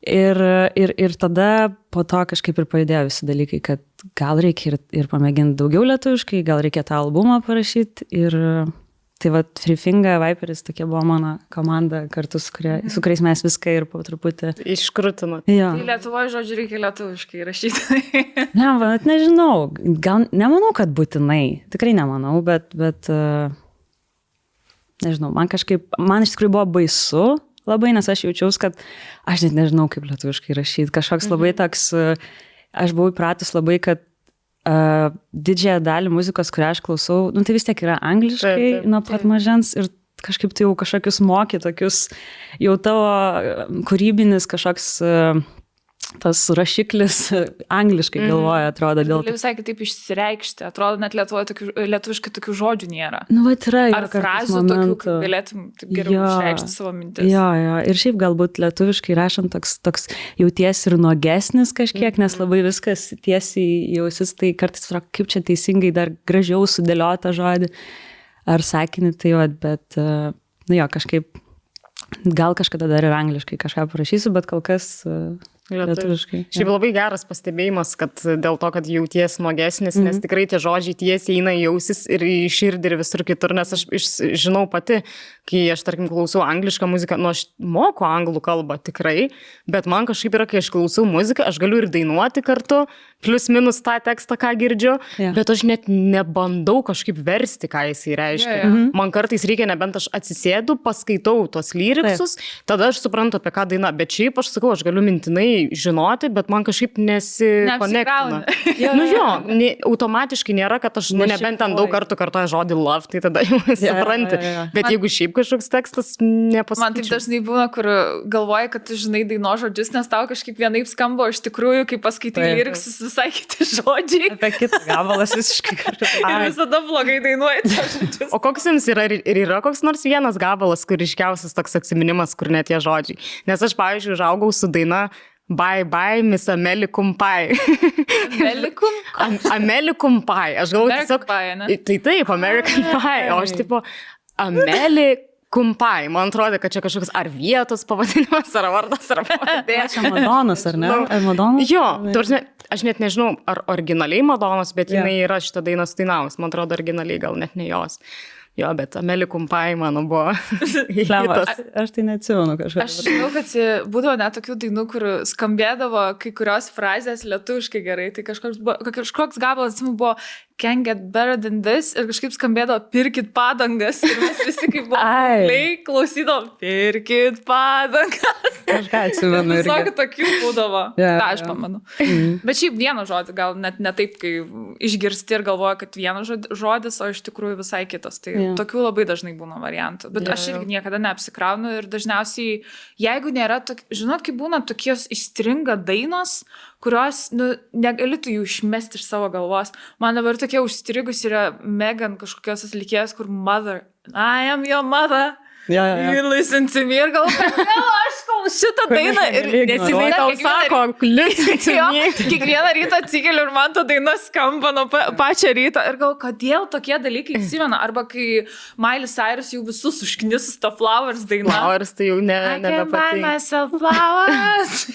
Ir tada po to kažkaip ir pajudėjo visi dalykai, kad gal reikia ir pamėginti daugiau lietuviškai, gal reikia tą albumą parašyti. Ir tai va, Free Finger, Viperis, tokia buvo mano komanda kartu, su kuriais mes viską ir po truputį iškrutinot. Jo. Tai Lietuvoje, žodžiu, reikia lietuviškai rašyti. Ne, bet nežinau, gal nemanau, kad būtinai, tikrai nemanau, bet nežinau, man iš tikrųjų buvo baisu labai, nes aš jaučiaus, kad aš net nežinau, kaip lietuviškai rašyti, kažkoks labai toks, aš buvau įpratus labai, kad didžiąją dalį muzikos, kurią aš klausau, tai vis tiek yra angliškai nuo pat mažens ir kažkaip tai jau kažkokius moky, tokius jau tavo kūrybinis kažkoks tas rašiklis angliškai galvoja, atrodo. Gali visai kitaip išsireikšti, atrodo, net lietuviškai tokių žodžių nėra. Nu, va, yra. Ar frazių tokių, kaip galėtum taip geriau išreikšti savo mintis. Jo. Ir šiaip galbūt lietuviškai rašant toks jautiesi ir nuogesnis kažkiek, nes labai viskas tiesiai jausis, tai kartais kaip čia teisingai dar gražiau sudėliota žodį ar sakinį, tai jo, bet, kažkaip, gal kažkada dar ir angliškai kažką parašysiu, bet kol kas lietuviškai. Šiaip labai geras pastebėjimas, kad dėl to, kad jauties nuogesnis, nes tikrai tie žodžiai tiesiai eina į ausis ir į širdį ir visur kitur, nes aš žinau pati, kai aš, tarkim, klausau anglišką muziką, aš moku anglų kalbą tikrai, bet man kažkaip yra, kai aš klausau muziką, aš galiu ir dainuoti kartu, plius minus tą tekstą, ką girdžiu, bet aš net nebandau kažkaip versti, ką jisai reiškia. Man kartais reikia, nebent aš atsisėdu, paskaitau tos lyriksus, tada aš suprantu, apie ką daina, bet šiaip aš sakau, aš galiu mintinai žinoti, bet man kažkaip nesikonektina. Automatiškai nėra, kad aš nebent ten daug kartų kartoju žodį love, tai tada jau supranti. Bet jeigu šiaip kažkoks tekstas nepasakyčiau. Man taip dažnai būna, kur galvoji, kad tu žinai daino žodžius, nes tau kažkaip vienaip skamba, iš tikrųjų, kai paskaitai lyriksus, visai kiti žodžiai. Apie kitą gabalas visiškai kartu. Ir visada blogai dainuoji tą žodžius. O koks jums yra koks nors vienas gabalas, kur ryškiausias toks atsiminimas, kur net tie žodžiai? Nes aš, pavyzdžiui, užaugau su daina Bye bye, Miss American Pie. American Pie. Aš galvoju tiesiog... Tai taip, American Pie. O aš tipo American Pie. Man atrodo, kad čia kažkoks ar vietos pavadinimas, ar vardas, ar pavadė. Čia Madonas, ar ne? Ar Madonas? Jo, aš net nežinau, ar originaliai Madonas, bet jinai yra šitą dainą sudainavus. Man atrodo, originaliai gal net ne jos. Jo, bet American Pie mano buvo. Aš tai neatsimenu kažką. Aš žinau, kad būdavo net tokių dainų, kur skambėdavo kai kurios frazės lietuviškai gerai. Tai kažkoks gabalas, atsimenu, buvo Can't get better than this ir kažkaip skambėdavo pirkit padangas. Ir mes visi kaip buvo klausydavo pirkit padangas. Kažką atsimenu. Visokių tokių būdavo. Ta, aš pamenu. Bet šiaip vieną žodį, gal net ne taip, kai išgirsti ir galvoja, kad vienas žodis, o iš tikrųjų visai kitas. Tai tokių labai dažnai būna variantų. Bet aš irgi niekada neapsikraunu ir dažniausiai, jeigu nėra, žinot, kai būna tokios įstringa dainos, kurios, negali tu jų išmesti iš savo galvos. Man dabar tokia užstrigus yra Megan kažkokios atlikėjas, kur mother, I am your mother. You listen to me ir galvoju, aš šitą dainą ir nesinai tau sako, listen to me. Kiekvieną rytą atsikeliu ir man ta daina skamba nuo pačią rytą ir galvoju, kodėl tokie dalykai įsimena. Arba kai Miley Cyrus jau visus užknisus tą Flowers dainą. Flowers tai jau nebepatinka. I can buy myself flowers.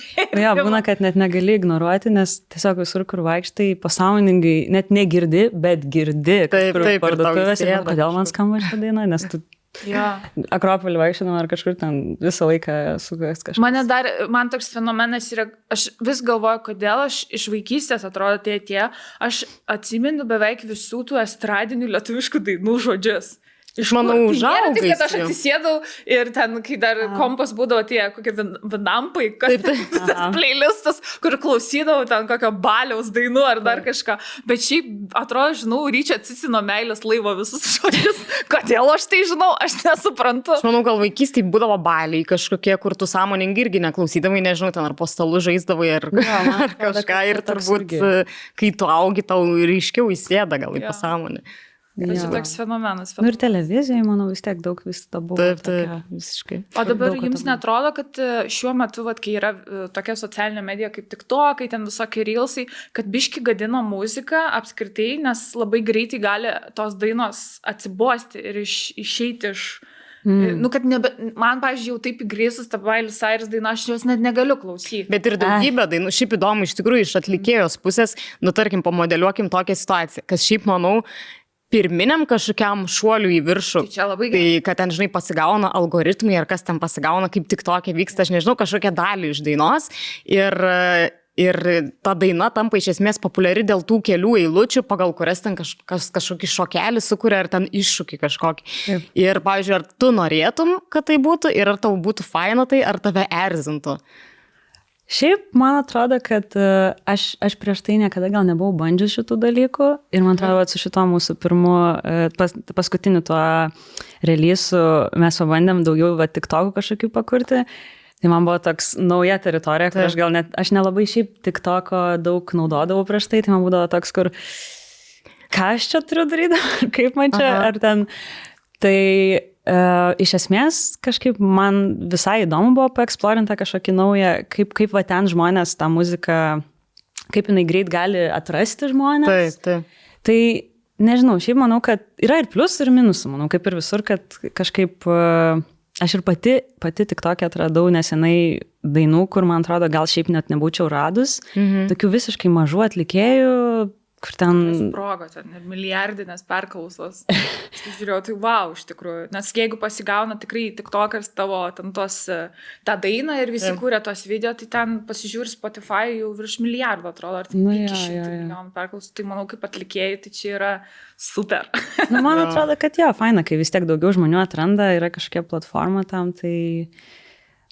Būna, kad net negali ignoruoti, nes tiesiog visur, kur vaikštai, pasąmoningai net negirdi, bet girdi. Taip, parduotuvėse. Kodėl man skamba šitą dainą, nes tu Akropolį vaikščiodama ar kažkur ten visą laiką sugas kažkas. Man toks fenomenas yra, aš vis galvoju, kodėl aš iš vaikystės atrodo aš atsimenu beveik visų tų estradinių lietuviškų dainų žodžius. Iš manau, užaugai. Taip, kad aš atsisėdau ir ten, kai dar kompas būdavo tie kokie vinampai, kas tas playlistas, kur klausydavau ten kokio baliaus dainų ar dar kažką. Bet šiaip, atrodo, žinau, Ryčio Cicino meilės laivo visus žodžius. Kodėl aš tai žinau, aš nesuprantu. Aš manau, gal vaikystėje būdavo baliai kažkokie, kur tu sąmoningai irgi neklausydavai, nežinau, ten ar po stalu žaisdavai ar kažką. Ir turbūt, kai tu augi, tau ryškiau įsėda gal į pasąmonę. Čia toks fenomenas. Ir televizijoje, manau, vis tiek daug vis to buvo. Taip, visiškai. O dabar jums netrodo, kad šiuo metu, kai yra tokia socialinė medija kaip TikTok, kai ten visokie reelsai, kad biški gadina muziką apskritai, nes labai greitai gali tos dainos atsibosti ir išeiti iš Nu, kad man, pavyzdžiui, jau taip įgrėsus tą Miley Cyrus dainą, aš jos net negaliu klausyti. Bet ir daugybė dainų, šiaip įdomu iš tikrųjų iš atlikėjos pusės, nu tarkim, pamodeliuokim tokią situaciją, kas šiaip, manau, pirminiam kažkokiam šuoliu į viršų. Tai čia labai gerai. Tai, kad ten, žinai, pasigauna algoritmai ar kas ten pasigauna, kaip tik tokia vyksta, aš nežinau, kažkokią dalį iš dainos ir ta daina tampa iš esmės populiari dėl tų kelių eilučių, pagal kurias ten kažkokį šokelį sukuria ar ten iššūkį kažkokį. Taip. Ir, pavyzdžiui, ar tu norėtum, kad tai būtų ir ar tau būtų faina tai, ar tave erzintų? Šiaip, man atrodo, kad aš prieš tai niekada gal nebuvau bandžius šitų dalykų ir man atrodo, su šito mūsų pirmu, paskutiniu tuo releasu mes pabandėm daugiau TikTokų kažkokių pakurti. Tai man buvo toks nauja teritorija, kur aš nelabai šiaip TikToko daug naudodavau prieš tai man būdavo toks, kur ką aš čia turiu daryti, kaip man čia, ar ten. Tai iš esmės kažkaip man visai įdomu buvo paeksplorinti kažkokį naują, kaip va ten žmonės tą muziką, kaip jinai greit gali atrasti žmonės. Taip. Tai nežinau, šiaip manau, kad yra ir pliusų ir minusų, manau, kaip ir visur, kad kažkaip aš ir pati TikTok'e atradau nesenai dainų, kur man atrodo gal šiaip net nebūčiau radus, tokių visiškai mažų atlikėjų, kur ten... Sprogo, ten milijardinės perklausos. Žiūrėjau, tai wow, iš tikrųjų. Nes jeigu pasigauna tikrai TikTok'as tavo ten tą dainą ir visi kūrė tos video, tai ten pasižiūri Spotify jau virš milijardo, atrodo, ar 500 milijonų perklausų. Tai manau, kaip atlikėjai, tai čia yra super. Man atrodo, kad faina, kai vis tiek daugiau žmonių atranda, yra kažkokia platforma tam, tai...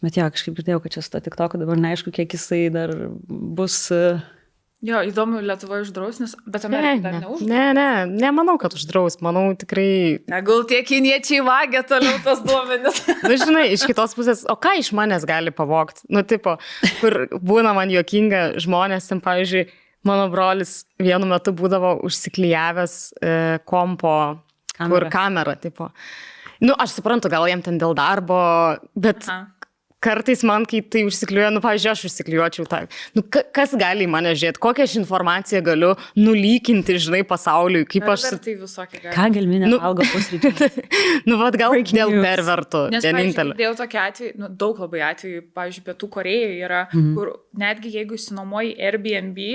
Bet kažkaip girdėjau, kad čia su to TikTok'u dabar neaišku, kiek jisai dar bus... Jo, įdomu, Lietuvoje uždraus, bet Amerika dar neuždraus. Nemanau, kad uždraus, manau tikrai... Gal tie kiniečiai vagia toliau tos duomenis. Nu, žinai, iš kitos pusės, o ką iš manęs gali pavogti? Nu, tipo, kur būna man juokinga žmonės, ten, pavyzdžiui, mano brolis vienu metu būdavo užsiklijavęs kompo, kur kamera, tipo. Nu, aš suprantu, gal jam ten dėl darbo, bet... Kartais man, kai tai užsikliuoja, pavyzdžiui, aš užsikliuočiau tą. Kas gali į mane žiūrėti, kokią aš informaciją galiu nulykinti, žinai, pasauliui, kaip aš... Tai visokie gali. Ką gelminė valgo pusryčių? Vat gal dėl pervertų. Nes, pavyzdžiui, dėl tokio atveju, daug labai atvejų, pavyzdžiui, Pietų Korėjoje yra, kur netgi jeigu įsinuomoji Airbnb,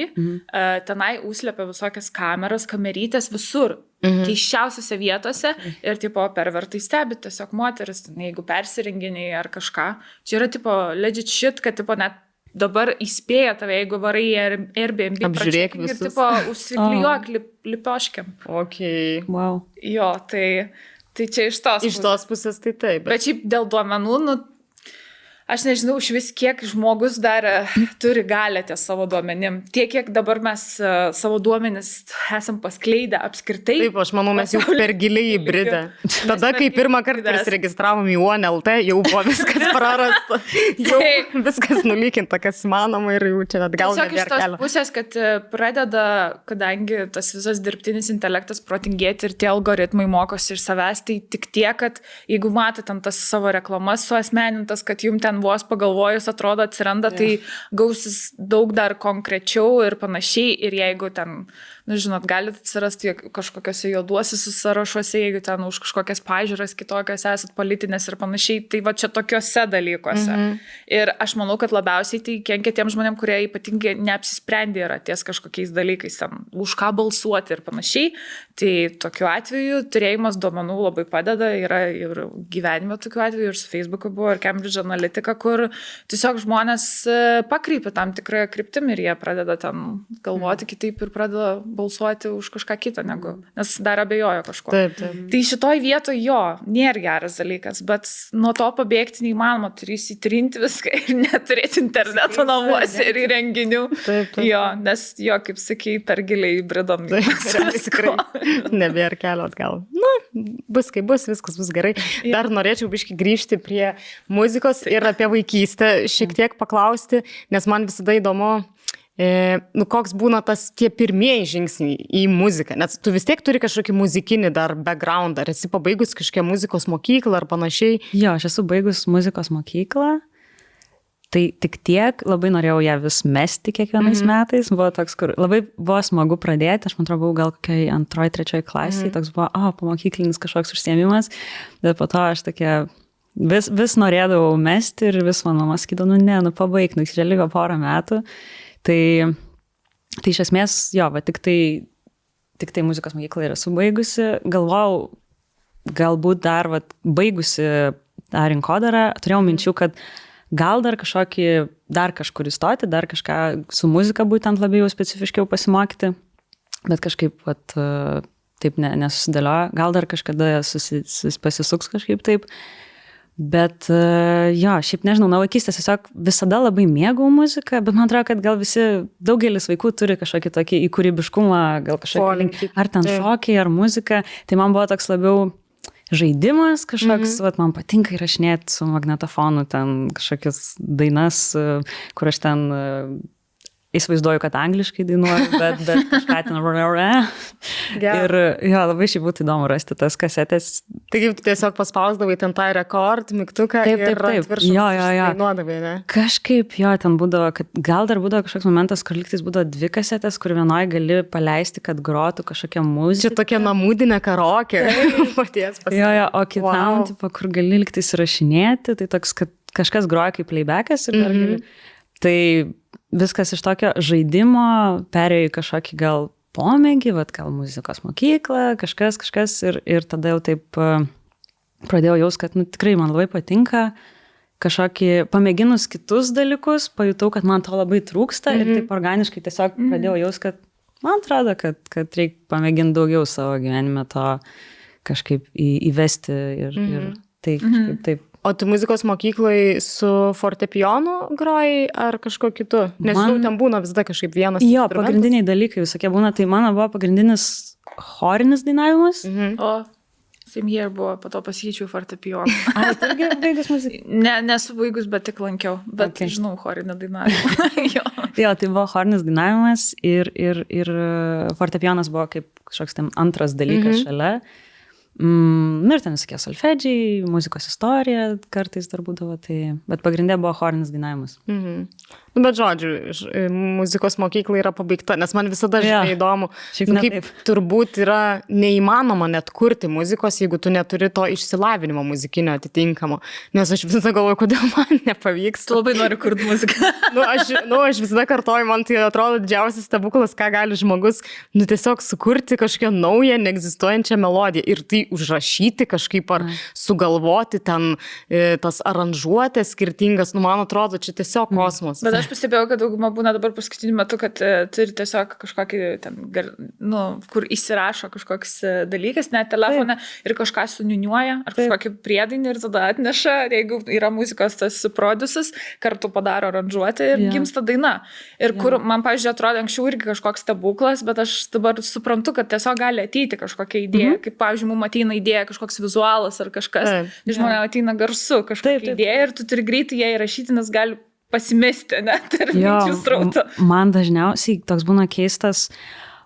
tenai užslepia visokias kameras, kamerytės visur. Keiščiausiose vietose ir tipo pervertai stebi tiesiog moteris, jeigu persirenginiai ar kažką. Čia yra tipo legit shit, kad tipo net dabar įspėja tave, jeigu varai Airbnb, apžiūrėk visus. Ir tipo užsiklijuok lipioškiam. Okay. Wow. Jo, tai čia iš tos pusės. Iš tos pusės tai taip. Bet šiaip dėl duomenų, aš nežinau, iš vis kiek žmogus dar turi galę ties savo duomenim. Tiek, kiek dabar mes savo duomenis esam paskleidę apskritai. Taip, aš manau, mes jau per giliai įbridę. Tada, kai pirmą kartą prisiregistravom į OneLT, jau buvo viskas prarasta. Jau viskas nulykinta, kas įmanoma ir jau čia atgal nebėra kelio. Tiesiog iš tos pusės, kad pradeda, kadangi tas visas dirbtinis intelektas protingėti ir tie algoritmai mokosi iš savęs, tai tik tiek, kad jeigu matot ten tas savo reklamas suasmenintas, kad jums ten vos pagalvojus atrodo atsiranda, tai gausis daug dar konkrečiau ir panašiai. Ir jeigu ten, žinot, galite atsirasti kažkokiuose juoduosiuose sąrašuose, jeigu ten už kažkokias pažiūras kitokias esat politinės ir panašiai, tai va čia tokiuose dalykuose. Ir aš manau, kad labiausiai tai kenkia tiem žmonėm, kurie ypatingai neapsisprendė yra ties kažkokiais dalykais, ten, už ką balsuoti ir panašiai. Tai tokiu atveju turėjimas duomenų labai padeda, yra ir gyvenime tokiu atveju, ir su Facebook'u buvo, ir Cambridge Analytica, kur tiesiog žmonės pakreipia tam tikrą kryptimį ir jie pradeda ten galvoti kitaip ir pradeda balsuoti už kažką kitą, nes dar abejojo kažko. Taip. Tai šitoj vietoj nėra geras dalykas, bet nuo to pabėgti neįmanoma, turi įsitrinti viską ir neturėti interneto namuose ir įrenginių. Taip. Jo, nes kaip sakai, per giliai įbridom. Tikrai nebėra kelio atgal. Bus kaip bus, viskas bus gerai. Dar norėčiau biškį grįžti prie muzikos ir apie vaikystę šiek tiek paklausti, nes man visada įdomu, koks būna tie pirmieji žingsniai į muziką, nes tu vis tiek turi kažkokį muzikinį dar background, ar esi pabaigus kažkokią muzikos mokyklą ar panašiai? Jo, aš esu baigus muzikos mokyklą, Tai tik tiek, labai norėjau ją vis mesti kiekvienais metais, buvo toks, kur labai buvo smagu pradėti, aš man atrodo, buvau gal kokiai 2-3 klasiai, toks buvo, pamokyklinis kažkoks užsiėmimas, bet po to aš tokia vis norėdavau mesti ir vis man mama sakydavo, pabaig, čia liko porą metų. Tai iš esmės, jo, va, tik tai muzikos mokyklą yra subaigusi, galvojau, galbūt dar va, baigusi tą rinkodarą, turėjau minčių, kad gal dar kažkur įstoti, dar kažką su muzika būtent labiau specifiškiau pasimokyti, bet kažkaip vat, taip nesusidėliojo, gal dar kažkada pasisuks kažkaip taip, bet jo, šiaip nežinau, nuo vaikystės tiesiog visada labai mėgau muziką, bet man atrodo, kad gal daugelis vaikų turi kažkokį tokį įkūrybiškumą, gal kažkokį, ar ten šokiai, ar muzika, tai man buvo toks labiau žaidimas kažkoks, vat, man patinka įrašinėti su magnetofonu ten kažkokias dainas, kur aš ten įsivaizduoju, kad angliškai dainuoju, bet kažką ten ir jo, labai šiaip būtų įdomu rasti tas kasetės. Taigi tiesiog paspausdavai ten tą rekord, mygtuką ir atviršus dainuodavai, ne? Kažkaip jo, ten būdavo, kad gal dar būdavo kažkoks momentas, kur lygtais būdavo 2 kasetės, kur vienoje gali paleisti, kad grotų kažkokią muziką. Čia tokia namudinė karaokė. Jo, o kitam, tipo, kur gali lygtais įrašinėti, tai toks, kad kažkas groja kaip playbackas ir dar gali. Tai viskas iš tokio žaidimo perėjo į kažkokį gal pomėgį, gal muzikos mokyklą, kažkas ir tada jau taip pradėjau jaust, kad tikrai man labai patinka kažkokį, pamėginus kitus dalykus, pajutau, kad man to labai trūksta ir taip organiškai tiesiog pradėjau jaust, kad man atrodo, kad reikia pamėginti daugiau savo gyvenime to kažkaip įvesti ir tai kažkaip taip. O tu muzikos mokyklai su fortepijonu grojai ar kažko kitu? Nes ten būna visada kažkaip vienas. Jo, pagrindiniai dalykai visokie būna, tai mano buvo pagrindinis chorinis dainavimas. O, Simhier buvo, po to pasikeičiau fortepijoną. Ar tu irgi baigus muziką? Nesu baigus, bet tik lankiau, bet žinau chorinį dainavimą. Jo, tai buvo chorinis dainavimas ir fortepijonas buvo kaip kažkoks ten antras dalykas šalia. Ir ten visokie solfedžiai, muzikos istorija kartais dar būdavo, bet pagrindė buvo chorinis dainavimas. Bet žodžiu, muzikos mokykla yra pabaigta, nes man visada įdomu, kaip turbūt yra neįmanoma net kurti muzikos, jeigu tu neturi to išsilavinimo muzikinio atitinkamo. Nes aš visada galvoju, kodėl man nepavyks. Tu labai nori kurti muziką. Aš visada kartoju, man tai atrodo didžiausias stebuklas, ką gali žmogus tiesiog sukurti kažkokią naują, neegzistuojančią melodiją ir tai užrašyti kažkaip ar sugalvoti ten tas aranžuotės skirtingas. Man atrodo, čia tiesiog kosmos. Bet aš pastebėjau, kad dauguma būna dabar paskutiniu metu, kad turi tiesiog kažkokį ten, kur įsirašo kažkoks dalykas, net telefone ir kažką suniuniuoja, ar kažkokį priedainį ir tada atneša, jeigu yra muzikos tas produsas, kartu padaro aranžuotę ir gimsta daina. Ir kur man, pavyzdžiui, atrodo anksčiau irgi kažkoks stebuklas, bet aš dabar suprantu, kad tiesiog gali ateiti kažkokia idėja, kaip, pavyzdžiui, mums ateina idėja kažkoks vizualas ar kažkas, žmonėms ateina garsu kažkokia idėja ir tu turi greitai ją įrašyti, nes gali pasimesti, net ir minčių srauto. Man dažniausiai toks būna keistas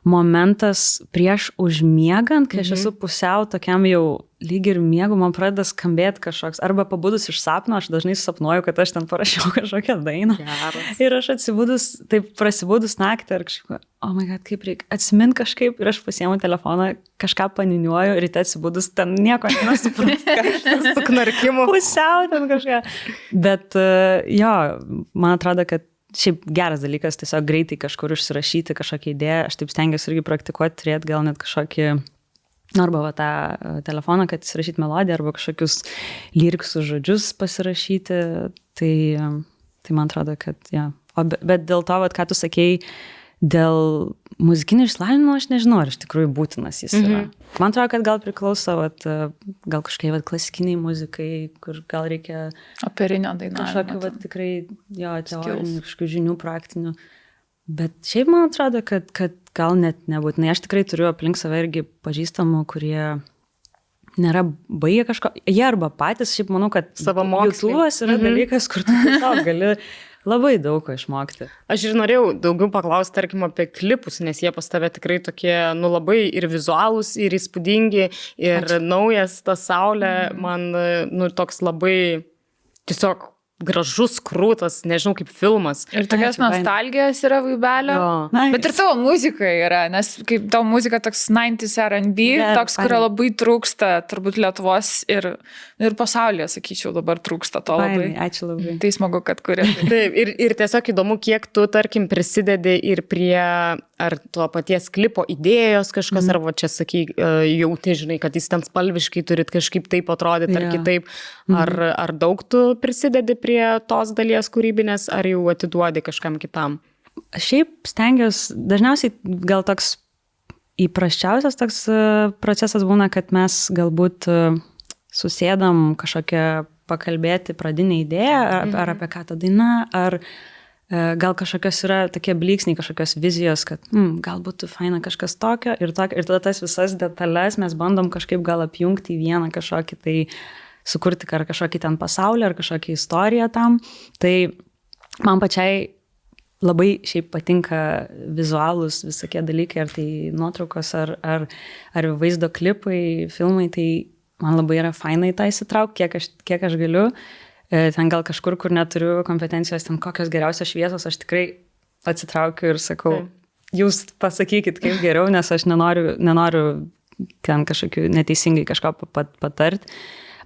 momentas prieš užmiegant, kai aš esu pusiau tokiam jau lyg ir miegu, man pradeda skambėti kažkoks, arba pabudus iš sapno, aš dažnai sapnuoju, kad aš ten parašiau kažkokią dainą. Ir aš atsibudus, taip prasibudus naktį, ir kažkaip, oh my god, kaip reikia atsimint kažkaip, ir aš pasiemu telefoną, kažką paniniuoju, ryte atsibudus, ten nieko nesuprantu, kažkas su knarkimu. Pusiau ten kažką. Bet jo, man atrodo, kad šiaip geras dalykas, tiesiog greitai kažkur užsirašyti kažkokią idėją, aš taip stengiuosi irgi praktikuoti, turėti gal net kažkokį, arba va tą telefoną, kad įsirašyti melodiją, arba kažkokius lyriksus žodžius pasirašyti, tai man atrodo, kad ja. Bet dėl to, vat, ką tu sakei, dėl muzikinio išsilavinimo, aš nežinau, ar iš tikrųjų būtinas jis yra. Man atrodo, kad gal priklauso, gal kažkokiai klasikiniai muzikai, kur gal reikia operinio dainavimo. Kažkokiu tikrai teorinių, kažkokių žinių praktinių. Bet šiaip man atrodo, kad gal net nebūtinai. Aš tikrai turiu aplink save irgi pažįstamų, kurie nėra baigę kažko. Jie arba patys, šiaip manau, kad YouTube'as yra dalykas, kur tu tiesiog gali labai daug ko išmokti. Aš ir norėjau daugiau paklausti, tarkim, apie klipus, nes jie pas tave tikrai tokie, labai ir vizualūs, ir įspūdingi, ir naujas ta saulė, man, toks labai tiesiog gražus, krūtas, nežinau, kaip filmas. Ir tokios nostalgijos yra vaibelio. Nice. Bet ir tavo muzika yra, nes kaip tavo muzika toks 90s R&B, toks, kurio labai trūksta, turbūt Lietuvos ir pasaulyje, sakyčiau, dabar trūksta to labai. Ačiū labai. Tai smagu, kad kuri. Taip, ir tiesiog įdomu, kiek tu, tarkim, prisidedi ir prie ar to paties klipo idėjos kažkas, ar va čia sakai, jauti, žinai, kad jis ten spalviškai turit kažkaip taip atrodyti ar kitaip. Ar daug tu prisidedi prie tos dalies kūrybinės, ar jau atiduodi kažkam kitam? Šiaip stengiuosi, dažniausiai gal toks įprasčiausias toks procesas būna, kad mes galbūt susėdam kažkokią pakalbėti pradinę idėją, ar apie ką ta daina, ar gal kažkokios yra tokie blyksniai, kažkokios vizijos, kad gal būtų faina kažkas tokio ir tada tas visas detalės mes bandom kažkaip gal apjungti į vieną kažkokį tai sukurti ar kažkokį ten pasaulį, ar kažkokią istoriją tam. Tai man pačiai labai šiaip patinka vizualūs visokie dalykai, ar tai nuotraukos, ar vaizdo klipai, filmai, tai man labai yra fainai tą įsitraukti, kiek aš galiu. Ten gal kažkur, kur neturiu kompetencijos, ten kokios geriausios šviesos, aš tikrai atsitraukiu ir sakau, jūs pasakykit, kaip geriau, nes aš nenoriu ten kažkokiu neteisingai kažko patart.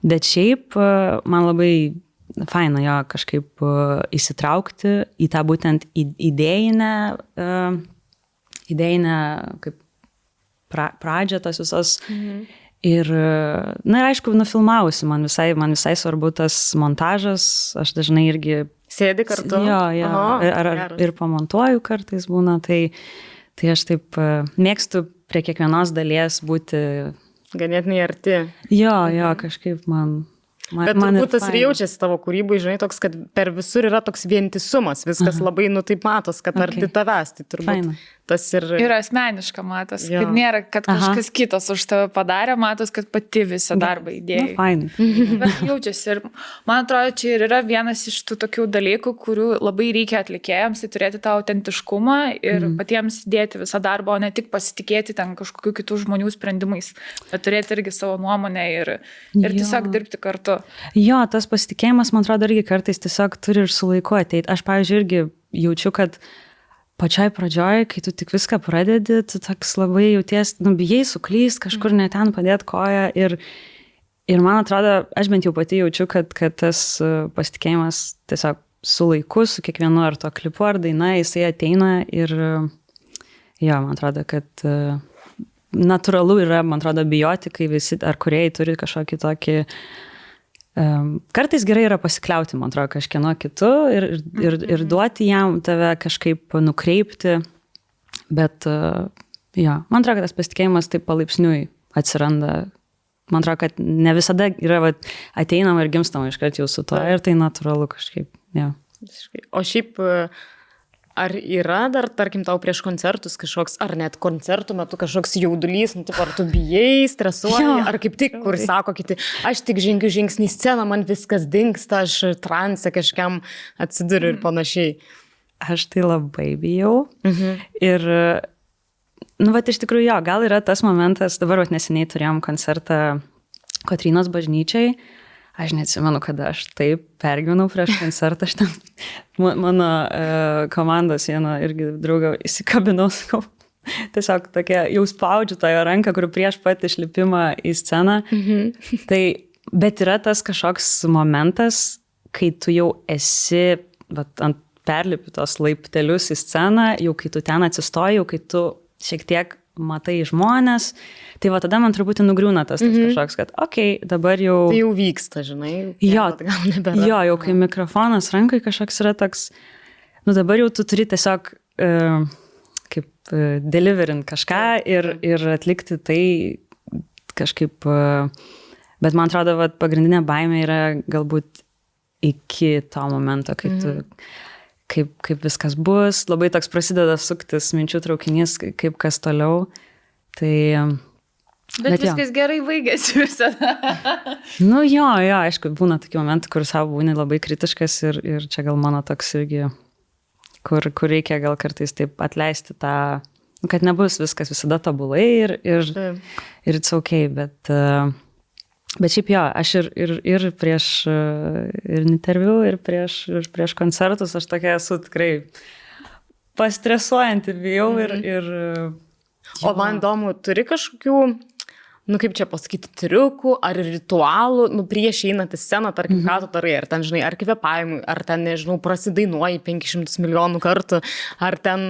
Bet šiaip man labai faina jo kažkaip įsitraukti į tą būtent idėjinę kaip pradžią tos visos. Ir, aišku, nufilmavusi, man visai svarbu tas montažas, aš dažnai irgi sėdi kartu. Jo, ir pamontuoju kartais būna, tai aš taip mėgstu prie kiekvienos dalies būti ganėtinai arti. Jo, kažkaip man Bet turbūt tas ir jaučiasi tavo kūrybai, žinai, toks, kad per visur yra toks vientisumas, viskas labai, taip matos, kad arti tavęs, tai turbūt tas ir... Ir asmeniška matos, kad nėra, kad kažkas kitas už tave padarė, matos, kad pati visą darbą įdėjai. Fainai. Bet jaučiasi ir man atrodo, čia ir yra vienas iš tų tokių dalykų, kurių labai reikia atlikėjams, tai turėti tą autentiškumą ir patiems dėti visą darbą, o ne tik pasitikėti ten kažkokių kitų žmonių sprendimais, bet turėti irgi savo nuomonę ir tiesiog dirbti kartu. Jo, tas pasitikėjimas, man atrodo, irgi kartais tiesiog turi ir su laiku ateiti. Aš, pavyzdžiui, irgi jaučiu, kad pačioj pradžioj, kai tu tik viską pradedi, tu toks labai jauties, bijai suklyst, kažkur ne ten padėti koją ir man atrodo, aš bent jau pati jaučiu, kad tas pasitikėjimas tiesiog su laiku, su kiekvienu ar to klipu ar daina, jisai ateina ir jo, man atrodo, kad natūralu yra, man atrodo, bijoti, kai visi ar kūrėjai turi kažkokį tokį kartais gerai yra pasikliauti, man atrodo, kažkieno kitu ir duoti jam tave kažkaip nukreipti, bet man atrodo, kad tas pasitikėjimas taip palaipsniui atsiranda. Man atrodo, kad ne visada yra ateinama ir gimstama iškart jau su to ir tai natūralu kažkaip. Ja. O šiaip ar yra dar, tarkim, tau prieš koncertus kažkoks, ar net koncertų metu kažkoks jaudulys, ar tu bijai, stresuoji, ar kaip tik, kur sako kiti, aš tik žengiu žingsnį į sceną, man viskas dingsta, aš transe kažkam atsiduriu ir panašiai. Aš tai labai bijau. Ir, iš tikrųjų, jo, gal yra tas momentas, dabar neseniai turėjom koncertą Kotrynos bažnyčiai. Aš neatsimenu, kada aš taip pergyvenau prieš koncertą, aš ten mano komandos vieną irgi draugą įsikabinau, tiesiog tokia, jau spaudžiu tą jo ranką, kur prieš pat išlipimą į sceną. Tai, bet yra tas kažkoks momentas, kai tu jau esi ant perlipi tos laiptelius į sceną, jau kai tu ten atsistoji, jau kai tu šiek tiek matai žmonės, tai tada man truputį nugriūna tas kažkoks, kad dabar jau... Tai jau vyksta, žinai. Jo, jau kai mikrofonas rankai kažkoks yra toks, dabar jau tu turi tiesiog kaip deliverint kažką ir atlikti tai kažkaip, bet man atrodo, pagrindinė baimė yra galbūt iki to momento, kai tu... Kaip viskas bus, labai toks prasideda suktis minčių traukinys, kaip kas toliau. Tai... Bet viskas gerai baigėsi visada. Jo, aišku, būna tokių momentų, kur savo būni labai kritiškas ir čia gal mano toks irgi, kur reikia gal kartais taip atleisti tą, kad nebus viskas visada tobulai ir it's okay, bet Bet šiaip jo, aš ir prieš ir interviu, ir prieš koncertus, aš tokia esu tikrai pastresuojanti, bijau ir O man įdomu, turi kažkokių, kaip čia pasakyti, triukų ar ritualų, prieš einant į sceną, tarkim, ką tu darai, ar ten, žinai, ar kvėpavimui, ar ten, nežinau, prasidainuoji 500 milijonų kartų, ar ten,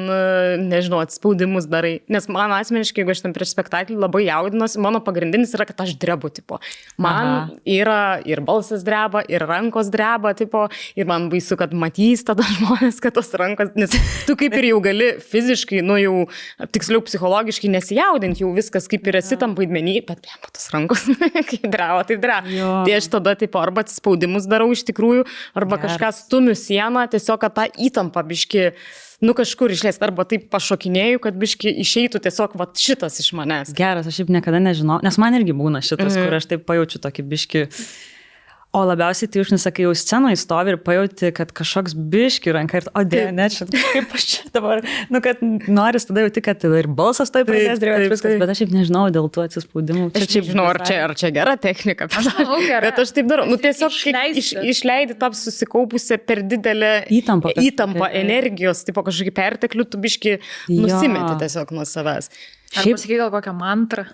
nežinau, atspaudimus darai. Nes man asmeniškai, jeigu aš ten prieš spektaklį labai jaudinuosi, mano pagrindinis yra, kad aš drebu, tipo. Man yra ir balsas dreba, ir rankos dreba, tipo, ir man baisu, kad matys tada žmonės, kad tos rankos, nes tu kaip ir jau gali fiziškai, jau tiksliau psichologiškai nesijaudinti, jau viskas kaip ir esi tam vaidmenį, bet tos rankos, kaip dreva, taip dreva. Tai aš tada taip arba atsispaudimus darau iš tikrųjų, arba kažką stumiu sieną, tiesiog, kad tą įtampą biški, kažkur išleist, arba taip pašokinėjau, kad biški išeitų tiesiog šitas iš manęs. Geras, aš šiaip niekada nežinau, nes man irgi būna šitas, kur aš taip pajaučiu tokį biški. O labiausiai tai užnesakai jau scenoje stovi ir pajauti, kad kažkoks biški ranka ir, ne, čia kaip aš čia dabar, kad noris tada jauti, kad ir balsas taip pradės drėvėti viskas, bet aš šiaip nežinau dėl tų atsispaudimų. Aš šiaip žinau, ar čia gera technika, bet aš taip darau, tiesiog išleidi tą susikaupusią per didelę įtampą energijos, tipo kažkokį perteklių, tu biški nusimeti tiesiog nuo savęs. Ar pasakai gal kokią mantrą?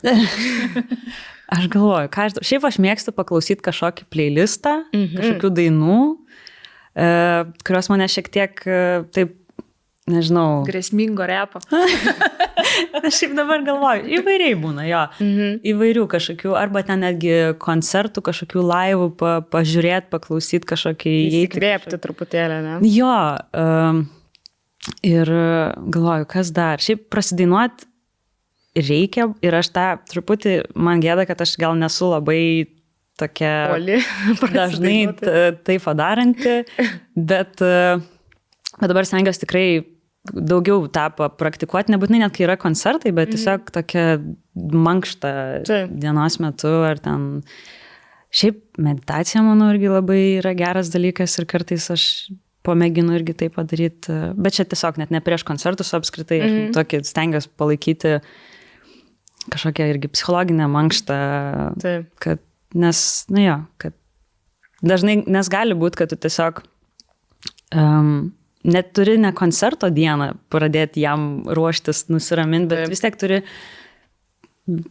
Aš galvoju, šiaip aš mėgstu paklausyti kažkokį playlistą, kažkokių dainų, kurios mane šiek tiek taip, nežinau. Grėsmingo repo. Aš šiaip dabar galvoju, įvairiai būna, jo. Įvairių kažkokių, arba ten netgi koncertų, kažkokių laivų, pažiūrėti, paklausyti kažkokį. Įsikvėpti truputėlį, ne? Jo. Ir galvoju, kas dar. Šiaip prasidainuoti reikia ir aš tą truputį, man gėda, kad aš gal nesu labai tokia dažnai taip padaranti, bet dabar stengiuosi tikrai daugiau tą praktikuoti, nebūtinai net kai yra koncertai, bet tiesiog tokia mankšta dienos metu ar ten. Šiaip meditacija, manau, irgi labai yra geras dalykas ir kartais aš pamėginu irgi tai padaryti, bet čia tiesiog net ne prieš koncertus apskritai, aš tokį stengiuosi palaikyti kažkokią irgi psichologinę mankštą, kad, kad dažnai, nes gali būti, kad tu tiesiog net turi ne koncerto dieną pradėti jam ruoštis, nusiraminti, bet vis tiek turi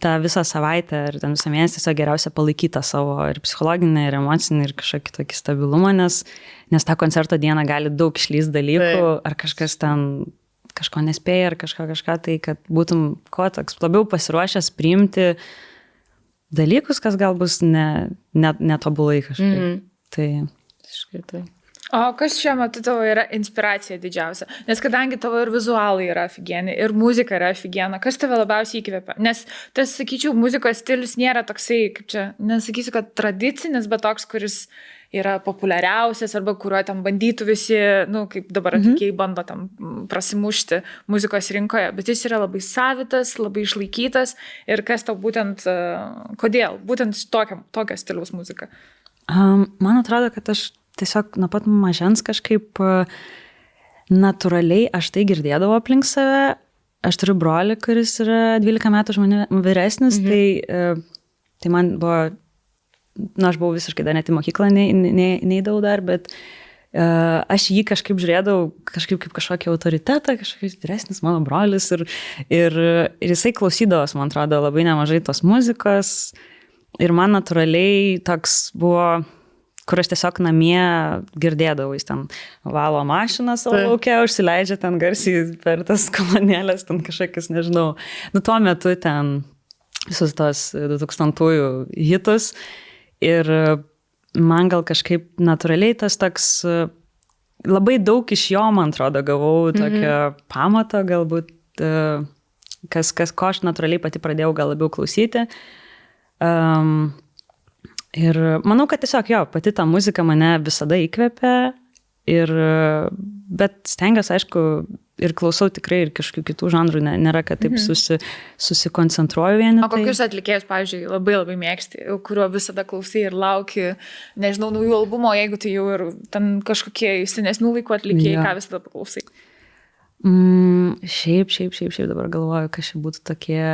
tą visą savaitę ir ten visą mėnesį tiesiog geriausia palaikyti tą savo ir psichologinę, ir emocinį, ir kažkokį tokį stabilumą, nes tą koncerto dieną gali daug išlįsti dalykų, ar kažkas ten kažko nespėja ar kažką, tai kad būtum toks labiau pasiruošęs priimti dalykus, kas gal bus netobulai kažkaip. Tai. O kas šiuo metu tavo yra inspiracija didžiausia? Nes kadangi tavo ir vizualai yra aфиgieni, ir muzika yra aфиgiena, kas tave labiausiai įkvepia? Nes tas, sakyčiau, muzikos stilius nėra toksai, kaip čia, nesakysiu, kad tradicinis, bet toks, kuris yra populiariausias arba kuriuo ten bandytų visi, kaip dabar atlikėjai bando tam prasimušti muzikos rinkoje, bet jis yra labai savitas, labai išlaikytas ir kas tau būtent, kodėl? Būtent tokio stiliaus muzika. Man atrodo, kad aš tiesiog nuo pat mažens kažkaip natūraliai aš tai girdėdavau aplink save. Aš turiu brolį, kuris yra 12 metų už mane vyresnis, tai man buvo, aš buvau visiškai dar net į mokyklą neidavau dar, bet aš jį kažkaip žiūrėdavau kažkaip kaip kažkokį autoritetą, kažkokius vyresnis mano brolis ir jisai klausydavos, man atrodo, labai nemažai tos muzikos ir man natūraliai toks buvo, kur aš tiesiog namie girdėdavau, jis ten valo mašiną savo lauke, užsileidžia ten garsiai per tas kolonėlės, ten kažkokius, nežinau, tuo metu ten visus tos 2000-ųjų hitus ir man gal kažkaip natūraliai tas toks, labai daug iš jo, man atrodo, gavau tokio pamato, galbūt, ko aš natūraliai pati pradėjau gal labiau klausyti. Ir manau, kad tiesiog pati ta muzika mane visada įkvepia, bet stengiuosi, aišku, ir klausau tikrai ir kažkokių kitų žanrų, nėra, kad taip susikoncentruoju vieni. O kokius atlikėjus, pavyzdžiui, labai labai mėgsti, kurio visada klausai ir lauki, nežinau, naujų albumo, jeigu tai jau ir ten kažkokie senesnių laikų atlikėjai, ką visada paklausai? Šiaip dabar galvoju, kas čia būtų tokie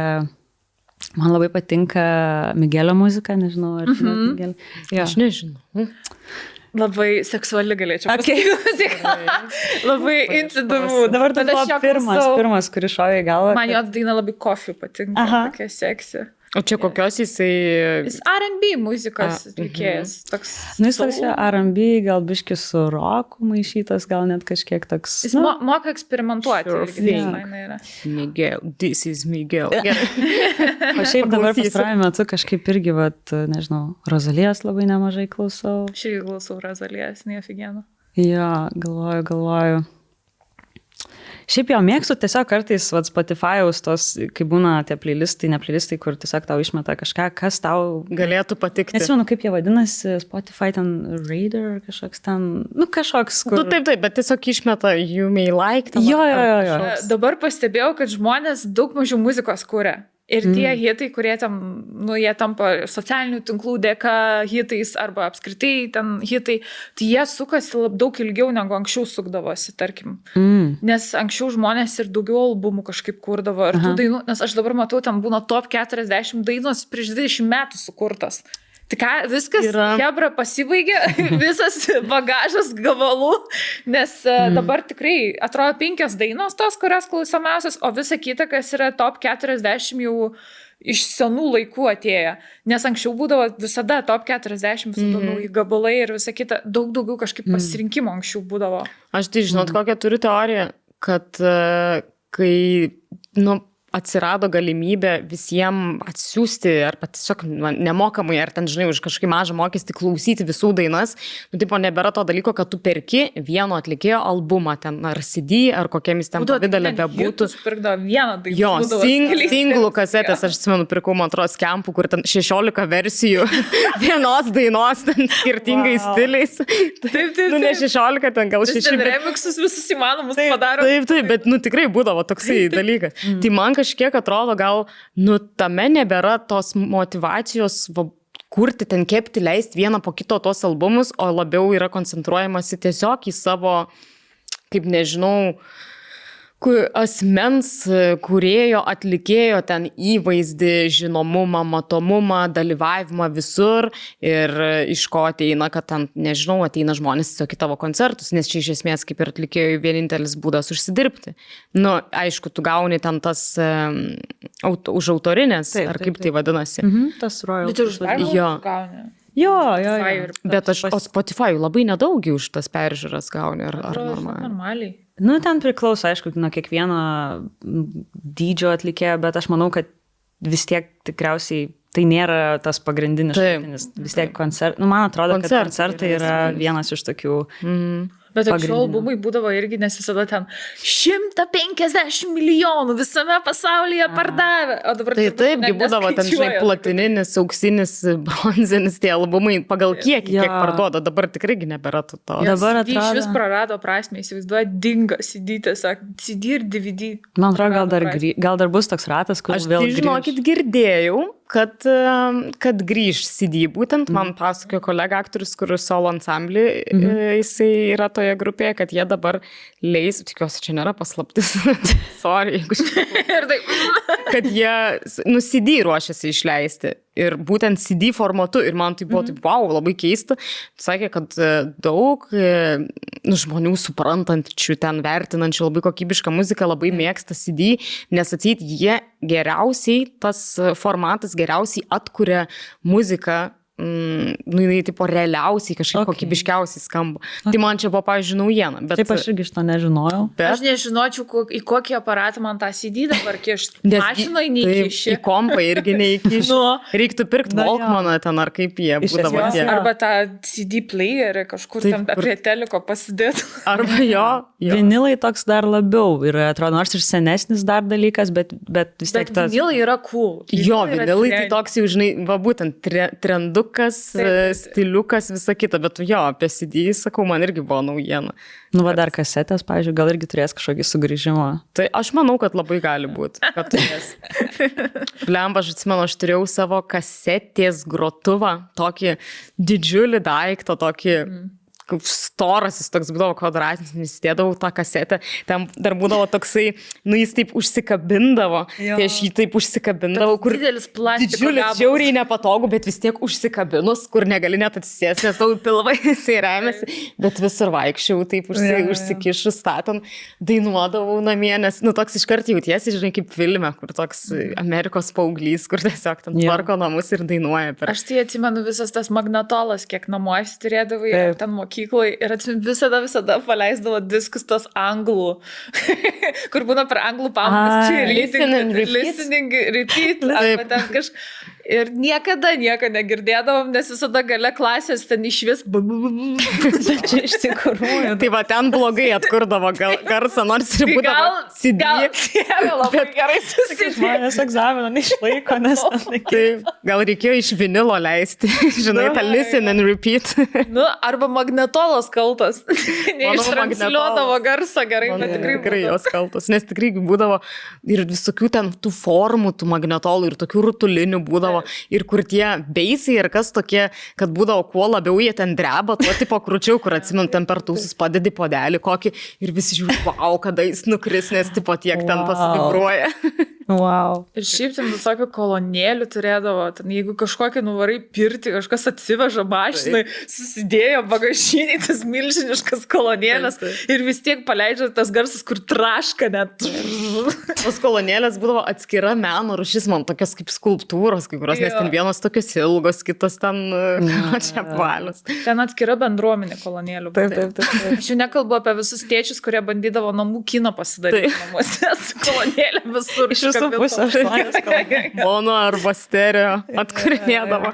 Man labai patinka Migelio muzika, nežinau, ar žinot Migelį. Jo. Aš nežinau. Labai seksuali galėčiau pasakyti muziką. Labai intidamu. Dabar tai buvo pirmas, kuris šovė į galvą. Man jo daina labai Coffee patinka, tokia seksi. O čia kokios jisai... Jis R&B muzikos atlikėjas. Jis toks R&B, gal biški su roku maišytas, gal net kažkiek toks... Jis moka eksperimentuoti. Miguel, this is Miguel. O šiaip dabar pastarąjų metu kažkaip irgi, nežinau, Rozalijos labai nemažai klausau. Aš irgi klausau Rozalijos, neofigienu. Jo, galvoju. Šiaip jau mėgstu tiesiog kartais Spotify'aus tos, kai būna tie playlistai, ne playlistai, kur tiesiog tau išmeta kažką, kas tau galėtų patikti. Nesimenu, kaip jie vadinasi, Spotify ten Raider, kažkoks ten, kažkoks, kur... Taip, bet tiesiog išmeta you may like. Jo. Dabar pastebėjau, kad žmonės daug mažiau muzikos kuria. Ir tie hitai, kurie tam, jie tampa socialinių tinklų dėka hitais arba apskritai ten hitai, tai jie sukasi daug ilgiau negu anksčiau sukdavosi, tarkim. Nes anksčiau žmonės ir daugiau albumų kažkaip kurdavo ir tų dainų, nes aš dabar matau, tam būna top 40 dainos prieš 20 metų sukurtas. Tai ką, viskas, hebra pasibaigė, visas bagažas gabalų, nes dabar tikrai atrodo 5 dainos tos, kurios klausomiausios, o visa kita, kas yra top 40 jau iš senų laikų atėję. Nes anksčiau būdavo visada top 40, visada nauji gabalai ir visa kita, daug daugiau kažkaip pasirinkimo anksčiau būdavo. Aš tai žinot, kokią turiu teoriją, kad kai, atsirado galimybė visiems atsiųsti arba tiesiog nemokamai, ar ten, žinai, už kažkokį mažą mokestį klausyti visų dainas, tipo nebėra to dalyko, kad tu perki vieno atlikėjo albumą ten, ar CD, ar kokiamis ten pavidalė bebūtų. Pirkdavo vieną dainą. Jo, singlų kasetės, aš atsimenu, pirkau, man atrodo, skempų, kur ten 16 versijų vienos dainos, ten skirtingais stiliais. Taip. Ne 16, ten gal 6. Ten remixus visus įmanomus padaro. Taip, bet, tikrai būdavo toksai dalykas. Tai man kažkiek atrodo, gal, tame nebėra tos motivacijos kurti, ten kepti, leisti vieną po kito tos albumus, o labiau yra koncentruojamasi tiesiog į savo, kaip nežinau, asmens kūrėjo, atlikėjo ten įvaizdį, žinomumą, matomumą, dalyvavimą visur ir iš ko ateina, kad ten, nežinau, ateina žmonės tiesiog į tavo koncertus, nes čia iš esmės kaip ir atlikėjų vienintelis būdas užsidirbti. Aišku, tu gauni ten tas už autorinės, ar kaip tai vadinasi. Tas royalties. Bet ir už peržiūras gauni. Jo. Bet o Spotify labai nedaug už tas peržiūras gauni, ar normaliai? Ten priklauso, aišku, nuo kiekvieno dydžio atlikėjo, bet aš manau, kad vis tiek tikriausiai tai nėra tas pagrindinis šaltinis. Vis tiek man atrodo, kad koncertai yra vienas iš tokių... Bet anksčiau albumai būdavo irgi, nes visada ten 150 milijonų visame pasaulyje pardavė. O dabar taipgi būdavo ten, žinai, platininis, auksinis, bronzinis tie albumai pagal kiek parduoda. Dabar tikrai nebėra to. Dabar atrodo... Iš vis prarado prasmę, įsivaizduoja, dinga CD, tiesiog CD ir DVD. Man atrodo, gal dar bus toks ratas, kur vėl grįž. Aš žinokit, girdėjau, kad grįž CD. Būtent man pasakojo kolega aktorius, kur solo ansamblį, jisai yra toje grupėje, kad jie dabar leis, tikiuosi, čia nėra paslaptis, sorry, jeigu kad jie CD ruošiasi išleisti. Ir būtent CD formatu. Ir man tai buvo taip, wow, labai keista. Sakė, kad daug žmonių suprantančių, ten vertinančių labai kokybišką muziką labai mėgsta CD, nes atseit jie geriausiai, tas formatas geriausiai atkuria muziką, jinai tipo realiausiai kažkaip kokybiškiausiai skamba. Tai man čia buvo, pavyzdžiui, naujiena. Taip, aš irgi šito nežinojau. Aš nežinočiau, į kokį aparatą man tą CD dabar kišti. Mašinoje neįkiši. Į kompą irgi neįkiši. Reiktų pirkti Walkmaną ten, ar kaip jie būdavo tie. Arba tą CD playerį kažkur ten prie teliko pasidėti. Arba jo. Vinilai toks dar labiau yra, atrodo, nors ir senesnis dar dalykas, bet vis tiek tas... Bet vinilai yra cool. Jo, vinilai tai toks jau, žinai, va būtent trendu stiliukas, visa kita, bet jo, apie CD, sakau, man irgi buvo naujiena. Va dar kasetės, pavyzdžiui, gal irgi turės kažkokį sugrįžimą. Tai aš manau, kad labai gali būti, kad turės. Blemba, aš atsimenu, aš turėjau savo kasetės grotuvą, tokį didžiulį daiktą, tokį, storas, jis toks būdavo kvadratinis, įdėdavau tą kasetę, ten dar būdavo toksai, jis taip užsikabindavo, tai aš jį taip užsikabindavau, kur didelis plastiko didžiulis, gabalas. žiauriai nepatogu, bet vis tiek užsikabinus, kur negali net atsisėsti, nes tau pilvai jisai remiasi, bet visur vaikščiau, taip užsikišus statant, dainuodavau namie, nes, toks iškart jautiesi, žinai, kaip filme, kur toks Amerikos paauglys, kur tiesiog ten tvarko namus ir dainuoja. Aš tai atsimenu visas tas magnetolas, kiek namuose turėdavai, ten mokykloje ir atsimenu visada paleisdavo diskus tos anglų, kur būna per anglų pamokas, listening, repeat, arba ten kažkas. Ir niekada nieko negirdėdavom, nes visada gale klasės ten išvis. Bet čia iš tikrųjų. Tai va, ten blogai atkurdavo garsą, nors ir būdavo CD. Labai gerai susitikti. Žmonės egzaminą neišlaiko, nes Gal reikėjo iš vinilo leisti, žinai, tą listen and repeat. Arba magnetolas kaltas. Neištransliuodavo garsą gerai, bet tikrai jos kaltas, nes tikrai būdavo ir visokių ten tų formų, tų magnetolų ir tokių rutulinių būdavo. Ir kur tie beisai ir kas tokie, kad būdavo kuo labiau jie ten dreba, tuo tipo krūčiau, kur atsimint ten per tūsus padedi podelį kokį ir visi žiūri, wow, kada jis nukris, nes tipo tiek ten tas vibruoja. Wow. Ir šiaip ten visokių kolonėlių turėdavo, ten jeigu kažkokį nuvarai pirti, kažkas atsiveža mašinai, susidėjo bagažiniai tas milžiniškas kolonėlės ir vis tiek paleidžia tas garsas, kur traška net. Tos kolonėlės būdavo atskira meno rūšis, man tokios kaip skulptūros, kai kurios, nes ten vienos tokios ilgos, kitos ten čia apvalios. Ten atskira bendruomenė kolonėlių. Taip. Aš jau nekalbu apie visus tėčius, kurie bandydavo namų kino pasidaryti namuose su kolonėlė visur. Visų pusę 8 mono arba stereo atkurinėdavo.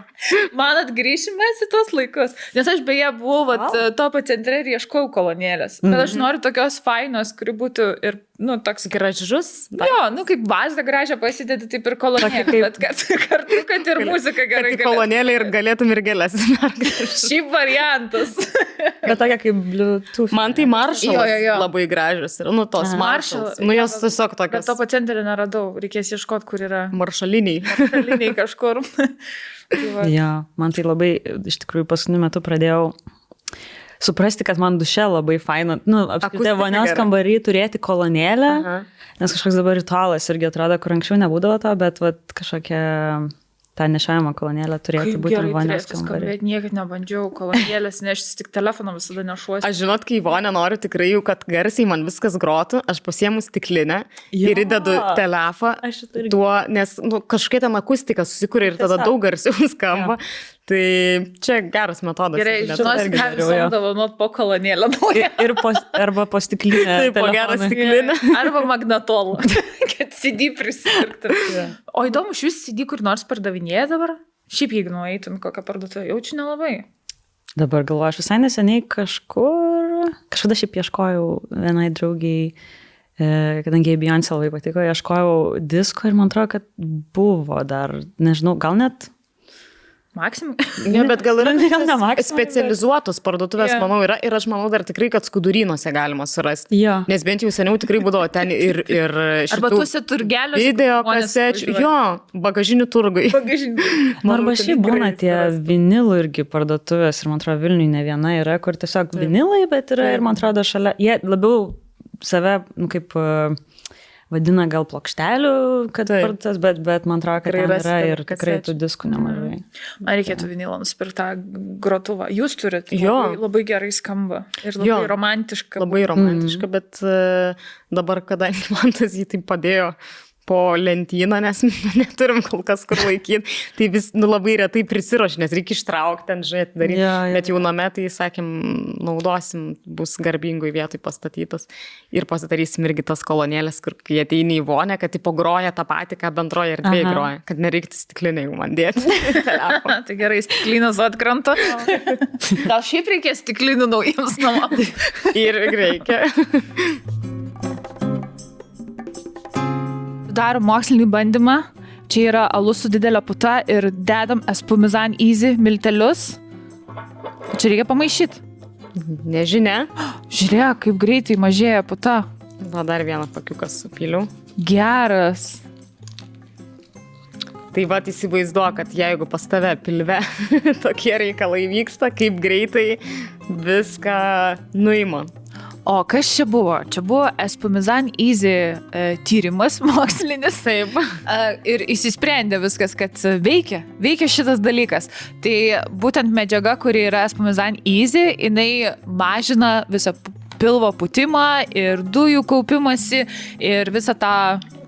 Man atgrįšime į tuos laikus. Nes aš beje buvau topo centre ir ieškojau kolonėlės. Bet aš noriu tokios fainos, kuri būtų ir, toks gražus. Jo, kaip bazą gražią pasidėti, taip ir kolonėlė. Bet kartu, kad ir muzika gerai. Kad kolonėlė ir galėtum ir gėlės. Šiaip variantas. Bet tokia kaip Bluetooth. Man tai Marshallas labai gražios. Ir, tos Marshalls. Jos tiesiog tokios. Bet topo centre neradau. Reikės ieškoti, kur yra. Maršaliniai kažkur. Ja, man tai labai, iš tikrųjų, paskutiniu metu pradėjau suprasti, kad man duše labai faina, apskritai vonios kambarį turėti kolonėlę, nes kažkoks dabar ritualas irgi atrodo, kur anksčiau nebūdavo to, bet kažkokia tą nešiojamą kolonėlę turėti būtent vonios kambarį. Niekad nebandžiau kolonėlės neštis, tik telefoną visada nešuosi. Aš žinot, kai vonę noriu tikrai jau, kad garsiai man viskas grotų, aš pasiemu stiklinę ir įdedu telefą tuo, nes kažkokia ten akustika susikuria ir tada daug garsiau skamba. Tai čia geras metodas. Gerai, žinosi, ką visodavo nuot po kolonėlę. Arba po stiklinę. Taip, po gerą stiklinę. Arba magnetolą, kad CD prisipirktų. O įdomu, šis CD kur nors pardavinėja dabar? Šiaip jeigu nueitum kokią parduotuvę, jaučiu nelabai. Dabar galvoju, aš visai neseniai kažkada šiaip ieškojau vienai draugiai, kadangi Beyoncé labai patiko, ieškojau disko ir man atrodo, kad buvo dar, nežinau, gal net Maksimum? Ne, bet gal yra specializuotos parduotuvės, manau, yra ir aš manau dar tikrai, kad Skudurynuose galima surasti. Jo. Nes bent jau seniau tikrai būdavo ten ir šitų arba tuose turgeliuose video kasečių, bagažinių turgai. Arba šiaip būna tie vinilų irgi parduotuvės ir man atrodo Vilniui ne viena yra, kur tiesiog vinilai, bet yra ir man atrodo šalia, jie labiau save, kaip vadina gal plokštelių, kad parduotuvės, bet man atrodo, kad ten yra ir tikrai tų diskų nemažai. Man reikėtų vinilą nusipirkti tą grotuvą. Jūs turit, labai gerai skamba ir labai romantiška. Labai romantiška, bet dabar, kadangi man tas jį taip padėjo po lentyną, nes neturim kol kas kur laikyti, tai vis labai retai prisiruoši, nes reikia ištraukti ten, žiūrėti, daryti, bet jau name, tai sakėm, naudosim, bus garbingoj vietoj pastatytas ir pasidarysim irgi tas kolonėlės, kur kai ateini į vonę, kad tipo groja tą patį, ką bendroje erdvėje groja, kad nereiktų stiklinę jau man dėti. Tai gerai, stiklinas atkrenta. Gal šiaip reikės stiklinų naujiems namams? Ir reikia. Darom mokslinį bandymą. Čia yra alus su didelė puta ir dedam espumizan easy miltelius. Čia reikia pamaišyti. Nežinia. Žiūrėk, kaip greitai mažėja puta. Va, dar vieną pakiuką supyliau. Geras. Tai va, įsivaizduoju, kad jeigu pas tave pilve tokie reikalai vyksta, kaip greitai viską nuima. O kas čia buvo? Čia buvo Espumizan Easy tyrimas mokslinis. Taip. Ir įsisprendė viskas, kad veikia šitas dalykas. Tai būtent medžiaga, kuri yra Espumizan Easy, jinai mažina visą pilvo pūtimą ir dujų kaupimąsi ir visą tą...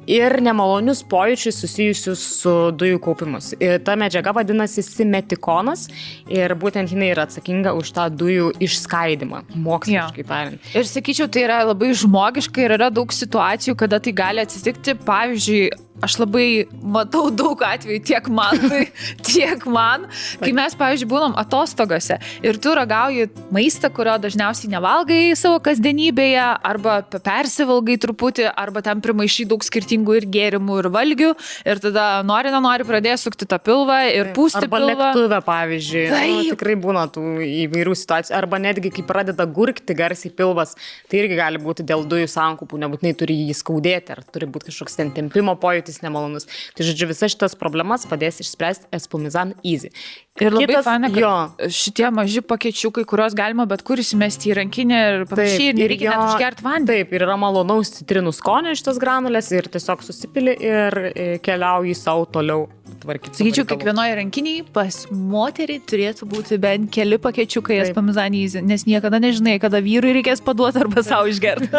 Ir nemalonius pojūčius susijusius su dujų kaupimus. Ir ta medžiaga vadinasi simetikonas ir būtent jinai yra atsakinga už tą dujų išskaidimą, moksliškai tariant. Ir sakyčiau, tai yra labai žmogiška ir yra daug situacijų, kada tai gali atsitikti. Pavyzdžiui, aš labai matau daug atvejų tiek man, kai mes, pavyzdžiui, būnam atostogose ir tu ragauji maistą, kurio dažniausiai nevalgai savo kasdienybėje, arba persivalgai truputį, arba ten primaišai daug skirtingų ir gėrimų, ir valgių, ir tada nenori pradėjo sukti tą pilvą ir pūsti arba pilvą. Arba lėktuve, pavyzdžiui. Tikrai būna tų įvairių situacijų. Arba netgi, kai pradeda gurkti garsiai pilvas, tai irgi gali būti dėl dujų sankupų, nebūtinai turi jį skaudėti, ar turi būti kažkoks ten tempimo pojūtis nemalonus. Tai žodžiu, visas šitas problemas padės išspręsti Espumizan Easy. Ir labai faina, kad šitie maži pakečiukai, kuriuos galima bet kur įsimesti į rankinę ir panašiai, ir nereikia net užgerti vandenį. Taip, ir yra malonaus citrinų skonio šitas granulės ir tiesiog susipili ir keliauji savo toliau tvarkyti. Sakyčiau, kiekvienoje rankiniai pas moterį turėtų būti bent keli pakečiukai Espumizan Easy, nes niekada nežinai, kada vyrui reikės paduoti arba savo išgerti.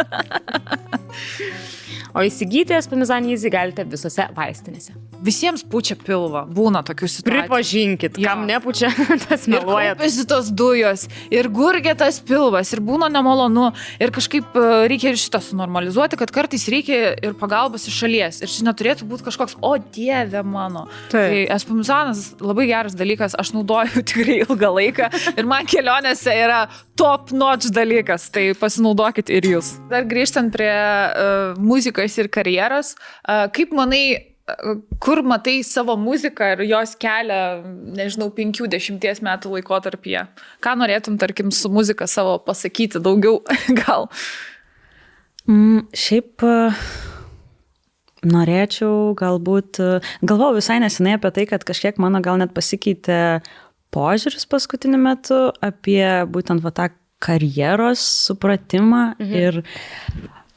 O įsigyti Espumizan Easy galite visose vaistinėse. Visiems pučia pilvą, būna tokių situacijų. Pripažinkit, kam nepučia, tas meluoja. Ir kaupiasi tos dujos, ir gurgia tas pilvas, ir būna nemalonu, ir kažkaip reikia ir šitą sunormalizuoti, kad kartais reikia ir pagalbos iš šalies. Ir čia neturėtų būti kažkoks, o dieve mano. Tai Espumizanas labai geras dalykas, aš naudoju tikrai ilgą laiką ir man kelionėse yra top notch dalykas, tai pasinaudokit ir jūs. Dar grįžtant prie muzikos ir karjeros, kaip manai, kur matai savo muziką ir jos kelią, nežinau, 5-10 metų laikotarpyje? Ką norėtum, tarkim, su muzika savo pasakyti daugiau gal? Šiaip norėčiau galvojau visai nesenai apie tai, kad kažkiek mano gal net pasikeitė požiūris paskutiniu metu apie būtent tą karjeros supratimą ir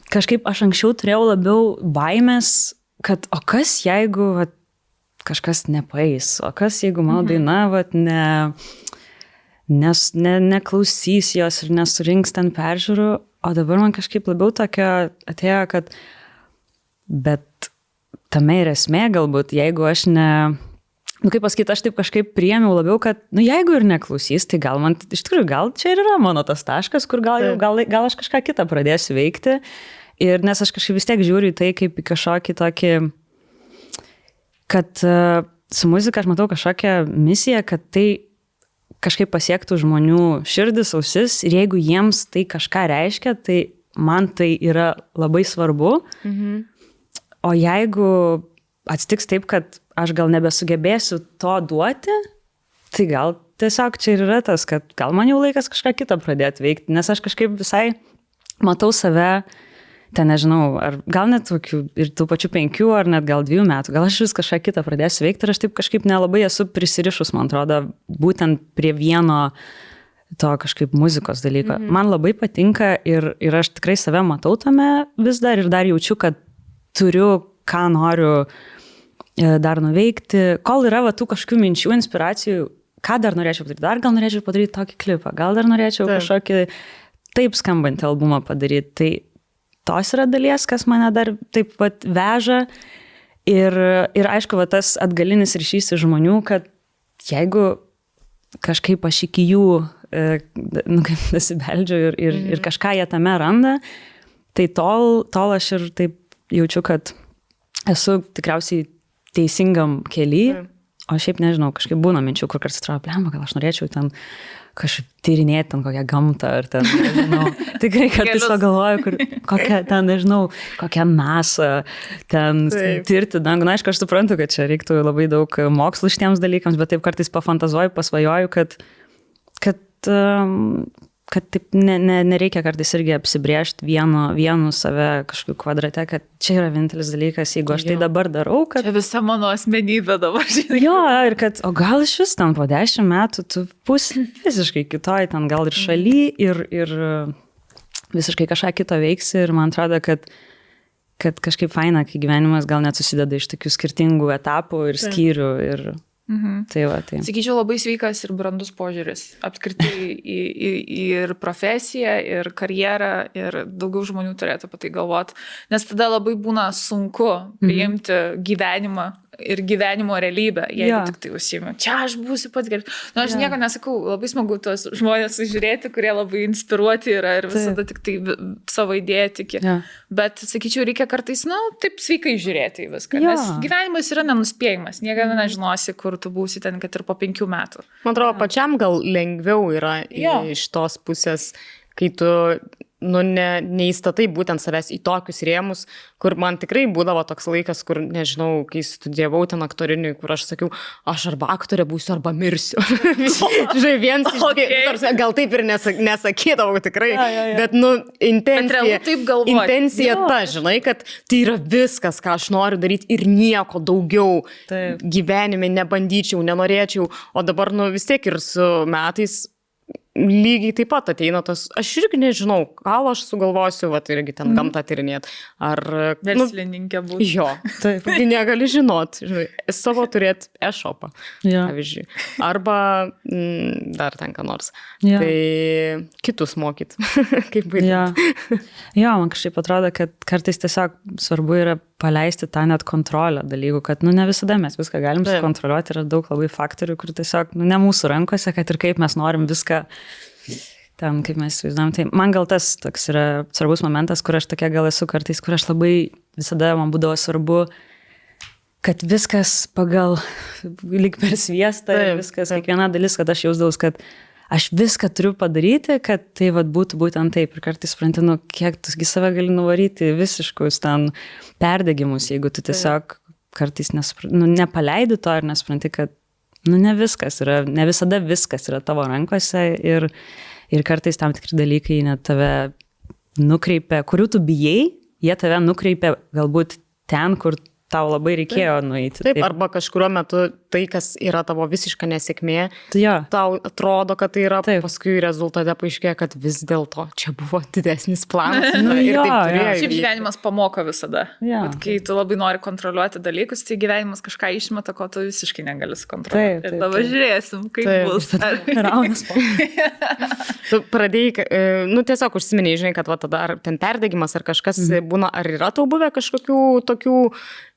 kažkaip aš anksčiau turėjau labiau baimės, kad o kas jeigu kažkas nepaeis, o kas jeigu mano daina neklausys jos ir nesurinks ten peržiūrų, o dabar man kažkaip labiau tokia atėjo, kad bet tame ir esmė galbūt, jeigu aš kaip pasakyti, aš taip kažkaip priėmiau labiau, kad, jeigu ir neklausys, tai gal man, iš tikrųjų, gal čia ir yra mano tas taškas, kur gal aš kažką kitą pradėsiu veikti. Ir nes aš kažkaip vis tiek žiūriu į tai kaip į kažkokį tokį, kad su muzika aš matau kažkokią misiją, kad tai kažkaip pasiektų žmonių širdis, ausis ir jeigu jiems tai kažką reiškia, tai man tai yra labai svarbu. O jeigu atsitiks taip, kad aš gal nebesugebėsiu to duoti, tai gal tiesiog čia ir yra tas, kad gal man jau laikas kažką kitą pradėti veikti, nes aš kažkaip visai matau save, ten nežinau, ar gal net tokių ir tų pačių 5 ar net gal 2 metų, gal aš vis kažką kitą pradėsiu veikti ir aš taip kažkaip nelabai esu prisirišus, man atrodo, būtent prie vieno to kažkaip muzikos dalyko. Man labai patinka ir aš tikrai save matau tame vis dar ir dar jaučiu, kad turiu, ką noriu dar nuveikti, kol yra tų kažkokių minčių, inspiracijų, ką dar norėčiau padaryti, dar gal norėčiau padaryti tokį klipą, gal dar norėčiau kažkokį taip skambantį albumą padaryti, tai tos yra dalies, kas mane dar taip veža ir aišku, tas atgalinis ryšys iš žmonių, kad jeigu kažkaip aš iki jų nasibeldžiu ir kažką jie tame randa, tai tol aš ir taip jaučiu, kad esu tikriausiai teisingam kely, o šiaip nežinau, kažkaip būna minčių, kur kartais atrodo, blemba, gal aš norėčiau ten kažkaip tyrinėti ten kokią gamtą ar ten, nežinau, tikrai kartais pagalvoju, kokią ten, nežinau, kokią NASA ten tirti dangų. Na, aišku, aš suprantu, kad čia reiktų labai daug mokslų šitiems dalykams, bet taip kartais pafantazuoju, pasvajoju, kad kad taip nereikia kartais irgi apsibrėžti vienu save kažkokiu kvadrate, kad čia yra vienintelis dalykas, jeigu aš tai dabar darau, kad... Čia visa mano asmenybė dabar, žinai. Jo, ir kad, o gal iš vis ten po 10 metų tu būsi visiškai kitoj, ten gal ir šaly, ir visiškai kažką kito veiksi, ir man atrodo, kad kažkaip faina, kai gyvenimas gal net susideda iš tokių skirtingų etapų ir skyrių ir... Tai va, tai. Sakyčiau, labai sveikas ir brandus požiūris. Apskritai ir profesiją, ir karjerą, ir daugiau žmonių turėtų apie tai galvoti. Nes tada labai būna sunku priimti gyvenimą ir gyvenimo realybę, jeigu tik tai užsiimi. Čia aš būsiu pats geras. Nu, aš nieko nesakau, labai smagu tuos žmonės sužiūrėti, kurie labai inspiruoti yra ir visada tik tai savo idėją tiki. Bet, sakyčiau, reikia kartais, taip sveikai žiūrėti į viską. Nes gyvenimas yra nenuspėjimas. Niekada nežinosi, kur tu būsi ten, kad ir po 5 metų. Man atrodo, pačiam gal lengviau yra iš tos pusės, kai tu neįstatai būtent savęs į tokius rėmus, kur man tikrai būdavo toks laikas, kur, nežinau, kai studijavau ten aktoriniui, kur aš sakiau, aš arba aktorė būsiu, arba mirsiu. Žinai, viens iš gal taip ir nesakydavau tikrai, bet, intencija ta, žinai, kad tai yra viskas, ką aš noriu daryti ir nieko daugiau gyvenime nebandyčiau, nenorėčiau, o dabar, vis tiek ir su metais lygiai taip pat ateina tas, aš irgi nežinau, gal aš sugalvosiu, irgi ten gamtą tyrinėt, ar... Verslininkė būti. Jo, taip, negali žinot, žinai, savo turėti e-shopą, pavyzdžiui, arba dar ten ką nors. Tai kitus mokyt, kaip baigti. Jo, man kažkaip atrodo, kad kartais tiesiog svarbu yra paleisti tą net kontrolę dalykų, kad, ne visada mes viską galim sukontroliuoti, yra daug labai faktorių, kur tiesiog, ne mūsų rankose, kad ir kaip mes norim viską ten, kaip mes įsivaizduojam. Tai man gal tas toks yra svarbus momentas, kur aš tokia gal esu kartais, kur aš labai visada man būdavo svarbu, kad viskas pagal lyg per sviestą, viskas, kiekviena dalis, kad aš jausdaus, kad aš viską turiu padaryti, kad tai būtų būtent taip. Ir kartais supranti, kiek tu save gali nuvaryti visiškus ten perdegimus, jeigu tu tiesiog kartais nepaleidi to ir nespranti, kad ne viskas yra, ne visada viskas yra tavo rankose ir kartais tam tikri dalykai net tave nukreipia, kurių tu bijai, jie tave nukreipia galbūt ten, kur tau labai reikėjo nueiti. Taip, arba kažkuriuo metu tai, kas yra tavo visiška nesėkmė, tau atrodo, kad tai yra, paskui rezultate paaiškėja, kad vis dėlto čia buvo didesnis planas. Šiaip gyvenimas pamoko visada. Kai tu labai nori kontroliuoti dalykus, tai gyvenimas kažką išmeta, ko tu visiškai negali sukontroliuoti. Ir dabar žiūrėsim, kaip bus. Raunas po. Tu pradėjai, tiesiog užsiminiai, žinai, kad tada ar ten perdegimas, ar kažkas būna, ar yra tau buvę kažkokių tokių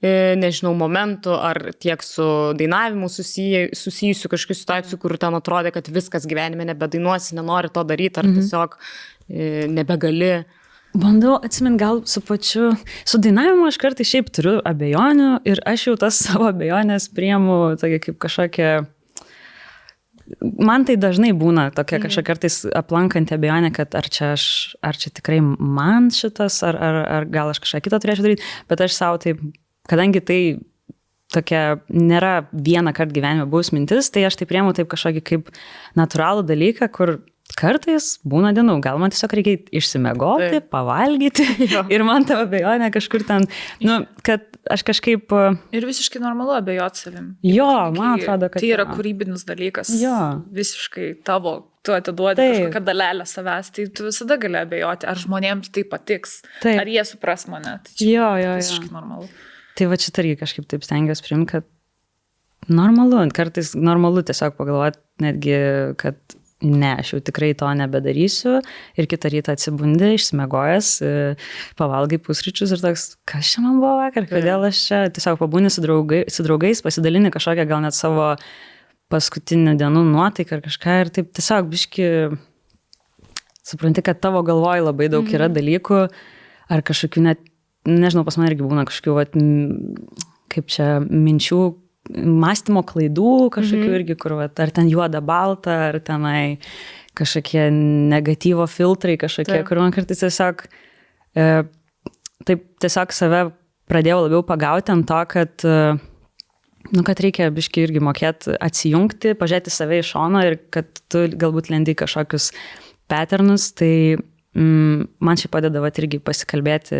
nežinau, momentų, ar tiek su dainavimu susijusių kažkokių situacijų, kur ten atrodė, kad viskas gyvenime nebedainuosi, nenori to daryti, ar tiesiog nebegali. Bandau atsimint, gal su dainavimu aš kartais šiaip turiu abejonių ir aš jau tas savo abejonės priimu tokia kaip kažkokia... Man tai dažnai būna tokia kažkokia kartais aplankanti abejonė, kad ar čia tikrai man šitas, ar gal aš kažką kitą turėčiau daryti, bet aš savo taip, kadangi tai tokia nėra vieną kartą gyvenime buvus mintis, tai aš tai priemu taip kažkokį kaip natūralų dalyką, kur kartais būna dienų, gal man tiesiog reikia išsimegoti, pavalgyti ir man ta abejonė kažkur ten, kad aš kažkaip... Ir visiškai normalu abejoti savim. Jo, man atrodo, kad... Tai yra kūrybinis dalykas. Visiškai tavo, tu atiduodi kažkokią dalelę savęs, tai tu visada gali abejoti, ar žmonėms tai patiks, ar jie supras mane. Tai čia visiškai normalu. Tai va čia irgi kažkaip taip stengiuosi priimti, kad normalu, kartais normalu tiesiog pagalvoti netgi, kad ne, aš jau tikrai to nebedarysiu ir kitą rytą atsibundi, išsimegojęs, pavalgai pusryčius ir toks, kas čia man buvo vakar, kodėl aš čia tiesiog pabūni su draugais, pasidalini kažkokią gal net savo paskutinių dienų nuotaiką ar kažką ir taip tiesiog biški supranti, kad tavo galvoj labai daug yra dalykų ar kažkokių net, nežinau, pas man irgi būna kažkokių, kaip čia, minčių, mąstymo klaidų kažkokių irgi, kur ar ten juoda balta, ar tenai kažkokie negatyvo filtrai kažkokie, kur man kartais tiesiog taip tiesiog save pradėjau labiau pagauti ant to, kad kad reikia biškai irgi mokėti atsijungti, pažiūrėti save iš šono ir kad tu galbūt lendi kažkokius patternus, tai man šiaip padeda irgi pasikalbėti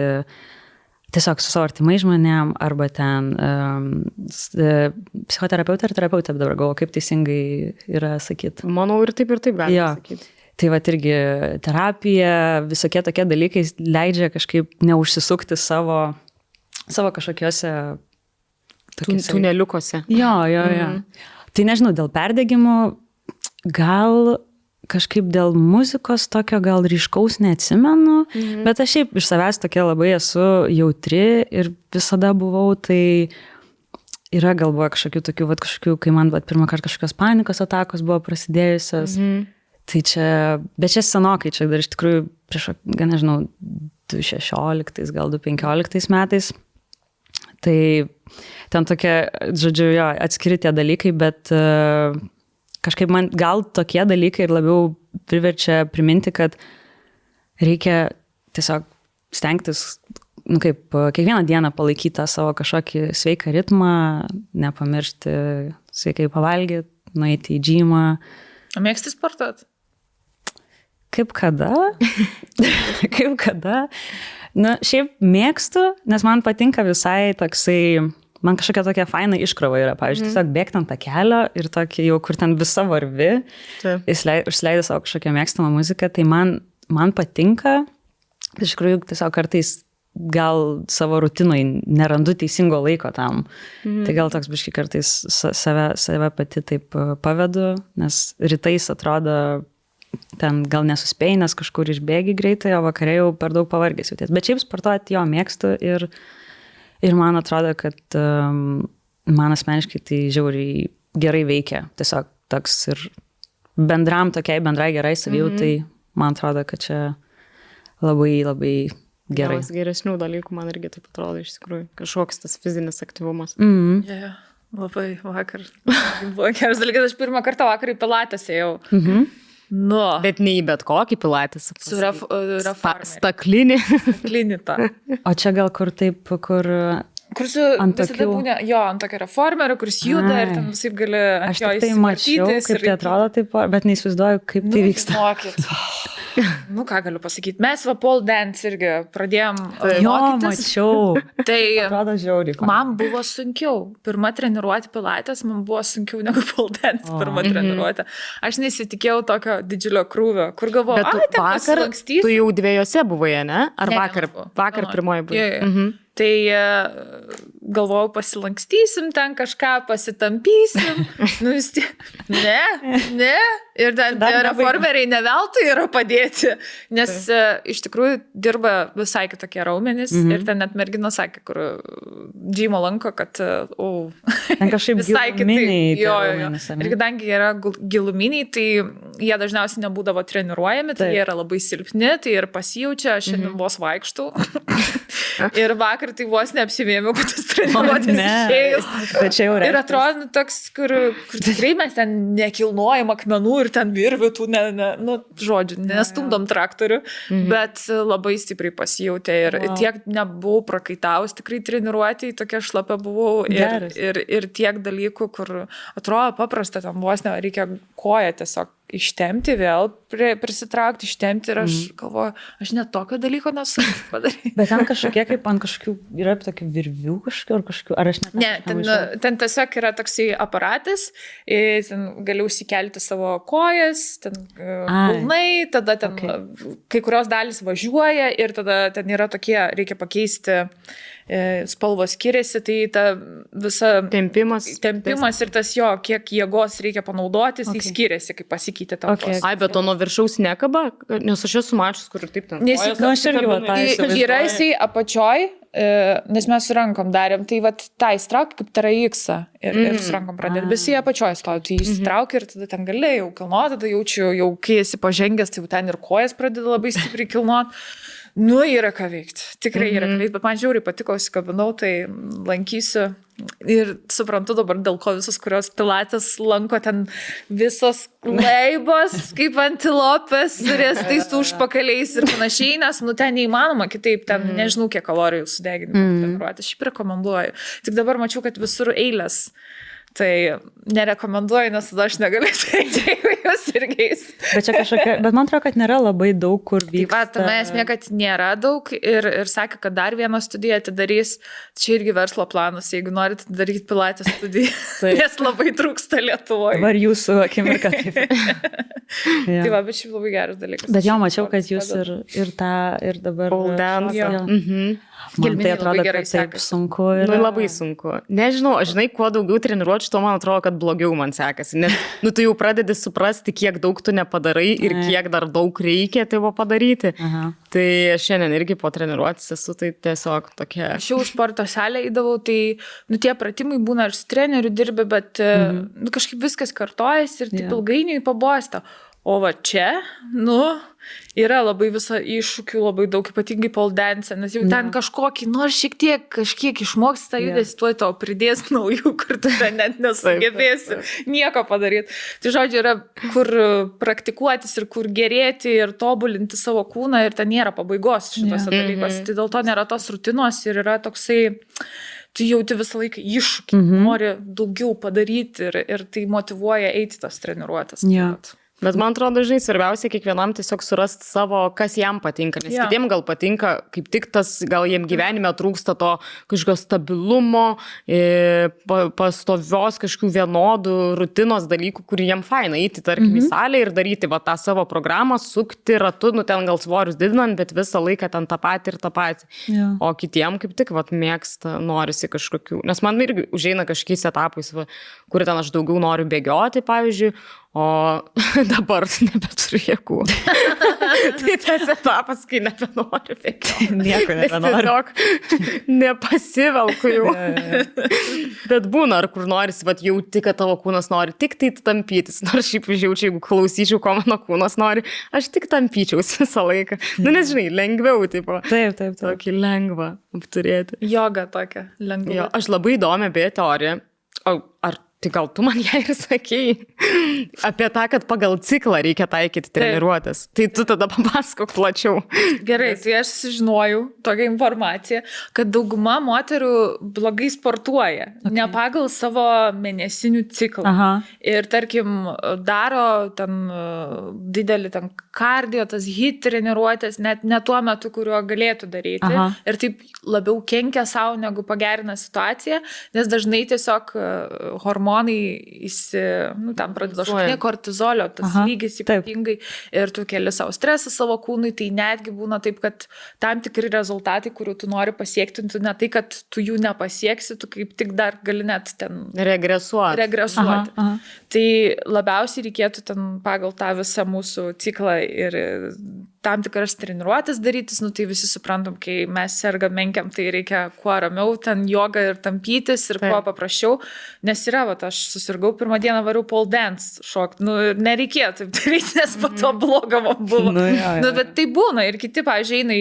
tiesiog su savo artimai žmonėm, arba ten psichoterapeutė ar terapeutė, dabar galvoju, kaip teisingai yra sakyti. Manau, ir taip galima sakyti. Tai va irgi terapija, visokie tokie dalykai leidžia kažkaip neužsisukti savo kažkokiuose tuneliukuose. Jo. Tai nežinau, dėl perdegimų, gal kažkaip dėl muzikos tokio gal ryškaus neatsimenu, bet aš šiaip iš savęs tokia labai esu jautri ir visada buvau, tai yra galvoje kažkokių, kai man pirmą kartą kažkokios panikos atakos buvo prasidėjusios. Tai čia, bet čia senokai, čia dar iš tikrųjų prieš, nežinau, 2016, gal 2015 metais. Tai ten tokie, žodžiu, atskiri tie dalykai, bet kažkaip man gal tokie dalykai ir labiau priverčia priminti, kad reikia tiesiog stengtis, kiekvieną dieną palaikyti tą savo kažkokį sveiką ritmą, nepamiršti sveikai pavalgyti, nueiti į džymą. Mėgsti sportuoti? Kaip kada? Šiaip mėgstu, nes man patinka visai toksai, man kažkokia tokia faina iškrova yra, pavyzdžiui, tiesiog bėgti ant tą kelio ir tokį jau, kur ten visa varvi, užsileidai savo kažkokią mėgstamą muziką, tai man patinka, iš tikrųjų tiesiog kartais gal savo rutinoj nerandu teisingo laiko tam, tai gal toks biškai kartais save pati taip pavedu, nes rytais atrodo, ten gal nesuspėjai, nes kažkur išbėgi greitai, o vakarė jau per daug pavargęs jauties, bet šiaip sportuoti jo mėgstu ir man atrodo, kad man asmeniškai tai žiauriai gerai veikia. Tiesiog toks ir bendrai gerai savijautai, man atrodo, kad čia labai, labai gerai. Vienas geresnių dalykų man irgi taip atrodo iš tikrųjų. Kažkoks tas fizinis aktyvumas. Labai vakar. Buvo geras dalykas, aš pirmą kartą vakar į pilates ėjau. Bet ne į bet kokį pilates. Su reformeriu. Staklinį. Staklinį tą. O čia gal kur taip, kur su visada būna, ant tokio reformerio, kuris juda ir ten visai gali ant jo įsivartytis. Aš tai mačiau, kaip tai atrodo taip, bet neįsivaizduoju, kaip tai vyksta. Ką galiu pasakyti, mes pole dance irgi pradėjom mokytis. Mačiau. Tai atrodo žiauriai. Man buvo sunkiau. Pirma treniruoti pilates, man buvo sunkiau negu pole dance pirma treniruoti. Aš nesitikėjau tokio didžiulio krūvio, kur galvoju, ten pasilankstysiu. Tu jau dviejose buvai, ne? Ar vakar pirmoji buvai? Tai galvojau, pasilankstysim ten kažką, pasitampysim. Vis tiek. Ne. Ir ten reformeriai ne veltui yra padėti, nes iš tikrųjų dirba visai kitokie raumenys ir ten net mergina sakė, kur džymo lanko, kad ten kažkaip giluminiai. Ir kadangi yra giluminiai, tai jie dažniausiai nebūdavo treniruojami, tai jie yra labai silpni, tai ir pasijaučia, aš šiandien vos vaikštau. Ir vakar tai vos neapsivėmiau, kad tas treniruotis išėjus. Ir atrodo toks, kur tikrai mes ten nekilnojam akmenų ir ten virvių, nestumdom traktorių, bet labai stipriai pasijautė ir tiek nebuvau prakaitaus, tikrai treniruotėjai, tokia šlapia buvau ir tiek dalykų, kur atrodo paprasta, tam vos reikia koją tiesiog ištemti, vėl prisitraukti, ištemti ir aš galvoju, aš net tokio dalyko nesu padaryti. Bet ten kažkokie, kaip ant kažkokių, yra tokių virvių kažkokių, ar aš net... Ne, ten tiesiog yra toksai aparatas, ten gali užsikelti savo kojas, ten kulnai, tada ten kai kurios dalys važiuoja ir tada ten yra tokie, reikia pakeisti spalvos skiriasi, tai ta visa tempimas ir tas kiek jėgos reikia panaudotis, tai skiriasi, kaip pasikeitė tavo. Ai, bet to nuo viršaus nekaba, nes aš esu mačius, kur taip ten. Yra jisai apačioj, nes mes su rankom darėm, tai tą įstrauk kaip TRX ir su rankom pradėti, bet jisai apačioj stovi, tai įstrauk ir tada ten gali jau kilnuoti, tada jaučiu, jau kai esi pažengęs, tai ten ir kojas pradeda labai stipriai kilnuoti. Yra ką veikti, tikrai yra ką veikti, bet man žiauriai patiko, įsikabinau, tai lankysiu ir suprantu dabar, dėl ko visus, kurios pilates lanko ten visos leibos, kaip antilopės, riestais užpakaliais ir panašiai, nes ten neįmanoma kitaip, ten nežinau, kiek kalorijų sudeginimo treniruoti, aš šiaip rekomenduoju. Tik dabar mačiau, kad visur eilės. Tai nerekomenduoju, nes tada aš negaliu eiti, jeigu jūs irgi eisit. Bet čia kažkokia, bet man atrodo, kad nėra labai daug, kur vyksta. Tai va, esmė, kad nėra daug ir sakė, kad dar vieną studiją atidarys, čia irgi verslo planas, jeigu norite daryti pilatės studiją, nes labai trūksta Lietuvoje. Dabar jūsų akimirka taip. Tai va, bet šiaip labai geras dalykas. Bet jo, mačiau, kad jūs ir dabar... Pole dance. Man tai atrodo, kad taip sunku. Nu, labai sunku. Nežinau, žinai, kuo daugiau treniruočių, to man atrodo, kad blogiau man sekasi. Nes, tu jau pradedi suprasti, kiek daug tu nepadarai ir kiek dar daug reikia tavo padaryti. Aha. Tai šiandien irgi po treniruotis esu, tai tiesiog tokia... Aš jau sporto salę įdavau, tai, tie pratimai būna ir su treneriu dirbi, bet kažkaip viskas kartojasi ir taip ilgainiui pabosta. O va čia, yra labai visą iššūkių, labai daug, ypatingai pole dance, nes jau ten kažkiek išmoksti tą judesį, tuoj tau pridės naujų, kur tu ten net nesugebėsi nieko padaryti. Tai žodžiu, yra kur praktikuotis ir kur gerėti ir tobulinti savo kūną ir ten nėra pabaigos šitose dalykuose. Tai dėl to nėra tos rutinos ir yra toksai... Tu jauti visą laiką iššūkį, nori daugiau padaryti ir tai motyvuoja eiti tas treniruotes. Bet man atrodo, žinai, svarbiausia kiekvienam tiesiog surasti savo, kas jam patinka, nes kitiem gal patinka, kaip tik tas, gal jiem gyvenime trūksta to kažkokio stabilumo, pastovios kažkokių vienodų rutinos dalykų, kurį jiem faina eiti, tarkim, į salę ir daryti tą savo programą, sukti ratu, ten gal svorius didinant, bet visą laiką ten tą patį ir tą patį. O kitiem kaip tik mėgsta, norisi kažkokių, nes man irgi užeina kažkokiais etapais, kur ten aš daugiau noriu bėgioti, pavyzdžiui, o dabar nebeturiu jėgų. Tai tas etapas, kai nebenoriu bėgioti. Nieko nebenoriu. Tiesiog nepasivelku jau. Bet būna, ar kur norisi, jauti, kad tavo kūnas nori tik tai tampytis. Nors šiaip žiaučiau, jeigu klausyčiau, ko mano kūnas nori, aš tik tampyčiaus visą laiką. Nes žinai, lengviau, tipo. Taip. Tokį lengvą apturėti. Joga tokia, lengva. Aš labai įdomią beje teoriją. Tai gal tu man ją ir sakei apie tą, kad pagal ciklą reikia taikyti treniruotės. Tai tu tada papasakok plačiau. Gerai, tai aš sužinojau tokią informaciją, kad dauguma moterų blogai sportuoja, ne pagal savo mėnesinių ciklą. Aha. Ir tarkim, daro ten didelį ten kardio, tas HIIT treniruotės, net ne tuo metu, kuriuo galėtų daryti. Aha. Ir taip labiau kenkia savo, negu pagerina situaciją, nes dažnai tiesiog hormonai tam pradeda šokti kortizolio, tas lygis ypatingai ir tu keli savo stresą savo kūnui, tai netgi būna taip, kad tam tikri rezultatai, kurių tu nori pasiekti, tu ne tai, kad tu jų nepasieksi, tu kaip tik dar gali net ten regresuoti. Aha. Tai labiausiai reikėtų ten pagal tą visą mūsų ciklą ir tam tikras treniruotės darytis, tai visi suprantam, kai mes sergam menkiam, tai reikia kuo ramiau, ten joga ir tampytis ir kuo paprasčiau, nes yra, aš susirgau pirmą dieną variau pole dance šokti, nereikėjo taip daryti, nes po to bloga man buvo. Bet tai būna ir kiti, pavyzdžiui, eina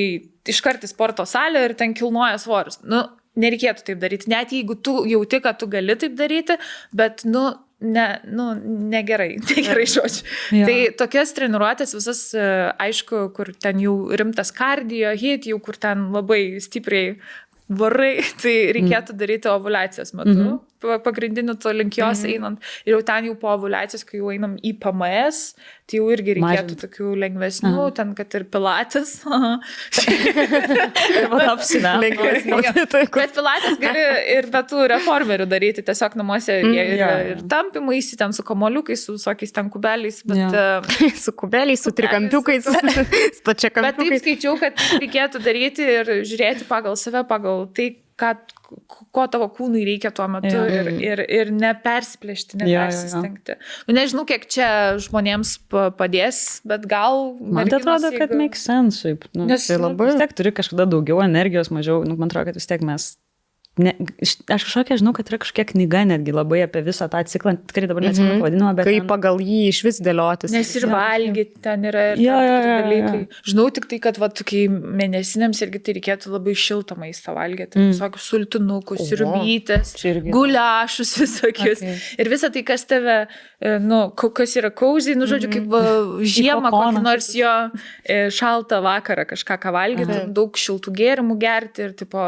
iškart į sporto salę ir ten kilnoja svorius. Nereikėtų taip daryti, net jeigu tu jauti, kad tu gali taip daryti, bet, negerai žodžiu. Tai tokias treniruotės visas, aišku, kur ten jau rimtas kardio, HIIT, jau kur ten labai stipriai varai, tai reikėtų daryti ovuliacijos metu. Pagrindiniu to link jos einant. Ir jau ten jau po ovuliacijos, kai jau einam į PMS, tai jau irgi reikėtų tokių lengvesnių, ten kad ir pilates. Bet pilates gali ir be tų reformerių daryti, tiesiog namuose ir tampimais, ten su kamoliukais, su visokiais ten kubeliais. Su kubeliais, su trikampiukais, stačiakampiukais. Bet taip skaičiau, kad reikėtų daryti ir žiūrėti pagal save, pagal tai, ko tavo kūnui reikia tuo metu ir nepersiplėšti, nepersistengti. Nežinau, kiek čia žmonėms padės, bet gal... Man tai atrodo, kad make sense, šiaip. Nes vis tiek turi kažkada daugiau energijos, mažiau, man atrodo, kad vis tiek mes... Aš kažkokia žinau, kad yra kažkokia knyga netgi labai apie visą tą ciklą, tikrai dabar neatsimenu pavadinimą, bet... Kaip pagal jį iš vis dėliotis. Nes ir valgyti ten yra ir dalykai. Žinau tik tai, kad kai mėnesinėms irgi tai reikėtų labai šiltą maistą valgyti. Visokius sultinukus, sriubytes, guliašus visokius. Ir visą tai, kas tave, kas yra cozy, žodžiu, kaip žiemą, kokį nors jo šaltą vakarą kažką valgyti, daug šiltų gėrimų gerti ir tipo,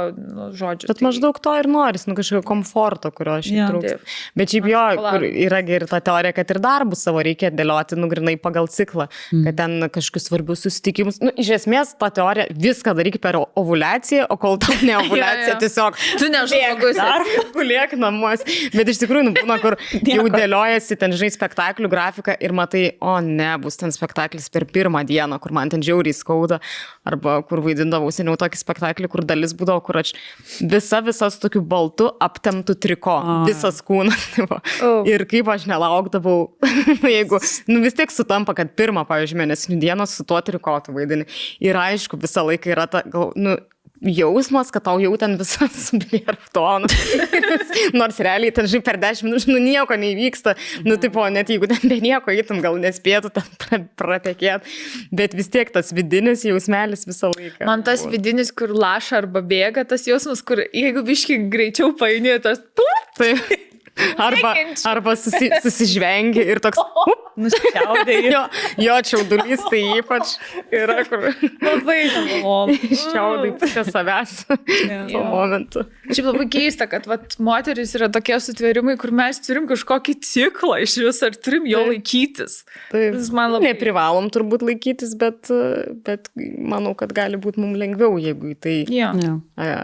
žodžiu. Bet maždaug to ir noris, kažkokio komforto, kurio šiaip trūksta. Bet šiaip jo, kur yra ir ta teorija, kad ir darbus savo reikia dėlioti, grinai pagal ciklą, kad ten kažkokius svarbius susitikimus. Iš esmės, ta teorija viską daryk per ovuliaciją, o kol tau ne ovuliacija, tiesiog tu nežmogus guliek namuos. Bet iš tikrųjų, būna, kur jau dėliojasi ten, žinai, spektaklių grafiką ir matai, o ne, bus ten spektaklis per pirmą dieną, kur man ten žiauriai skauda, arba kur vaidindavau seniau tokį spektaklį, kur dalis būdavo, kur aš visas tokiu baltu aptemtų triko, visas kūnas. Ir kaip aš nelaukdavau, jeigu, vis tiek sutampa, kad pirmą, pavyzdžiui, mėnesinių dienos su tuo trikotu vaidini. Ir aišku, visą laiką yra ta, jausmas, kad tau jau ten visas subėrtonas. Nors realiai ten, žinai, per 10 minučių, nieko neįvyksta. Tipo, net jeigu ten be nieko eitum, gal nespėtų ten pratekėti. Bet vis tiek tas vidinis jausmelis visą laiką. Man tas vidinis, kur laša arba bėga, tas jausmas, kur jeigu biškai greičiau paini, tas... Taip. Arba susižvengi ir toks nusičiaudėjai. Jo čiaudulys tai ypač yra, kur labai čiaudai pusę savęs tuo momentu. Šiaip labai keista, kad moteris yra tokie sutvėrimai, kur mes turim kažkokį ciklą iš vis, ar turim jo laikytis. Taip, neprivalom turbūt laikytis, bet manau, kad gali būti mums lengviau, jeigu į tai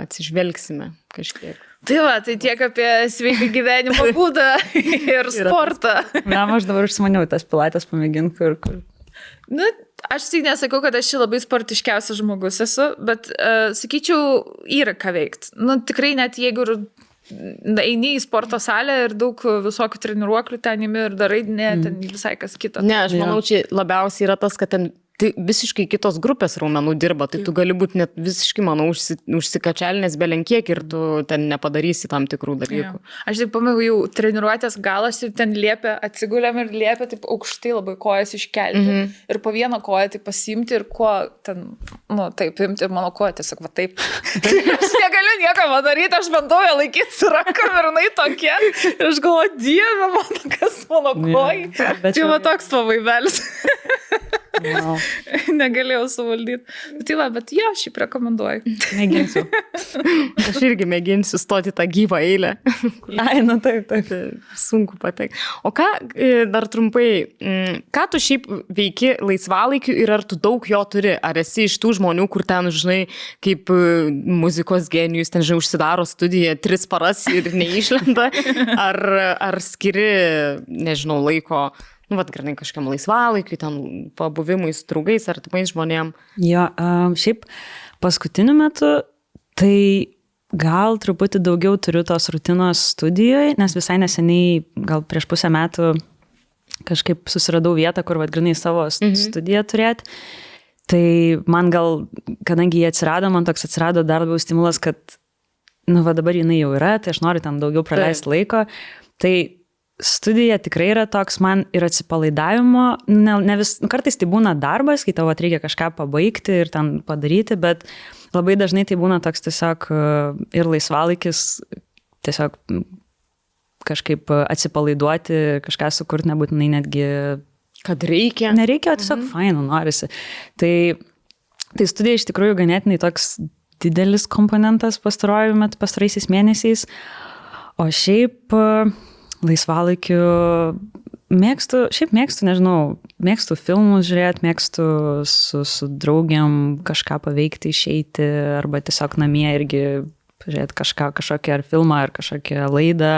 atsižvelgsime kažkiek. Tai tai tiek apie sveiką gyvenimo būdą ir sportą. Aš dabar užsimaniau tas pilates pamėginti, kur. Aš tai nesakau, kad aš labai sportiškiausias žmogus esu, bet sakyčiau, yra ką veikti. Tikrai net jeigu eini į sporto salę ir daug visokių treniruoklių ten imi ir darai, ten visai kas kita. Ne, aš manau, čia labiausiai yra tas, kad ten tai visiškai kitos grupės raumenų dirba, tai tu gali būti net visiškai, manau, užsikačialinės belenkiek ir tu ten nepadarysi tam tikrų dalykų. Aš taip pamėjau jau treniruotės galas ir ten liepia, atsigulėm ir liepia taip aukštai labai kojas iškelti ir po vieną koją taip pasiimti ir kuo ten, taip imti ir mano koja tiesiog taip. Aš negaliu nieko padaryti, aš bandau ją laikyti su rankom ir jinai tokia. Ir aš galvoju, Dieve, kas mano koja. Tai toks pavaibelis. Wow. Negalėjau suvaldyti. Bet šiaip rekomenduoju. Mėginsiu. Aš irgi mėginsiu stoti tą gyvą eilę. Taip. Sunku patekti. O ką, dar trumpai, ką tu šiaip veiki laisvalaikiu ir ar tu daug jo turi? Ar esi iš tų žmonių, kur ten, žinai, kaip muzikos genijus, ten, žinai, užsidaro studiją 3 paras ir neišlenda? Ar skiri, nežinau, laiko... Grinai kažkiam laisvalaikiu, ten pabuvimui su draugais ar tipais žmonėm. Jo, šiaip paskutiniu metu, tai gal truputį daugiau turiu tos rutinos studijoje, nes visai neseniai, gal prieš pusę metų kažkaip susiradau vietą, kur grinai savo studiją turėti. Tai man gal, kadangi jie atsirado, man toks atsirado dar labiau stimulas, kad, dabar jinai jau yra, tai aš noriu ten daugiau praleisti laiko. Tai studija tikrai yra toks man ir atsipalaidavimo, ne kartais tai būna darbas, kai tavo reikia kažką pabaigti ir ten padaryti, bet labai dažnai tai būna toks tiesiog ir laisvalaikis, tiesiog kažkaip atsipalaiduoti, kažką sukurti, nebūtinai netgi... Kad reikia. Nereikia, o tiesiog fainų norisi. Tai studija iš tikrųjų ganėtinai toks didelis komponentas pastaraisiais mėnesiais, o šiaip... laisvalaikiu mėgstu, nežinau, mėgstu filmus žiūrėti, mėgstu su draugiam kažką paveikti, išeiti, arba tiesiog namie irgi žiūrėti kažkokią ar filmą, ar kažkokią laidą.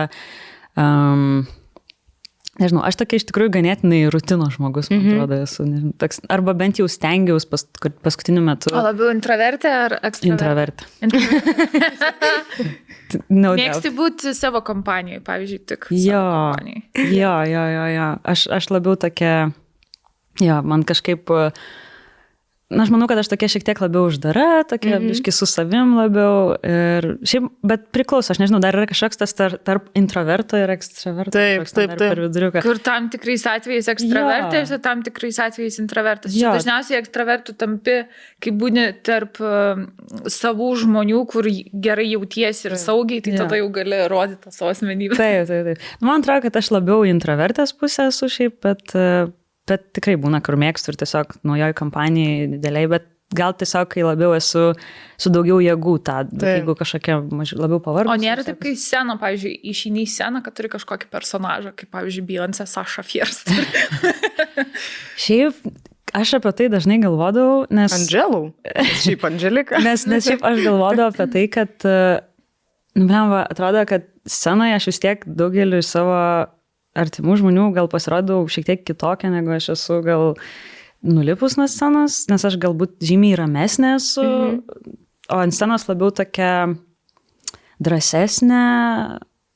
Nežinau, aš tokia iš tikrųjų ganėtinai rutino žmogus, man atrodo, esu. Nežinau, toks, arba bent jau stengiaus paskutiniu metu. O labiau intravertė ar ekstravertė? Intravertė. Mėgsti būti savo kompanijoje, pavyzdžiui, tik savo kompanijai. Jo. Aš labiau tokia, man kažkaip... aš manau, kad aš tokia šiek tiek labiau uždara, tokia biški su savim labiau. Ir šiaip, bet priklauso, aš nežinau, dar yra kažkoks tas tarp introverto ir ekstraverto. Taip. Per viduriuką. Kur tam tikrais atvejais ekstravertas, ir tam tikrais atvejais introvertas. Dažniausiai ekstravertų tampi, kai būni tarp savų žmonių, kur gerai jautiesi ir saugiai, tai tada jau gali rodyti tą savo asmenybę. Taip. Man atrodo, kad aš labiau introvertės pusė esu šiaip, bet tikrai būna, kur mėgstu ir tiesiog naujoj kompanijai dideliai, bet gal tiesiog, kai labiau esu su daugiau jėgų tą, bet jeigu kažkokia labiau pavargus. O nėra taip, kai scena, pavyzdžiui, išeini į sceną, kad turi kažkokį personažą, kaip, pavyzdžiui, Beyoncé, Sasha Fierce. Šiaip, aš apie tai dažnai galvodavau, nes... Andželų? Šiaip Andželika. Nes šiaip aš galvodavau apie tai, kad, atrodo, kad scenoje aš vis tiek daugeliu savo artimų žmonių gal pasirodau šiek tiek kitokia, negu aš esu gal nulipus nuo scenos, nes aš galbūt žymiai ramesnė esu, o ant scenos labiau tokia drąsesnė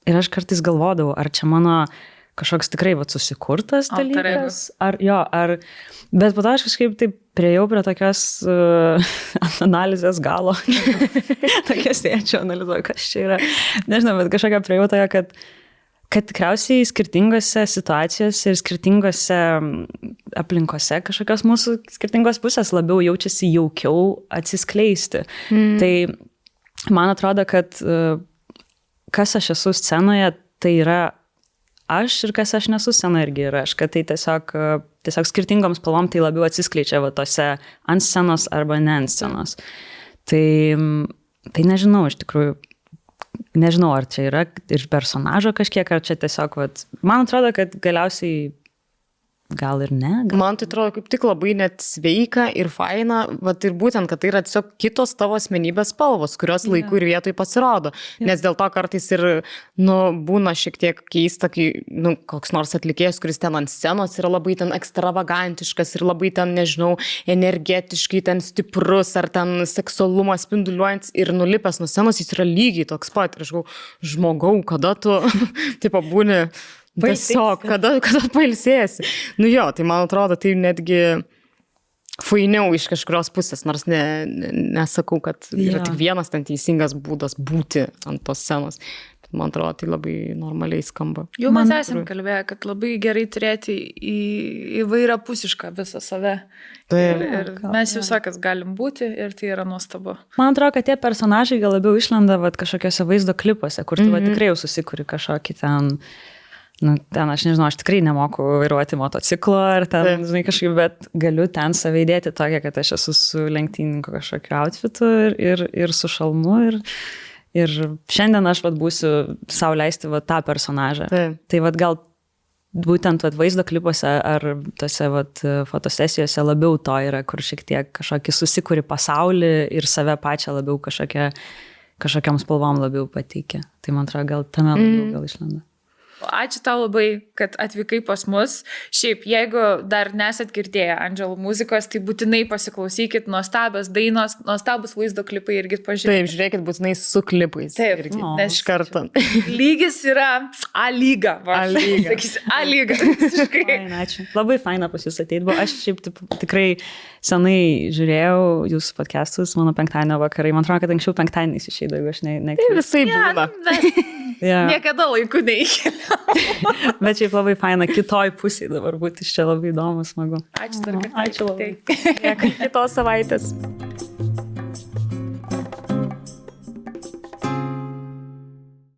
ir aš kartais galvodavau, ar čia mano kažkoks tikrai susikurtas dalykas, bet po to aš kažkaip taip priejau prie tokios analizės galo, tokia sėdžiu, analizuoju, kas čia yra, nežinau, bet kažkokia priejau tokia, kad tikriausiai skirtingose situacijose ir skirtingose aplinkose kažkokios mūsų skirtingos pusės labiau jaučiasi jaukiau atsiskleisti. Tai man atrodo, kad kas aš esu scenoje, tai yra aš ir kas aš nesu scenoje irgi yra aš, kad tai tiesiog skirtingoms spalvom tai labiau atsiskleidžia tose ant scenos arba ne ant scenos. Tai nežinau, iš tikrųjų, nežinau, ar čia yra ir personažo kažkiek, ar čia tiesiog, man atrodo, kad galiausiai gal ir ne. Man tai atrodo kaip tik labai net sveika ir faina, ir būtent, kad tai yra tiesiog kitos tavo asmenybės spalvos, kurios laiku ir vietoj pasirodo. Nes dėl to kartais ir, būna šiek tiek keista, kai, koks nors atlikėjas, kuris ten ant scenos yra labai ten ekstravagantiškas ir labai ten, nežinau, energetiškai ten stiprus ar ten seksualumas spinduliuojantis ir nulipęs nuo scenos, jis yra lygiai toks pat. Ir aš žmogau, kada tu, tipo, būni tiesiog, kada pailsėsi. Tai man atrodo, tai netgi fainiau iš kažkurios pusės, nors nesakau, kad yra tik vienas ten teisingas būdas būti ant tos scenos. Man atrodo, tai labai normaliai skamba. Jau mes esam kalbėję, kad labai gerai turėti įvairią pusišką visą save. Ir mes visokias galim būti ir tai yra nuostabu. Man atrodo, kad tie personažai gal labiau išlenda kažkokiuose vaizdo klipuose, kur tu tikrai jau susikuri kažkokį ten... ten aš nežinau, aš tikrai nemoku vairuoti motociklo ar ten, kažkaip, bet galiu ten save įdėti tokia, kad aš esu su lenktyninko kažkokiu outfitu ir su šalmu ir šiandien aš būsiu sau leisti tą personažą. Tai gal būtent vaizdo klipuose ar tose fotosesijose labiau to yra, kur šiek tiek kažkokį susikuri pasaulį ir save pačią labiau kažkokiam spalvom labiau pateikia. Tai man atrodo, gal tame labiau gal išlenda. Ačiū tau labai, kad atvykai pas mus. Šiaip, jeigu dar nesat girdėję Andželų muzikos, tai būtinai pasiklausykit, nuostabios dainos, nuostabus vaizdo klipai irgi pažiūrėkit. Taip, žiūrėkit būtinai su klipais. Taip, nes iš karto. Lygis yra A lyga. Sakysi, A lyga. Ačiū. Labai faina pas jūs ateit. Aš šiaip tikrai senai žiūrėjau jūsų podcastus, mano penktadienio vakarai. Man atrodo, kad anksčiau penktadieniais išeidavo, jeigu aš ne. Tai visai būna. Niekada laiku neįkeliau. Bet šiaip labai faina kitoj pusėje dabar būti, iš čia labai įdomu, smagu. Ačiū dar kartą. Ačiū labai. Kitos savaitės.